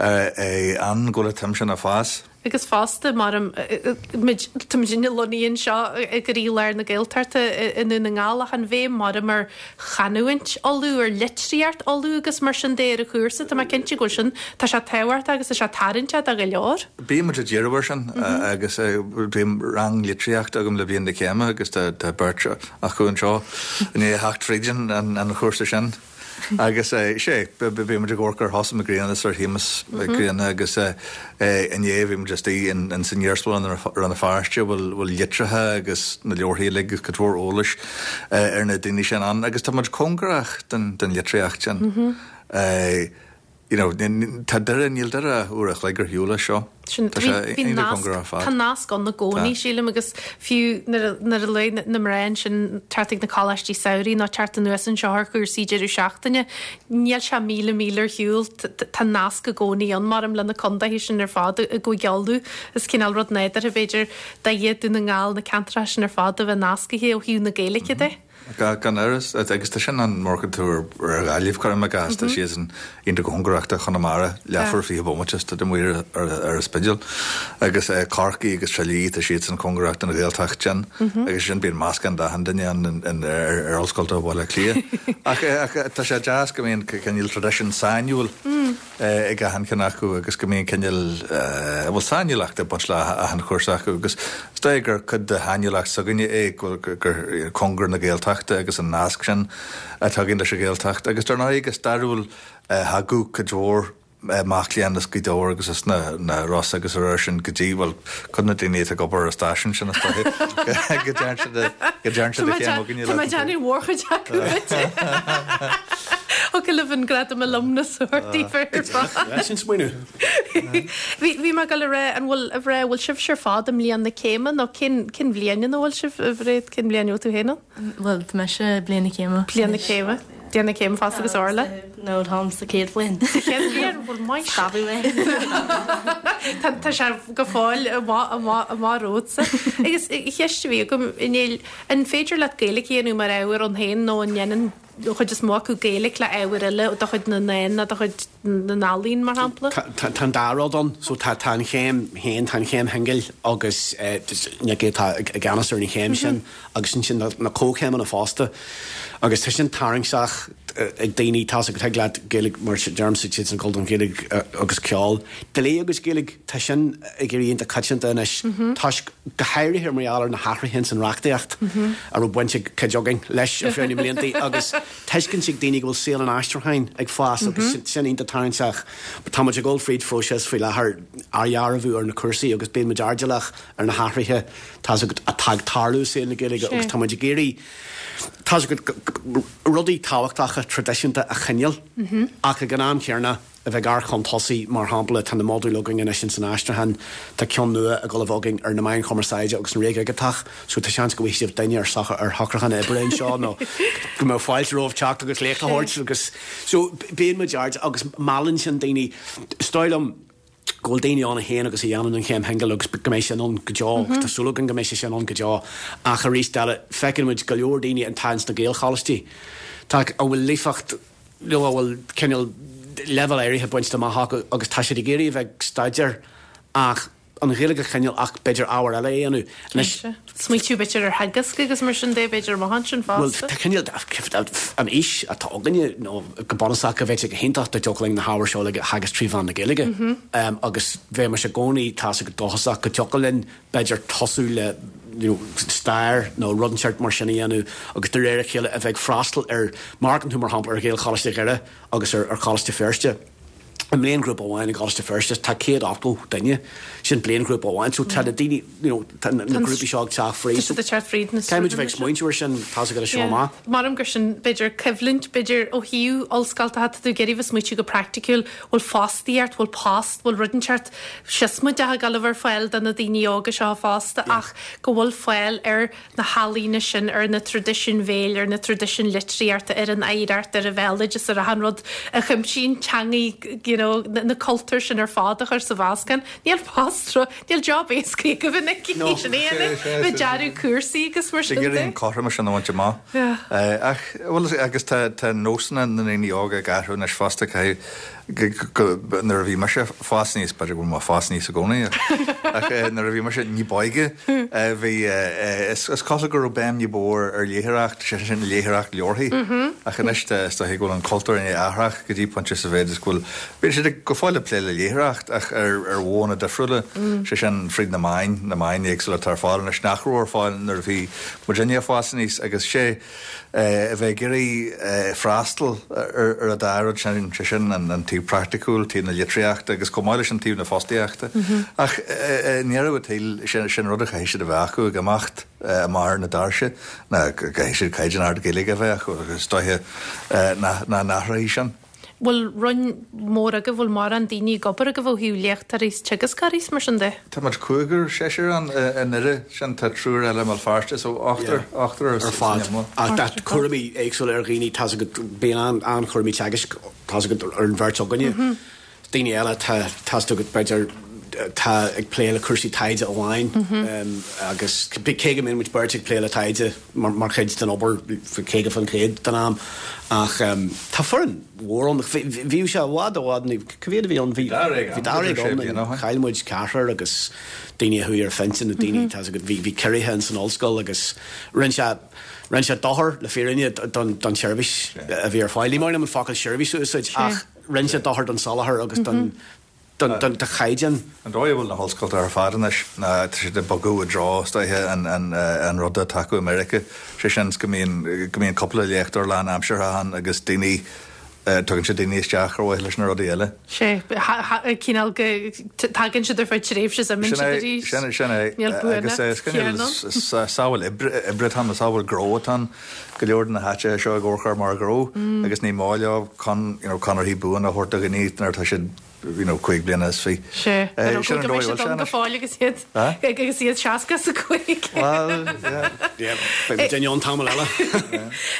ann go bhfuil an tsuim sin ag fás.
Agus fosta, mar muid, tá muidinne lonnaithe anseo i gcroílár na Gaeltachta i nDún na nGall ach an bhéim mar ar chanúint Uladh, ar litríocht Uladh agus mar sin de ar an chúrsa, tá mé cinnte go bhfuil sin, tá sé tábhachtach agus tá sé tarraingteach do go leor.
Bíonn muid ag díriú air sin agus bíonn rang litríochta agam le bliain na céime agus tá beirt acu anseo i ndiaidh a theacht fríd an chúrsa sin. Agus sé, bhí muid ag amharc ar Sheosamh Mac Grianna is ar Shéamus Mac Grianna agus inné bhí muid istigh in san iarsmalann i Rann na Feirste a bhfuil litreacha agus na leabharthaí uilig agus cuid mhór eolais ar na daoine sin ann agus tá muid cóngarach don litríocht sin. You know, tá Doire, níl Doire ach uair a chloig ar shiúl as seo.
Sin,
Tá sé
bhí
iontach
nasc,
cóngarach ar fad.
tá nasc ann i gcónaí,
Tá.
sílim, agus fiú nuair a, nuair a luaigh na mná ansin teacht ag na coláistí samhraidh nó teacht anuas anseo ar chúrsaí deireadh seachtaine, níl sé míle míle ar shiúl, tá nasc i gcónaí ann, maram, le na contaetha sin ar fad i gCúige Uladh. Is cineál rud nádúrtha, b'fhéidir, Doire, Dún na nGall, na ceantracha sin ar fad a bheith nascaithe ó thaobh na Gaeilge de.
Gan amhras, agus tá sin ann má amharcann tú ar Ghaillimh, cuirim i gcás, tá siadsan iontach cóngarach do Chonamara, leathuair 20 bomaite is tá tú amuigh ar an Spidéal. Agus Corcaigh agus Trá Lí, tá siadsan cóngarach don Ghaeltacht sin agus sin bíonn meascán d'achan duine ann ar Ollscoil Bhaile Átha Cliath. Ach tá sé deas go mbíonn cineál traidisiún sainiúil. ag achan cheann acu agus go mbíonn cineál, bhuel, sainiúlacht ag baint le achan chúrsa acu agus is dóigh gur cuid de shainiúlacht s'againne é go bhfuil, gur cóngar na Gaeltachta agus an nasc sin atá againn leis an Ghaeltacht agus dar ndóigh go stairiúil thagadh cuid mhór mac léinn as Gaoth Dobhair agus as na Rosa agus ar sin go dtí, bhuel, cuid de na daoine atá ag obair ar an stáisiún sin is dóigh go dtearn siad a, go dtearn siad a chéim againne
Tá mé ag déanamh mórchuid acu duit. Thiocfadh libh an gradam alumnus a thabhairt daoibh ar fad.
Sin smaoineamh.
Bhí, bhí mé ag dul a rá, an bhfuil, a Bhréid, bhfuil sibhse ar fad i mbliain na céime nó cén, cén bhliain ina bhfuil sibh, a Bhréid, cén bhliain a bhfuil tú féin ann?
Bhuel, tá mise i bliain na céime.
Bliain na céime. Bliain na céime fosta agus Orla?
No, táim sa chéad bhliain.
Sa chéad bhliain? Bhuel, maith.
Scabhadh mé.
Tá, tá sé go fóill amach, amach, amach romhatsa. Agus ceist a bhí agam, a Néill, an féidir leat Gaeilge a dhéanamh mar ábhar ann féin nó an ndéanann an chuid is mó acu Gaeilge le ábhair eile de chuid na ndán nó de chuid na n-ealaíon, mar shampla?
Tá an dá rud ann. So tá tá an chéim féin, tá an chéim shingil agus Nicky atá i gceannas ar an chéim sin agus ansin na comhchéimeanna fosta. Agus tá sin tarraingteach ag daoine, tá's agat, thig leat Gaeilge, mar deirimse, siadsan ag dul don Ghaeilge agus ceol. Dlí agus Gaeilge, tá sin ag éirí iontach coitianta anois toisc, go háirithe mar gheall ar na hathruithe ins an reachtaíocht a raibh baint ag cuid againn leis ar feadh na mblianta agus tuiscint ag daoine go bhfuil saol an aistriúcháin ag fás agus sin iontach tarraingteach. Tá muid ag dul fríd phróiseas faoi láthair athdhearbhú ar na cúrsaí agus bíonn muid airdeallach ar na hathruithe tá's agat atá ag tarlú i saol na Gaeilge agus tá muid ag iarraidh tá's agat rudaí tábhachtacha traidisiúnta a choinneáil ach ag an am chéanna a bheith ag amharc chun tosaigh, mar shampla tá na modúil againn anois ins an aistriúchán, tá ceann nua ag dul a bheith againn ar na meáin chumarsáide agus an ré dhigiteach so tá seans go bhfaighidh sibh duine ar ar shocrúchán oibre anseo nó go mbeadh fáilte romhaibh teacht agus léacht a thabhairt agus so bíonn muid airdeallach agus meallann sin daoine. Is dóigh liom go bhfuil daoine ann a théann agus a dhéanann an chéim shingil agus go mbeidh sin ann go deo agus tá súil againn go mbeidh sé sin ann go deo ach arís eile feiceann muid go leor daoine atá ins na Gaelcholáistí tá a bhfuil líofacht nó a bhfuil cineál leibhéal áirithe bainte amach acu agus tá siad ag iarraidh a bheith ag staidéar ach an Ghaeilge a choinneáil ach b'fhéidir ábhar eile a dhéanamh.
Anois. Smaoitiú b'fhéidir ar theagasc agus mar sin de b'fhéidir amach ansin
fosta. Bhuel, tá cineál an fhís atá againne nó go bunúsach go bheadh sé go hiontach dá dtiocfadh linn na hábhair seo uilig a theagasc trí mheán na Gaeilge agus bheimis i gcónaí tá's agat dóchasach go dtiocfadh linn b'fhéidir tosú le you know stair nó rud inteacht mar sin a dhéanamh agus de réir a chéile a bheith ag freastal ar, má amharcann tú mar shampla ar Ghaelcholáiste Dhoire agus ar Choláiste Feirste, i mbliainghrúpa amháin i gColáiste Feirste tá 180 duine, sin bliainghrúpa amháin, so tá na daoine you know tá na grúpaí seo ag teacht fríd.
Tá siad ag teacht fríd
na Caithfidh muid a bheith ag smaointiú ar sin, tá's agat as seo amach.
Maram gur sin b'fhéidir coimhlint, b'fhéidir ó thaobh ollscoil, tá tú ag iarraidh bheith smaoitiú go praiticiúil, bhfuil fostaíocht, bhfuil post, bhfuil rud inteacht siosmaideach ag dul a bheith ar fáil do na daoine óga seo fosta ach go bhfuil fáil ar na healaíona sin, ar na traidisiúin bhéil, ar na traidisiúin litríochta, ar an oidhreacht, ar an bhéaloideas, ar achan rud a chuimsíonn teangaí, you know, na cultúir sin ar fad a chur sa mheascán. Níl post, níl job éasca agaibh in aici sin é, bheith dearadh cúrsaí agus mar sin de.
Ag iarraidh an cothromas sin a bhaint amach. Ach, bhuel, agus tá nósanna na ndaoine óga ag athrú anois fosta, caithfidh, nuair a bhí mise ag fás aníos, b'fhéidir go bhfuil mé ag fás aníos i gcónaí, ach nuair a bhí mise ní b'óige, bhí, is cosúil go raibh béim ní ba mhó ar léitheoireacht, sé sin léitheoireacht leabharthaí, ach anois is dóiche go bhfuil an cultúr i ndiaidh athrach go dtí pointe sa mhéid is go bhfuil, bíonn siad go fóill ag plé le léitheoireacht ach ar mhodhanna difriúla, sé sin fríd na meáin, na meáin éagsúla atá ar fáil anois nach raibh ar fáil nuair a bhí muidinne ag fás aníos agus sé. a bheith ag iarraidh freastal ar an dá rud sin, sé sin an taobh praiticiúil, taobh na litríochta agus chomh maith leis an taobh na fostaíochta. Ach i ndeireadh an tsaoil, sin rud a chaithfidh siad a bheith acu ag imeacht amach ar na doirse, ná go gcaithfidh siad caighdeán ard Gaeilge a bheith acu agus is dóiche nach n-athróidh sin.
Bhfuil roinn mór agaibh, bhfuil mórán daoine ag obair agaibh ó thaobh léachtóirí is teagascóirí is mar sin de?
Tá muid cúigear, seisear ann i nDoire, sin tá triúr eile i mBéal Feirste, so ochtar, ochtar
ar fad. Ach tá cúraimí éagsúla ar dhaoine, tá's agat, bíonn an-chúraimí teagaisc, tá's agat, ar an bheirt againne. Daoine eile, tá, tá's agat, b'fhéidir. atá ag plé le cúrsaí taighde amháin agus cé go mbíonn muid beirt ag plé le taighde mar chuid den obair 50% den am ach tá foireann mhór ann. Bhíodh sé i bhfad i bhfad, cá mhéad a bhí ann? Bhí dáréag ann, chaill muid ceathrar agus daoine a chuaigh ar phinsean nó daoine, tá 's agat, bhí ciorruithe ins an ollscoil agus rinne sé rinne sé dochar le fírinne don tseirbhís a bhí ar fáil. Ní maith liom an focal seirbhís a úsáid ach rinne sé dochar don soláthar agus don don chaighdeán.
An dóigh a bhfuil na hollscolta ar fad anois ná tá siad ag bogadh i dtreo, is dóiche, an rud atá acu i Meiriceá, sé sin go mbíonn, go mbíonn cúpla léachtóir lánaimseartha ann agus daoine, tugann siad daoine isteach ar mhaithe leis na rudaí eile.
Sea, cineál go tagann siad ar feadh tréimhse is imíonn siad arís.
Sin é, sin é.
Níl
Agus
buanacht chéanna ann.
Is samhail oibre, oibre atá ann, is samhail gnó atá ann. Go leor de na háiteacha seo ag amharc air mar ghnó agus ní maith leo con, you know, conarthaí buana a thabhairt do dhaoine nuair atá siad, you know, 25 bliana.
Sea, ar
Sin
eagla
an
go
dóigh
mbeidh
a bhfuil
siad
sé
ann go
anois.
fóill agus iad agus iad 65.
Bhuel, yeah.
Yeah, beidh muid ann tamall eile.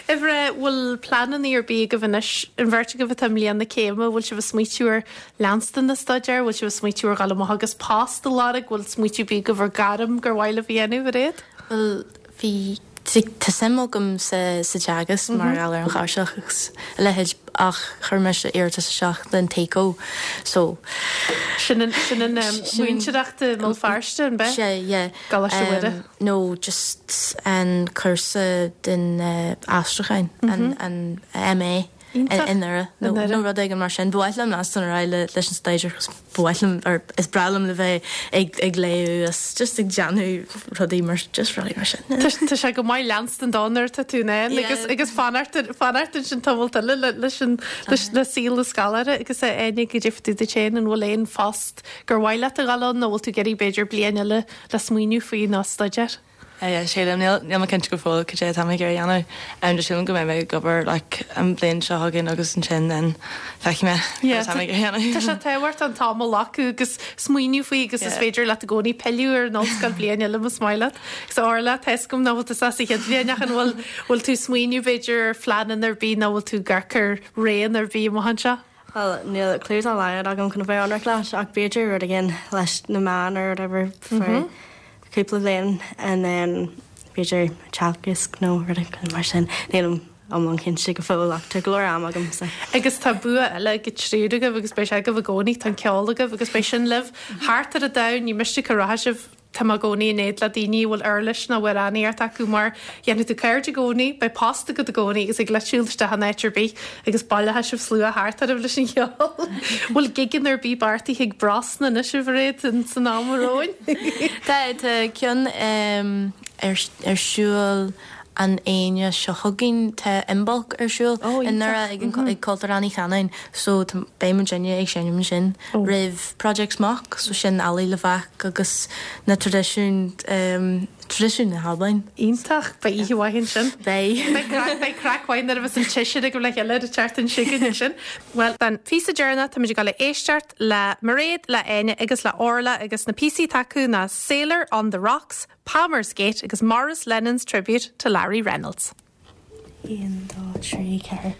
Uimhir a, bhfuil pleananna ar bith agaibh anois, an bheirt agaibh atá i mbliain na céime, bhfuil sibh ag smaoitiú ar leanstan den staidéar, bhfuil sibh ag smaoitiú ar dhul amach agus post a lorg, bhfuil smaoitiú ar bith agaibh ar gairm gur mhaith libh a dhéanamh, a Mhairéad?
Bhuel, bhí Tá suim agam sa teagasc mar gheall ar an chláirseach agus a leithéid ach chuir mise iarratas isteach don TayCo so.
Sin an sin an mhúinteoireacht i mBéal Feirste, an b'ea?
Sea, yeah.
gColáiste Mhuire.
No, just an cúrsa den aistriúcháin, an MA. I nDoire nó rud éigin mar sin. Ba mhaith liom leanstan ar aghaidh leis an staidéar cos ba mhaith liom or is breá liom le bheith ag ag léamh is just ag déanamh rudaí mar just rudaí mar sin.
Tá sé go maith leanstan dó nuair atá tú in ann agus agus fanacht fanacht ansin tamall eile le leis an leis le saol na scoláire agus a Áine goidé fá dtaobh duit féin an bhfuil aon phost gur mhaith leat a dhul ann nó bhfuil tú ag iarraidh b'fhéidir bliain eile le smaoineamh faoi nó staidéar?
Yeah, sílim, níl, níl mé cinnte go fóill cad é atá mé ag iarraidh a dhéanamh. Just sílim go mbeidh mé ag obair like an bhliain seo chugainn agus ansin then feicfidh mé cad atá mé ag iarraidh a dhéanamh.
Tá sé tábhachtach an t-am a ghlacadh agus smaoineamh faoi agus is féidir leat i gcónaí pilleadh ar an ollscoil bliain eile más maith leat. Agus Orla, tá fhios agam nach bhfuil tú sa chéad bhliain ach an bhfuil, bhfuil tú ag smaoineamh b'fhéidir ar phleananna ar bith nó bhfuil tú ag amharc ar roghanna ar bith amach anseo?
Bhuel, níl clue dá laghad agam chun a bheith ionraic leat, ach b'fhéidir rud éigin leis na meáin or whatever for cúpla bliain and then b'fhéidir teagasc nó rud éigin mar sin. Nílim iomlán cinnte go fóill ach tá go leor am agam so.
Agus tá bua eile ag an triúr agaibh agus beidh sé agaibh i gcónaí, tá an ceol agaibh agus beidh sin libh thart ar an domhan, ní miste cá rachaidh sibh. Tá mé i gcónaí in éad le daoine a bhfuil uirlis nó amhránaíocht acu mar dhéanfaidh tú cairde i gcónaí, beidh post agat i gcónaí agus thig leat siúl isteach in áit ar bith agus baileoidh sibh slua thart oraibh leis an cheol. Bhfuil gigeanna ar bith beartaithe ag Brosna anois a Mhairéad san am romhainn?
Tá, tá ceann ar ar siúl an Aoine seo chugainn. Tá Imbolc ar siúl i nDoire ag an ag Cultúrlann Uí Chanáin so tá beidh muidinne ag seinm ansin roimh Project Smok so sin Allaidh Lavac agus na traidisiúin traidisiúin na hAlbain.
Iontach! Beidh oíche mhaith ansin.
Beidh.
Beidh craic beidh craic mhaith nuair a bheas an tseisear agaibh le chéile ar an tseachtain seo chugainn ansin. Bhuel, don phíosa deireanach táimid ag dul a éisteacht le Mairéad, le Áine agus le Orla agus na píosaí atá acu ná Sailor on the Rocks, Palmer's Gate agus Maurice Lennon's Tribute to Larry Reynolds.
1, 2, 3, 4.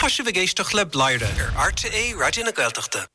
Tá sibh ag éisteacht le Bladhaire ar RTÉ Raidió na Gaeltachta.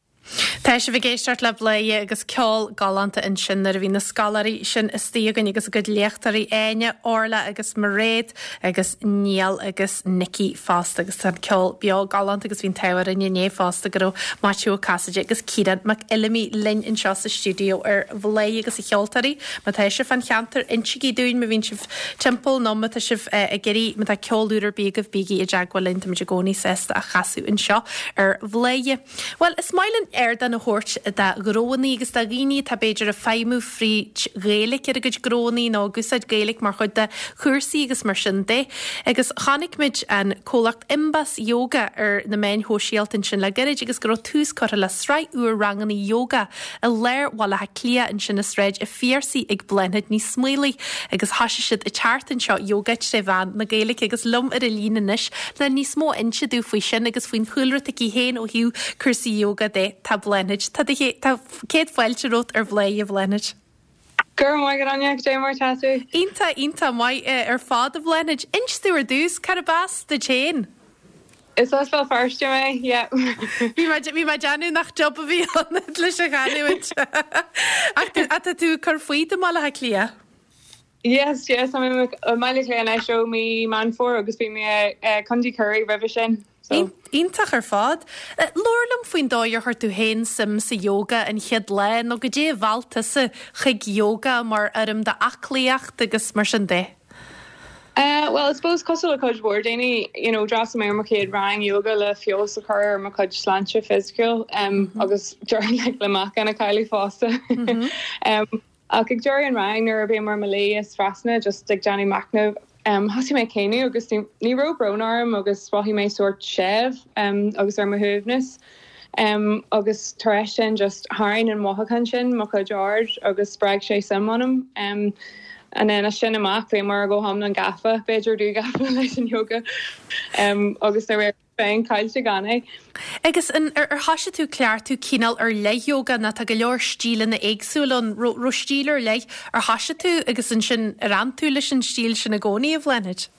Tá sibh ag éisteacht le Bladhaire agus ceol galánta ansin nuair a bhí na scoláirí sin istigh againn agus a gcuid léachtóirí Áine, Orla agus Mairéad agus Niall agus Nicky fosta agus tá an ceol beo galánta agus bhí an t-ádh orainn inné fosta go raibh Maitiú Ó Casaide agus Ciarán Mac Fheilimí linn anseo sa stiúideo ar Bhladhaire agus a cheoltóirí. Má tá sibh fán cheantar, insígí dúinn má bhíonn sibh timpeall nó má tá sibh ag iarraidh, má tá ceol úr ar bith agaibh, bígí i dteagmháil linn, táimid i gcónaí sásta a chasadh anseo ar Bhladhaire. Bhuel, is maith linn ardán a thabhairt do ghnóannaí agus do dhaoine atá b'fhéidir ag feidhmiú fríd Ghaeilge ar a gcuid gnóannaí nó ag úsáid Gaeilge mar chuid de chúrsaí agus mar sin de. Agus chonaic muid an comhlacht Imbas Yoga ar na meáin shóisialta ansin le gairid agus go raibh tús curtha le sraith úr ranganna yoga i lár Bhaile Átha Cliath ansin i Sráid a' Phiarsaigh ag Bláthnaid Ní Smaolaigh agus thoisigh siad an tseachtain seo yoga tré mheán na Gaeilge agus liom ar an líne anois le níos mó a inse domh faoi sin agus faoin chúlra atá aici féin ó thaobh cúrsaí yoga de tá Bláthnaid. Tá do tá céad fáilte romhat ar Bhladhaire a Bhláthnaid.
Go raibh maith agat Áine, cad é mar atá tú?
Iontach, iontach maith ar fad a Bhláthnaid. Inis domh ar dtús, cárb as duit féin?
Is as Béal Feirste mé, yeah.
Bhí mé, bhí mé ag déanamh nach jab a bhí ann leis an chanúint. Ach tá tú ag cur fút i mBaile Átha Cliath?
Yes, yes, tá mé i mBaile Átha Cliath anois ó mí Meán Fómhair agus bhí mé i Contae Chiarraí roimhe sin.
So. Iontach ar fad. Labhair liom faoin dóigh ar chuir tú féin suim sa yoga an chéad lá nó goidé a mheall tusa chuig yoga mar fhoirm d'aclaíocht agus mar sin de.
Bhuel, I suppose cosúil le cuid mhór daoine, you know, d'fhreastail mé ar mo chéad rang yoga le feabhas a chur ar mo chuid sláinte fisiciúil agus like, le meáchan a chailleadh fosta. Ach ag deireadh an rang nuair a bhíomar i mo luí is trasna just ag déanamh machnaimh, thosaigh mé ag caoineadh agus ní raibh brón orm agus mhothaigh mé sórt séimh agus ar mo shuaimhneas. Agus tar éis sin just tharraing an mothúchán sin mo chuid aird agus spreag sé suim ionam. And then as sin amach bhíomar go hiomlán gafa, b'fhéidir dúghafa leis an yoga agus ní raibh féin caillte gan é.
Agus an ar thoisigh tú cleachtadh cineál ar leith yoga nó tá go leor stíleanna éagsúla ann, raibh stíl ar leith ar thoisigh tú agus ansin ar fhan tú leis an stíl sin i gcónaí a Bhláthnaid?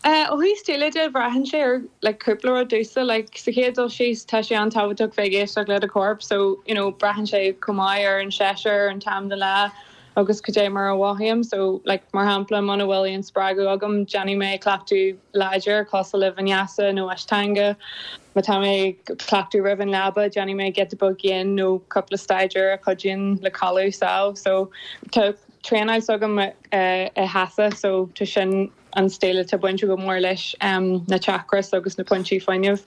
Ó thaobh stíle de, braitheann sé ar like cúpla rud domhsa. Like sa chéad dul síos, tá sé an-tábhachtach bheith ag éisteacht le do chorp so you know braitheann sé chomh maith ar an séasúr, an t-am den lá agus cad é mar a mhothaím. So like mar shampla muna bhfuil aon spreagadh agam, déanfaidh mé cleachtadh láidir cosúil le vinyasa nó ashtanga. Má tá mé ag cleachtadh roimh an leaba, déanfaidh mé giota beag yin nó cúpla staidéar a chuidíonn le codladh sámh. So tá traenáil s'agam i Hatha so tá sin an stíl atá bainte go mór leis na chakras agus na pointí fuinnimh.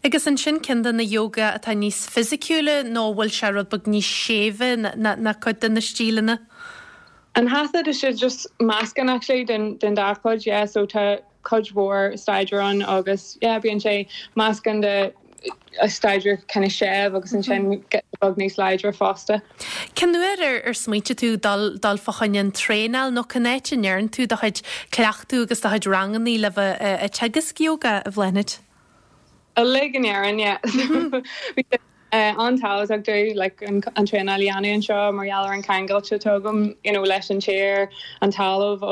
Agus ansin ceann de na yoga atá níos fisiciúla nó an bhfuil sé rud beag níos séimhe ná cuid de na stíleanna?
An Hatha tá sé just meascán actually den dá chuid yeah so tá cuid mhór staidéar ann agus yeah bíonn sé meascán de staidéar kind of séimh agus ansin giota beag níos láidre fosta.
Cén uair ar ar smaointigh tú dul dul fá choinne an traenáil nó cén áit a ndéarn tú do chuid cleachtadh agus do chuid rangannaí le bheith ag teagasc yoga, a Bhláthnaid?
Uilig in Éirinn, yeah. Bhí sé an-tábhachtach domh like an traenáil a dhéanamh anseo mar gheall ar an ceangailt atá agam you know leis an tír, an talamh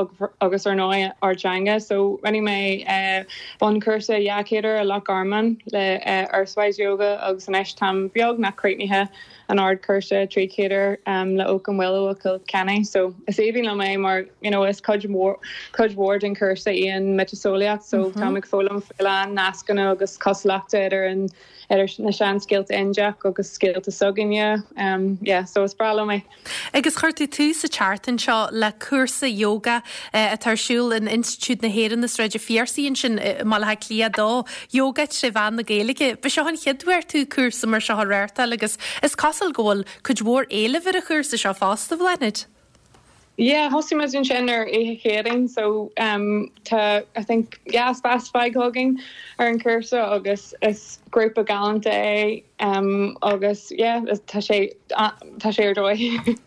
agus ar ndóigh ár dteanga. So rinne mé bunchúrsa 200 uair i Loch Garman le Earthwise Yoga agus anois táim beagnach críochnaithe an ardchúrsa 300 uair le Oak and Willow i gCill Chainnigh. So is aoibhinn liom é mar you know is cuid mhór cuid mhór den chúrsa í an miotaseolaíocht so táim ag foghlaim faoi a lán nascanna agus cosúlachta idir an idir na seanscéalta Indiach agus scéalta s'againne. Yeah so is breá liom é.
Agus chuir tú tús an tseachtain seo le cúrsa yoga atá ar siúl in Institiúid na hÉireann i Sráid an Phiarsaigh ansin i mBaile Átha Cliath 2, Yoga tré mheán na Gaeilge. Ba seo an chéad uair tú cúrsa mar seo a reáchtáil agus is cosúil go bhfuil cuid mhór éilimh ar an chúrsa seo fosta, Bhláthnaid.
Yeah, thosaigh muid ansin ar oíche Chéadaoin so tá I think yeah spás fágtha againn ar an chúrsa agus is grúpa galánta é agus yeah tá sé tá sé ar dóigh.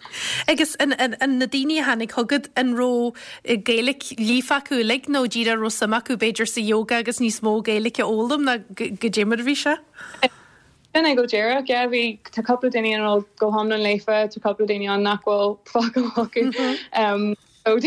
Agus an an na daoine a tháinig chugat an raibh Gaeilge líofa acu uilig nó díreach raibh suim acu b'fhéidir sa yoga agus níos mó Gaeilge a fhoghlaim ná goidé mar a bhí sé?
Sin é go díreach, yeah, bhí, tá cúpla daoine ann a bhfuil go hiomlán líofa, tá cúpla daoine ann nach bhfuil focal acu. So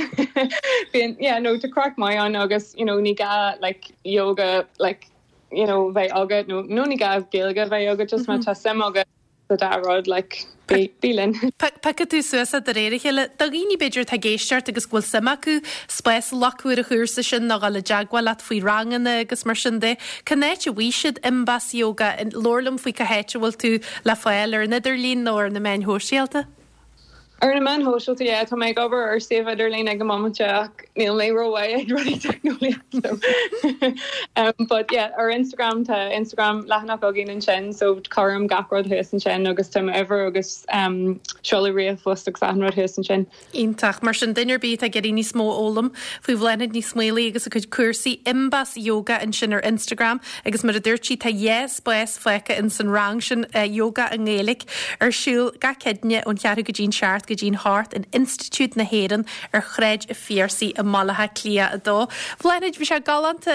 bíonn, yeah, no, tá craic maith ann agus, you know, ní gá, like, yoga, like, you know bheith agat nó nó ní gá Gaeilge a bheith agat just má tá suim agat sa dá rud like bí bí linn.
Piocfaidh tú suas é de réir a chéile. Do dhaoine b'fhéidir atá ag éisteacht agus go bhfuil suim acu spás a ghlacadh ar an chúrsa sin nó dhul i dteagmháil leat faoi ranganna agus mar sin de, cén áit a bhfaighidh siad Imbas Yoga? Labhair liom faoi cá háit a bhfuil tú le fáil ar an idirlíon nó ar na meáin shóisialta.
Ar na meáin shóisialta, yeah, tá mé ag obair ar suíomh idirlín ag an mbomaite ach níl mé rómhaith ag rudaí teicneolaíochta so um but yeah ar Instagram tá Instagram leathanach againn ansin so cuirim gach rud thuas ansin agus tá m'uimhir agus um seoladh ríomhphost agus achan rud thuas ansin.
Iontach. Mar sin, duine ar bith atá ag iarraidh níos mó a fhoghlaim faoi Bhláthnaid Ní Smaolaigh agus a cuid cúrsaí, Imbas Yoga ansin ar Instagram agus mar a dúirt sí tá dhá spás fágtha ins an rang sin Yoga i nGaeilge ar siúl gach Céadaoine ón cheathrú go dtí'n seacht go dtí'n hocht in Institiúid na hÉireann ar Shráid a' Phiarsaigh i mBaile Átha Cliath 2. Bhláthnaid, bhí sé galánta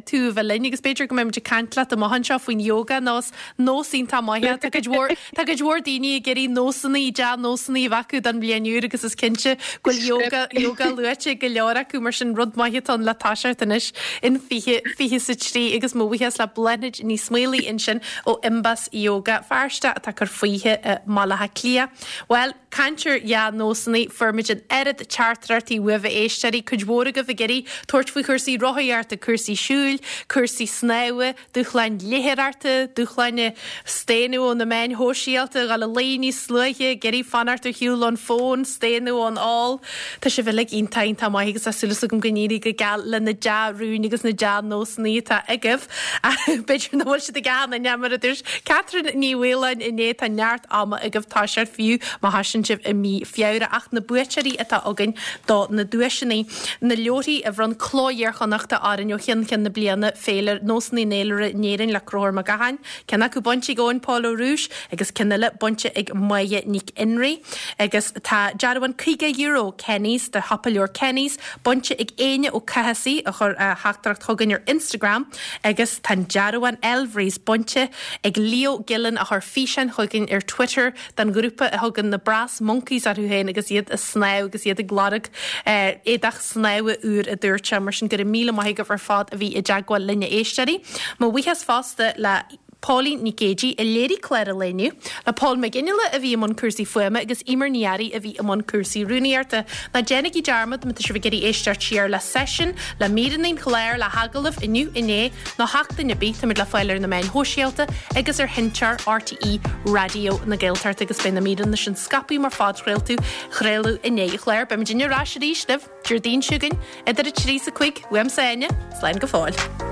tú a bheith linn agus b'fhéidir go mbeidh muid ag caint leat amach anseo faoin yoga nó is nós iontach maith é. Tá cuid mhór Tá cuid mhór daoine ag iarraidh nósanna, dea-nósanna a bheith acu don bhliain úr agus is cinnte go bhfuil yoga, yoga luaite ag go leor acu mar sin rud maith atá ann le toiseacht anois in 2023 agus mo bhuíochas le Bláthnaid Ní Smaolaigh ansin ó Imbas Yoga Feirste atá ag cur fúithi i mBaile Átha Cliath. Bhuel, caint ar dhea-nósanna, fuair muid an oiread teachtaireachtaí uaibh a éisteoirí, cuid mhór agaibh ag iarraidh tabhairt faoi chúrsaí rothaíochta, cúrsaí siúil, cúrsaí snámha, Dúshláin léitheoireachta, dúshláin staonadh ó na meáin shóisialta, dhul a luí níos luaithe, ag iarraidh fanacht ar shiúl ón bhfón, staonadh ón ól. Tá sibh uilig iontach, iontach maith agus tá súil agam go n-éirí go geal le na dea-rúin agus na dea-nósanna atá agaibh. B'fhéidir nach bhfuil siad ag achan duine, mar a dúirt Catherine Ní Mhaoláin inné, tá neart ama agaibh toiseacht fiú má thosaíonn sibh i mí Feabhra ach na buaiteoirí atá againn do na duaiseanna. Na leabharthaí a bhronn Cló Iar-Chonnachta orainn ó cheann ceann na bliana, Féilire, Nósanna an Fhéilire in Éirinn le Conchúr Mac Gacháin, ceann acu bainte ag Eoin Pól Ó Rúis agus ceann eile bainte ag Máire Nic Fhionnraigh. Agus tá dearbhán €50 Kenny's do shiopa leabhar Kenny's bainte ag Éinne Ó Cathasaigh a chuir a theachtaireacht chugainn ar Instagram agus tá an dearbhán Elvery's bainte ag Leo Gillen a chuir físeán chugainn ar Twitter den ghrúpa a thugann na Brass Monkeys orthu féin agus iad ag snámh agus iad ag lorg éadach snámha úr a dúirt sé. Mar sin go raibh míle maith agaibh ar fad a bhí i dteagmháil linn a éisteoirí. Mo bhuíochas fosta le Póilín Nic Géidigh a léirigh clár an lae inniu, le Paul McGinley a bhí i mbun cúrsaí fuaime agus Emer Ní Fhearraigh a bhí i mbun cúrsaí rúnaíochta. Ná déanaigí dearmad má tá sibh ag iarraidh éisteacht siar le seisiún, le míreanna an chláir, le hagallaimh inniu, inné, nó seachtain ar bith, táimid le fáil ar na meáin shóisialta agus ar sheinnteoir RTÉ Raidió na Gaeltachta agus beidh na míreanna sin scaipthe mar phodchraoltaí chraoladh i ndiaidh an chláir. Beimid ar ais arís libh Déardaoin seo chugainn idir 3 is 5 uaimse Áine, slán go fóill.